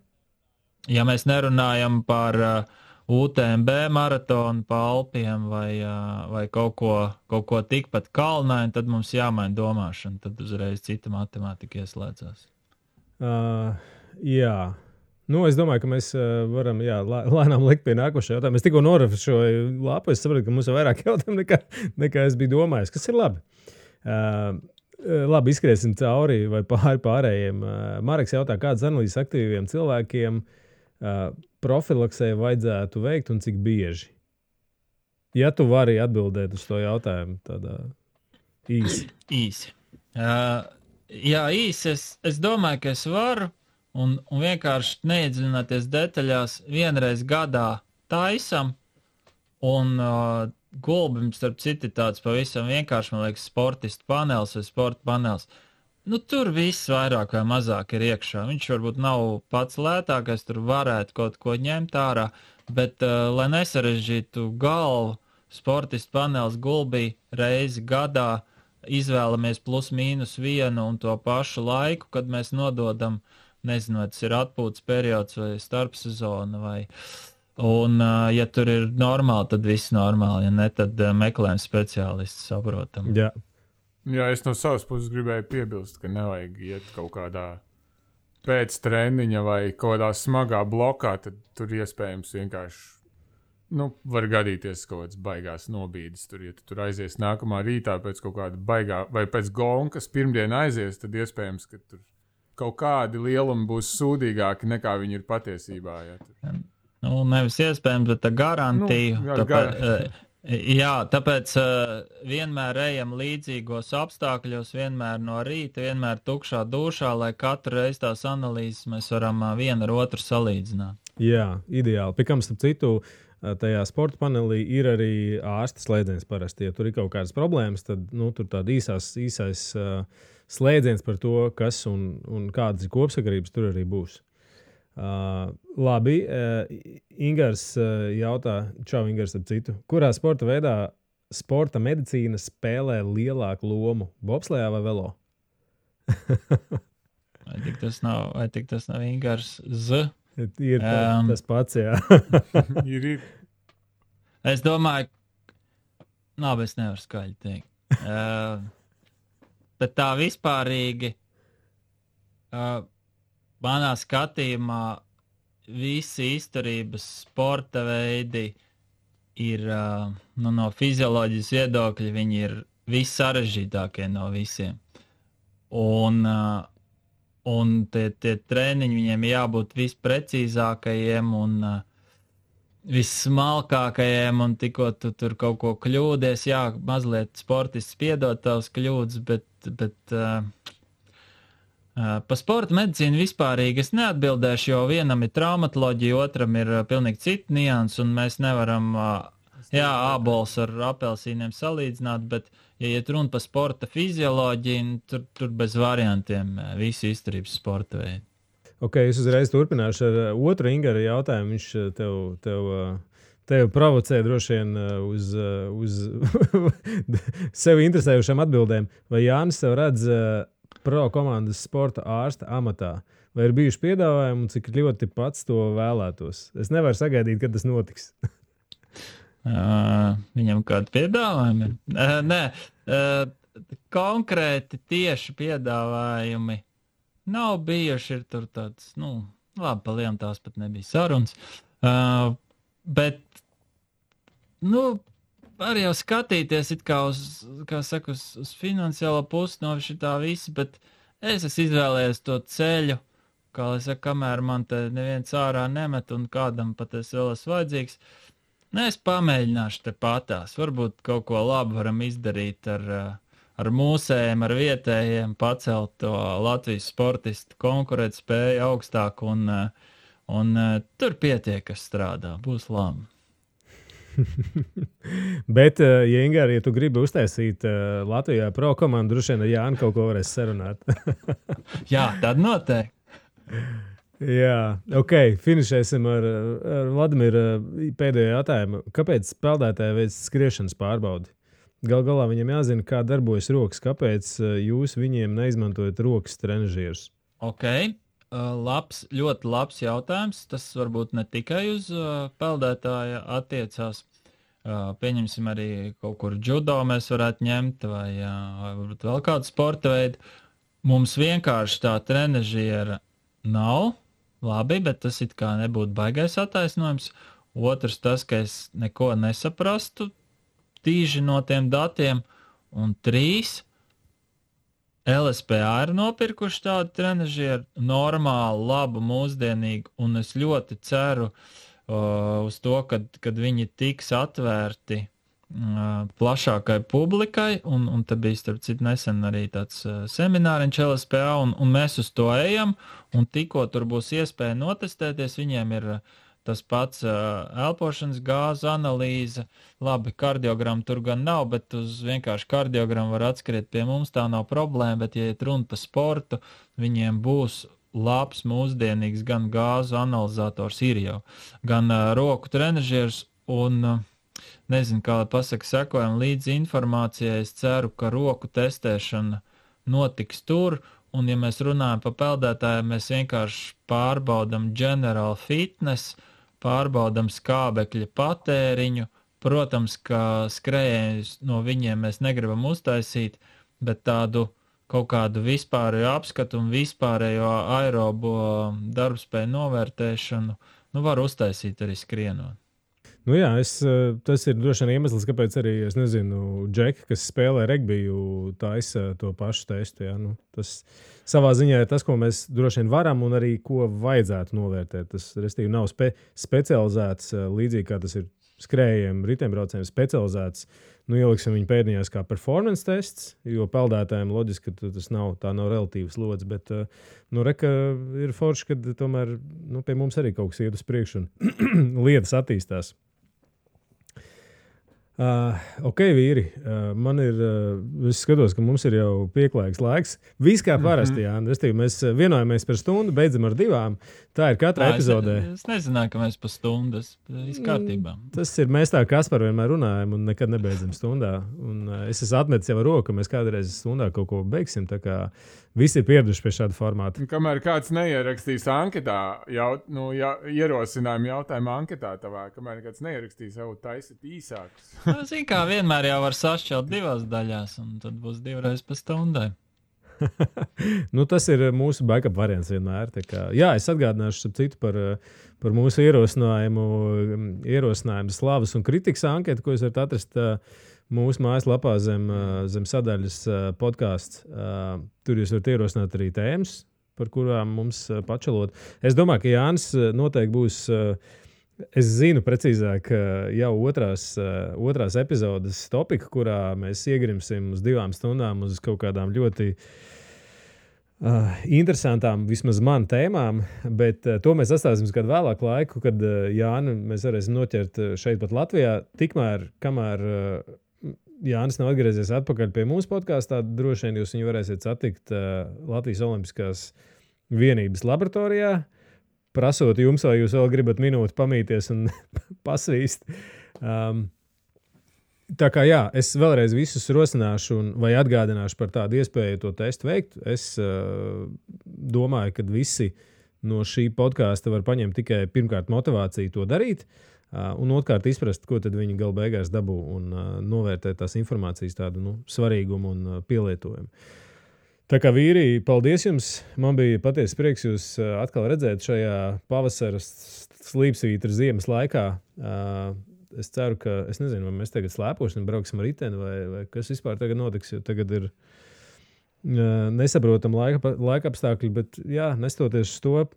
Ja mēs nerunājam par UTMB maratonu pa Alpiem vai kaut ko tikpat kalnaini, tad mums jāmaina domāšana, tad uzreiz cita matemātika ieslēdzās. Jā. Es domāju, ka mēs varam lēnām likt pie nākošā jautājuma. Es tikko norefrešoju lapu, es sapratu, ka mums ir vairāk jautājumu nekā es biju domājis, kas ir labi. Labi, izskriesim cauri vai pārējiem. Mareks jautā, kādas analīzes aktīviem cilvēkiem profilaksē vajadzētu veikt un cik bieži? Ja tu vari atbildēt uz to jautājumu tādā īsi. Īsi. Jā, īsi. Es domāju, ka es varu un vienkārši neiedziļināties detaļās. Vienreiz gadā taisam un Gulbim, starp citu, tāds pavisam vienkārši, man liekas, sportistu panelis vai sporta panelis. Tur viss vairāk vai mazāk ir iekšā. Viņš varbūt nav pats lētākais, tur varētu kaut ko ņemt ārā, bet, lai nesarežģītu galvu, sportistu panelis Gulbī reizi gadā izvēlamies plus mīnus vienu un to pašu laiku, kad mēs nododam, nezinu, vai tas ir atpūtas periods vai starpsezona vai... Un, ja tur ir normāli, tad viss normāli. Ja ne, tad meklējam speciālistu, saprotam. Jā, es no savas puses gribēju piebilst, ka nevajag iet kaut kādā pēc treniņa vai kaut kādā smagā blokā, tad tur iespējams vienkārši var gadīties kaut kāds baigās nobīdes. Ja tu tur aizies nākamā rītā pēc kaut kāda baigā vai pēc gonkas pirmdien aizies, tad iespējams, ka tur kaut kādi lielumi būs sūdīgāki nekā viņi ir patiesībā. Ja. Nu, nevis iespējams, bet garantiju. Tāpēc vienmēr ejam līdzīgos apstākļos, vienmēr no rīta, vienmēr tukšā dušā, lai katru reizi tās analīzes mēs varam vienu ar otru salīdzināt. Jā, ideāli. Pikam, starp citu, tajā sporta panelī ir arī ārsta slēdziens parasti. Ja tur ir kaut kādas problēmas, tad tur tāda īsais slēdziens par to, kas un kādas ir kopsakarības tur arī būs. Labi, Ingars jautā, čau Ingars, ap citu. Kurā sporta veidā sporta medicīna spēlē lielāku lomu? Bobslejā vai velo? vai tik tas nav Ingars Z? Ir tas pats, jā. ir. Es domāju, es nevaru skaļi teikt. Bet tā vispārīgi, manā skatījumā, visi izturības sporta veidi ir, no fizioloģijas viedokļa, viņi ir vissarežģītākie no visiem. Un tie treniņi viņiem jābūt visprecīzākajiem un vissmalkākajiem, un tikko tu tur kaut ko kļūdies, mazliet sportists piedod tavas kļūdas, bet pa sporta medicīnu vispārīgi es neatbildēšu, jo vienam ir traumatoloģija, otram ir pilnīgi cita nianses, un mēs nevaram ābols ar apelsīniem salīdzināt, bet ja iet runa par sporta fizioloģiju, tur bez variantiem visi izturības sporta veidi. Ok, es uzreiz turpināšu ar otru Ingara jautājumu. Viņš tev provocē droši vien uz sevi interesējušām atbildēm. Vai Jānis sev redz pro komandas sporta ārsta amatā? Vai ir bijuši piedāvājumi un cik ļoti pats to vēlētos? Es nevaru sagaidīt, kad tas notiks. Viņam kādi piedāvājumi? Nē, konkrēti tieši piedāvājumi nav bijuši. Ir tur tāds, labi, pa lielām tās pat nebija sarunas. Bet, var jau skatīties it kā uz finansiālo pusi no šitā visa, bet es esmu izvēlējies to ceļu, kā lai saka, kamēr man te neviens ārā nemet un kādam pat es vēl esmu vajadzīgs. Es pamēģināšu te patās. Varbūt kaut ko labu varam izdarīt ar mūsējiem, ar vietējiem, pacelt to Latvijas sportistu konkurētspēju augstāk un tur pietiek, kas strādā. Būs labi. Bet, ja tu gribi uztaisīt Latvijā pro komandu, droši vien ar Jānu kaut ko varēs sarunāt. Jā, tad noteikti. Jā, ok, finišēsim ar Vladimiru pēdējo jautājumu. Kāpēc spēlētāji veic skriešanas pārbaudi? Galā viņam jāzina, kā darbojas rokas. Kāpēc jūs viņiem neizmantojat rokas trenažierus? Ok, ļoti labs jautājums. Tas varbūt ne tikai uz peldētāja attiecās. Pieņemsim arī kaut kur judo mēs varētu ņemt vai varbūt vēl kādu sporta veidu. Mums vienkārši tā trenažiera nav. Labi, bet tas it kā nebūtu baigais attaisnojums. Otrs tas, ka es neko nesaprastu tīži no tiem datiem. Un 3. LSPA ir nopirkuši tādu trenažieru, normālu, labu, mūsdienīgu, un es ļoti ceru uz to, kad viņi tiks atvērti plašākai publikai, un te bija starp citu nesen arī tāds semināriņš LSPA, un mēs uz to ejam, un tikko tur būs iespēja notestēties, viņiem ir tas pats elpošanas gāzu analīze, labi, kardiogramu tur gan nav, bet uz vienkārši kardiogramu var atskriet pie mums, tā nav problēma, bet ja iet runa par sportu, viņiem būs labs, mūsdienīgs gan gāzu analizators ir jau, gan roku trenažieris, un nezinu, kā lai pasaka, sekojam līdz informācijai. Es ceru, ka roku testēšana notiks tur, un ja mēs runājam par peldētājiem, mēs vienkārši pārbaudam general fitness, pārbaudam skābekļa patēriņu. Protams, ka skrējienus no viņiem mēs negribam uztaisīt, bet tādu kaut kādu vispārējo apskatu un vispārējo aerobo darbspēju novērtēšanu var uztaisīt arī skrienot. Nu jā, tas ir droši vien iemesls, kāpēc arī, es nezinu, Džeki, kas spēlē regbiju, taisa to pašu testu. Jā. Nu, tas savā ziņā ir tas, ko mēs droši vien varam un arī ko vajadzētu novērtēt. Tas, restīvi, nav specializēts, līdzīgi kā tas ir skrējiem, riteņbraucējiem specializēts. Nu, ieliksim viņu pēdiņās kā performance tests, jo peldētājiem loģiski, ka tā nav relatīvas lodzes, bet reka ir forši, ka tomēr pie mums arī kaut kas iet uz priekšu un lietas attīstās. Ok, vīri, man ir, es skatos, ka mums ir jau pieklājīgs laiks. Viss kā parasti, jā. Mēs vienojamies par stundu, beidzam ar 2. Tā ir katra epizodē. Es nezināju, ka mēs pa stundas izkārtībā. Tas ir, mēs tā Kaspar vienmēr runājam un nekad nebeidzam stundā. Un es esmu atmetis jau ar roku, ka mēs kādreiz stundā kaut ko beigsim, tā kā visi ir pieraduši pie šāda formāta. Kamēr kāds neierakstīs anketā, ierosinājumu jautājumu anketā tavā, kamēr kāds neierakstīs, jau taisīt īsākus. Zini, kā vienmēr jau var sašķelt 2 daļās, un tad būs 2 reizes pa stundai. Tas ir mūsu backup variants vienmēr. Jā, es atgādināšu citu par mūsu ierosinājumu slavas un kritikas anketu, ko jūs varat atrast mūsu mājaslapā zem sadaļas podcasts. Tur jūs varat ierosināt arī tēmas, par kurām mums pačalot. Es domāju, ka Jānis noteikti būs, es zinu precīzāk, jau otrās epizodes topika, kurā mēs iegrimsim uz 2 stundām uz kaut kādām ļoti interesantām, vismaz man tēmām, bet to mēs atstāsim kādu vēlāku laiku, kad Jāni mēs varēsim noķert šeit pat Latvijā. Tikmēr, kamēr Jānis nav atgriezies atpakaļ pie mūsu podkāstā, droši vien jūs viņu varēsiet satikt Latvijas Olimpiskās vienības laboratorijā, prasot jums, vai jūs vēl gribat minūti pamīties un pasvīst. Tā kā jā, es vēlreiz visus rosināšu vai atgādināšu par tādu iespēju to testu veikt. Es domāju, ka visi no šī podkāsta var paņemt tikai pirmkārt motivāciju to darīt, un otrkārt izprast, ko tad viņi gala beigās dabū un novērtēt tās informācijas tādu svarīgumu un pielietojumu. Tā kā vīri, paldies jums! Man bija patiesi prieks jūs atkal redzēt šajā pavasara slīpsvītra ziemas laikā. Es ceru, ka, es nezinu, vai mēs tagad slēposim, brauksim ar riteni, vai kas vispār tagad notiks, jo tagad ir nesaprotam laika apstākļi, bet jā, nestoties uz to,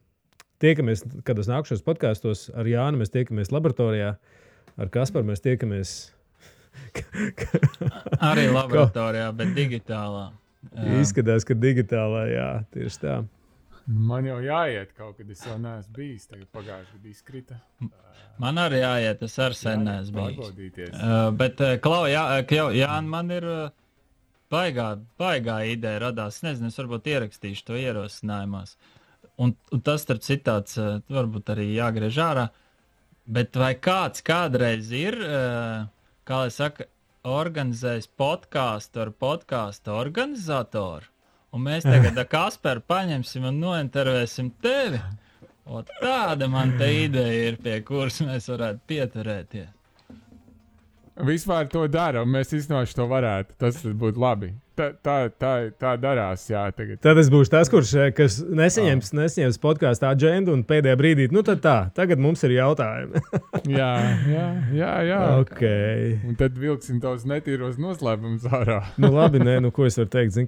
tiekamies kādos nākušos podkāstos, ar Jāni mēs tiekamies laboratorijā, ar Kasparu mēs tiekamies... Arī laboratorijā, bet digitālā. Jā. Izskatās, ka digitālā, jā, tieši tā. Man jau jāiet kaut kad, es vēl neesmu bijis, tagad pagājuši, kad izkrita. Man arī jāiet, es ar sen neesmu bijis. Bet, Jāni, man ir baigā ideja radās. Es nezinu, es varbūt ierakstīšu to ierosinājumos. Un tas, starp citāts, varbūt arī jāgriež ārā. Bet vai kāds kādreiz ir, kā lai saka, organizējis podkāstu ar podkāstu organizatoru? Un mēs tagad ar Kasparu paņemsim un nointervēsim tevi. O, tāda man te ideja ir, pie kuras mēs varētu pieturēties. Vispār to dara, un mēs iznoši to varētu. Tas būtu labi. Tā darās, jā, tagad. Tad es būšu tas, kas nesaņems podkāstu agendu un pēdējā brīdī, tad tā, tagad mums ir jautājumi. jā. Okay. Un tad vilksim tavus netīros noslēpumus ārā. Labi, ko es varu teikt,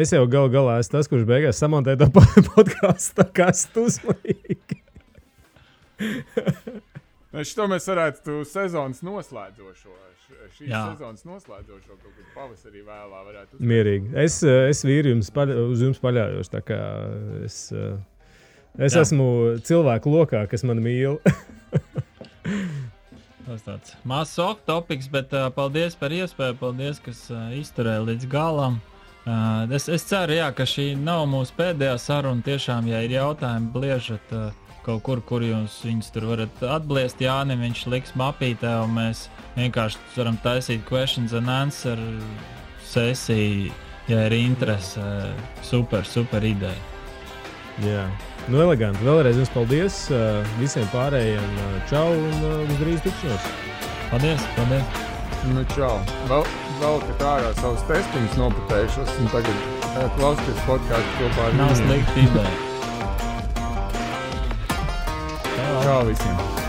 es jau galā esmu tas, kurš beigās samontē to podkāstu, tā kā esmu uzmanīgi. Šito mēs varētu sezonas noslēdzošo. Sezonas noslēdzošo kaut kur pavasarī vēlā varētu uzsākt. Mierīgi. Es vīri uz jums paļaujos, tā kā es esmu cilvēku lokā, kas man mīl. Tas tāds mazs off topics, bet paldies par iespēju, paldies, kas izturēja līdz galam. Es ceru, jā, ka šī nav mūsu pēdējā saruna. Tiešām, ja ir jautājumi, bliežat kaut kur jūs viņus tur varat atbliest. Jānim viņš liks mapītē, un mēs vienkārši varam taisīt questions and answer sesiju, ja ir interese. Super ideja. Jā, eleganti. Vēlreiz jums paldies visiem pārējiem. Čau un uz drīz tikšanos. Paldies. Čau. Vēl ka ārā savus testiņus noputējušos, un tagad klausties podkāstu kopā ar Nav slikti ideja. Čau visiem!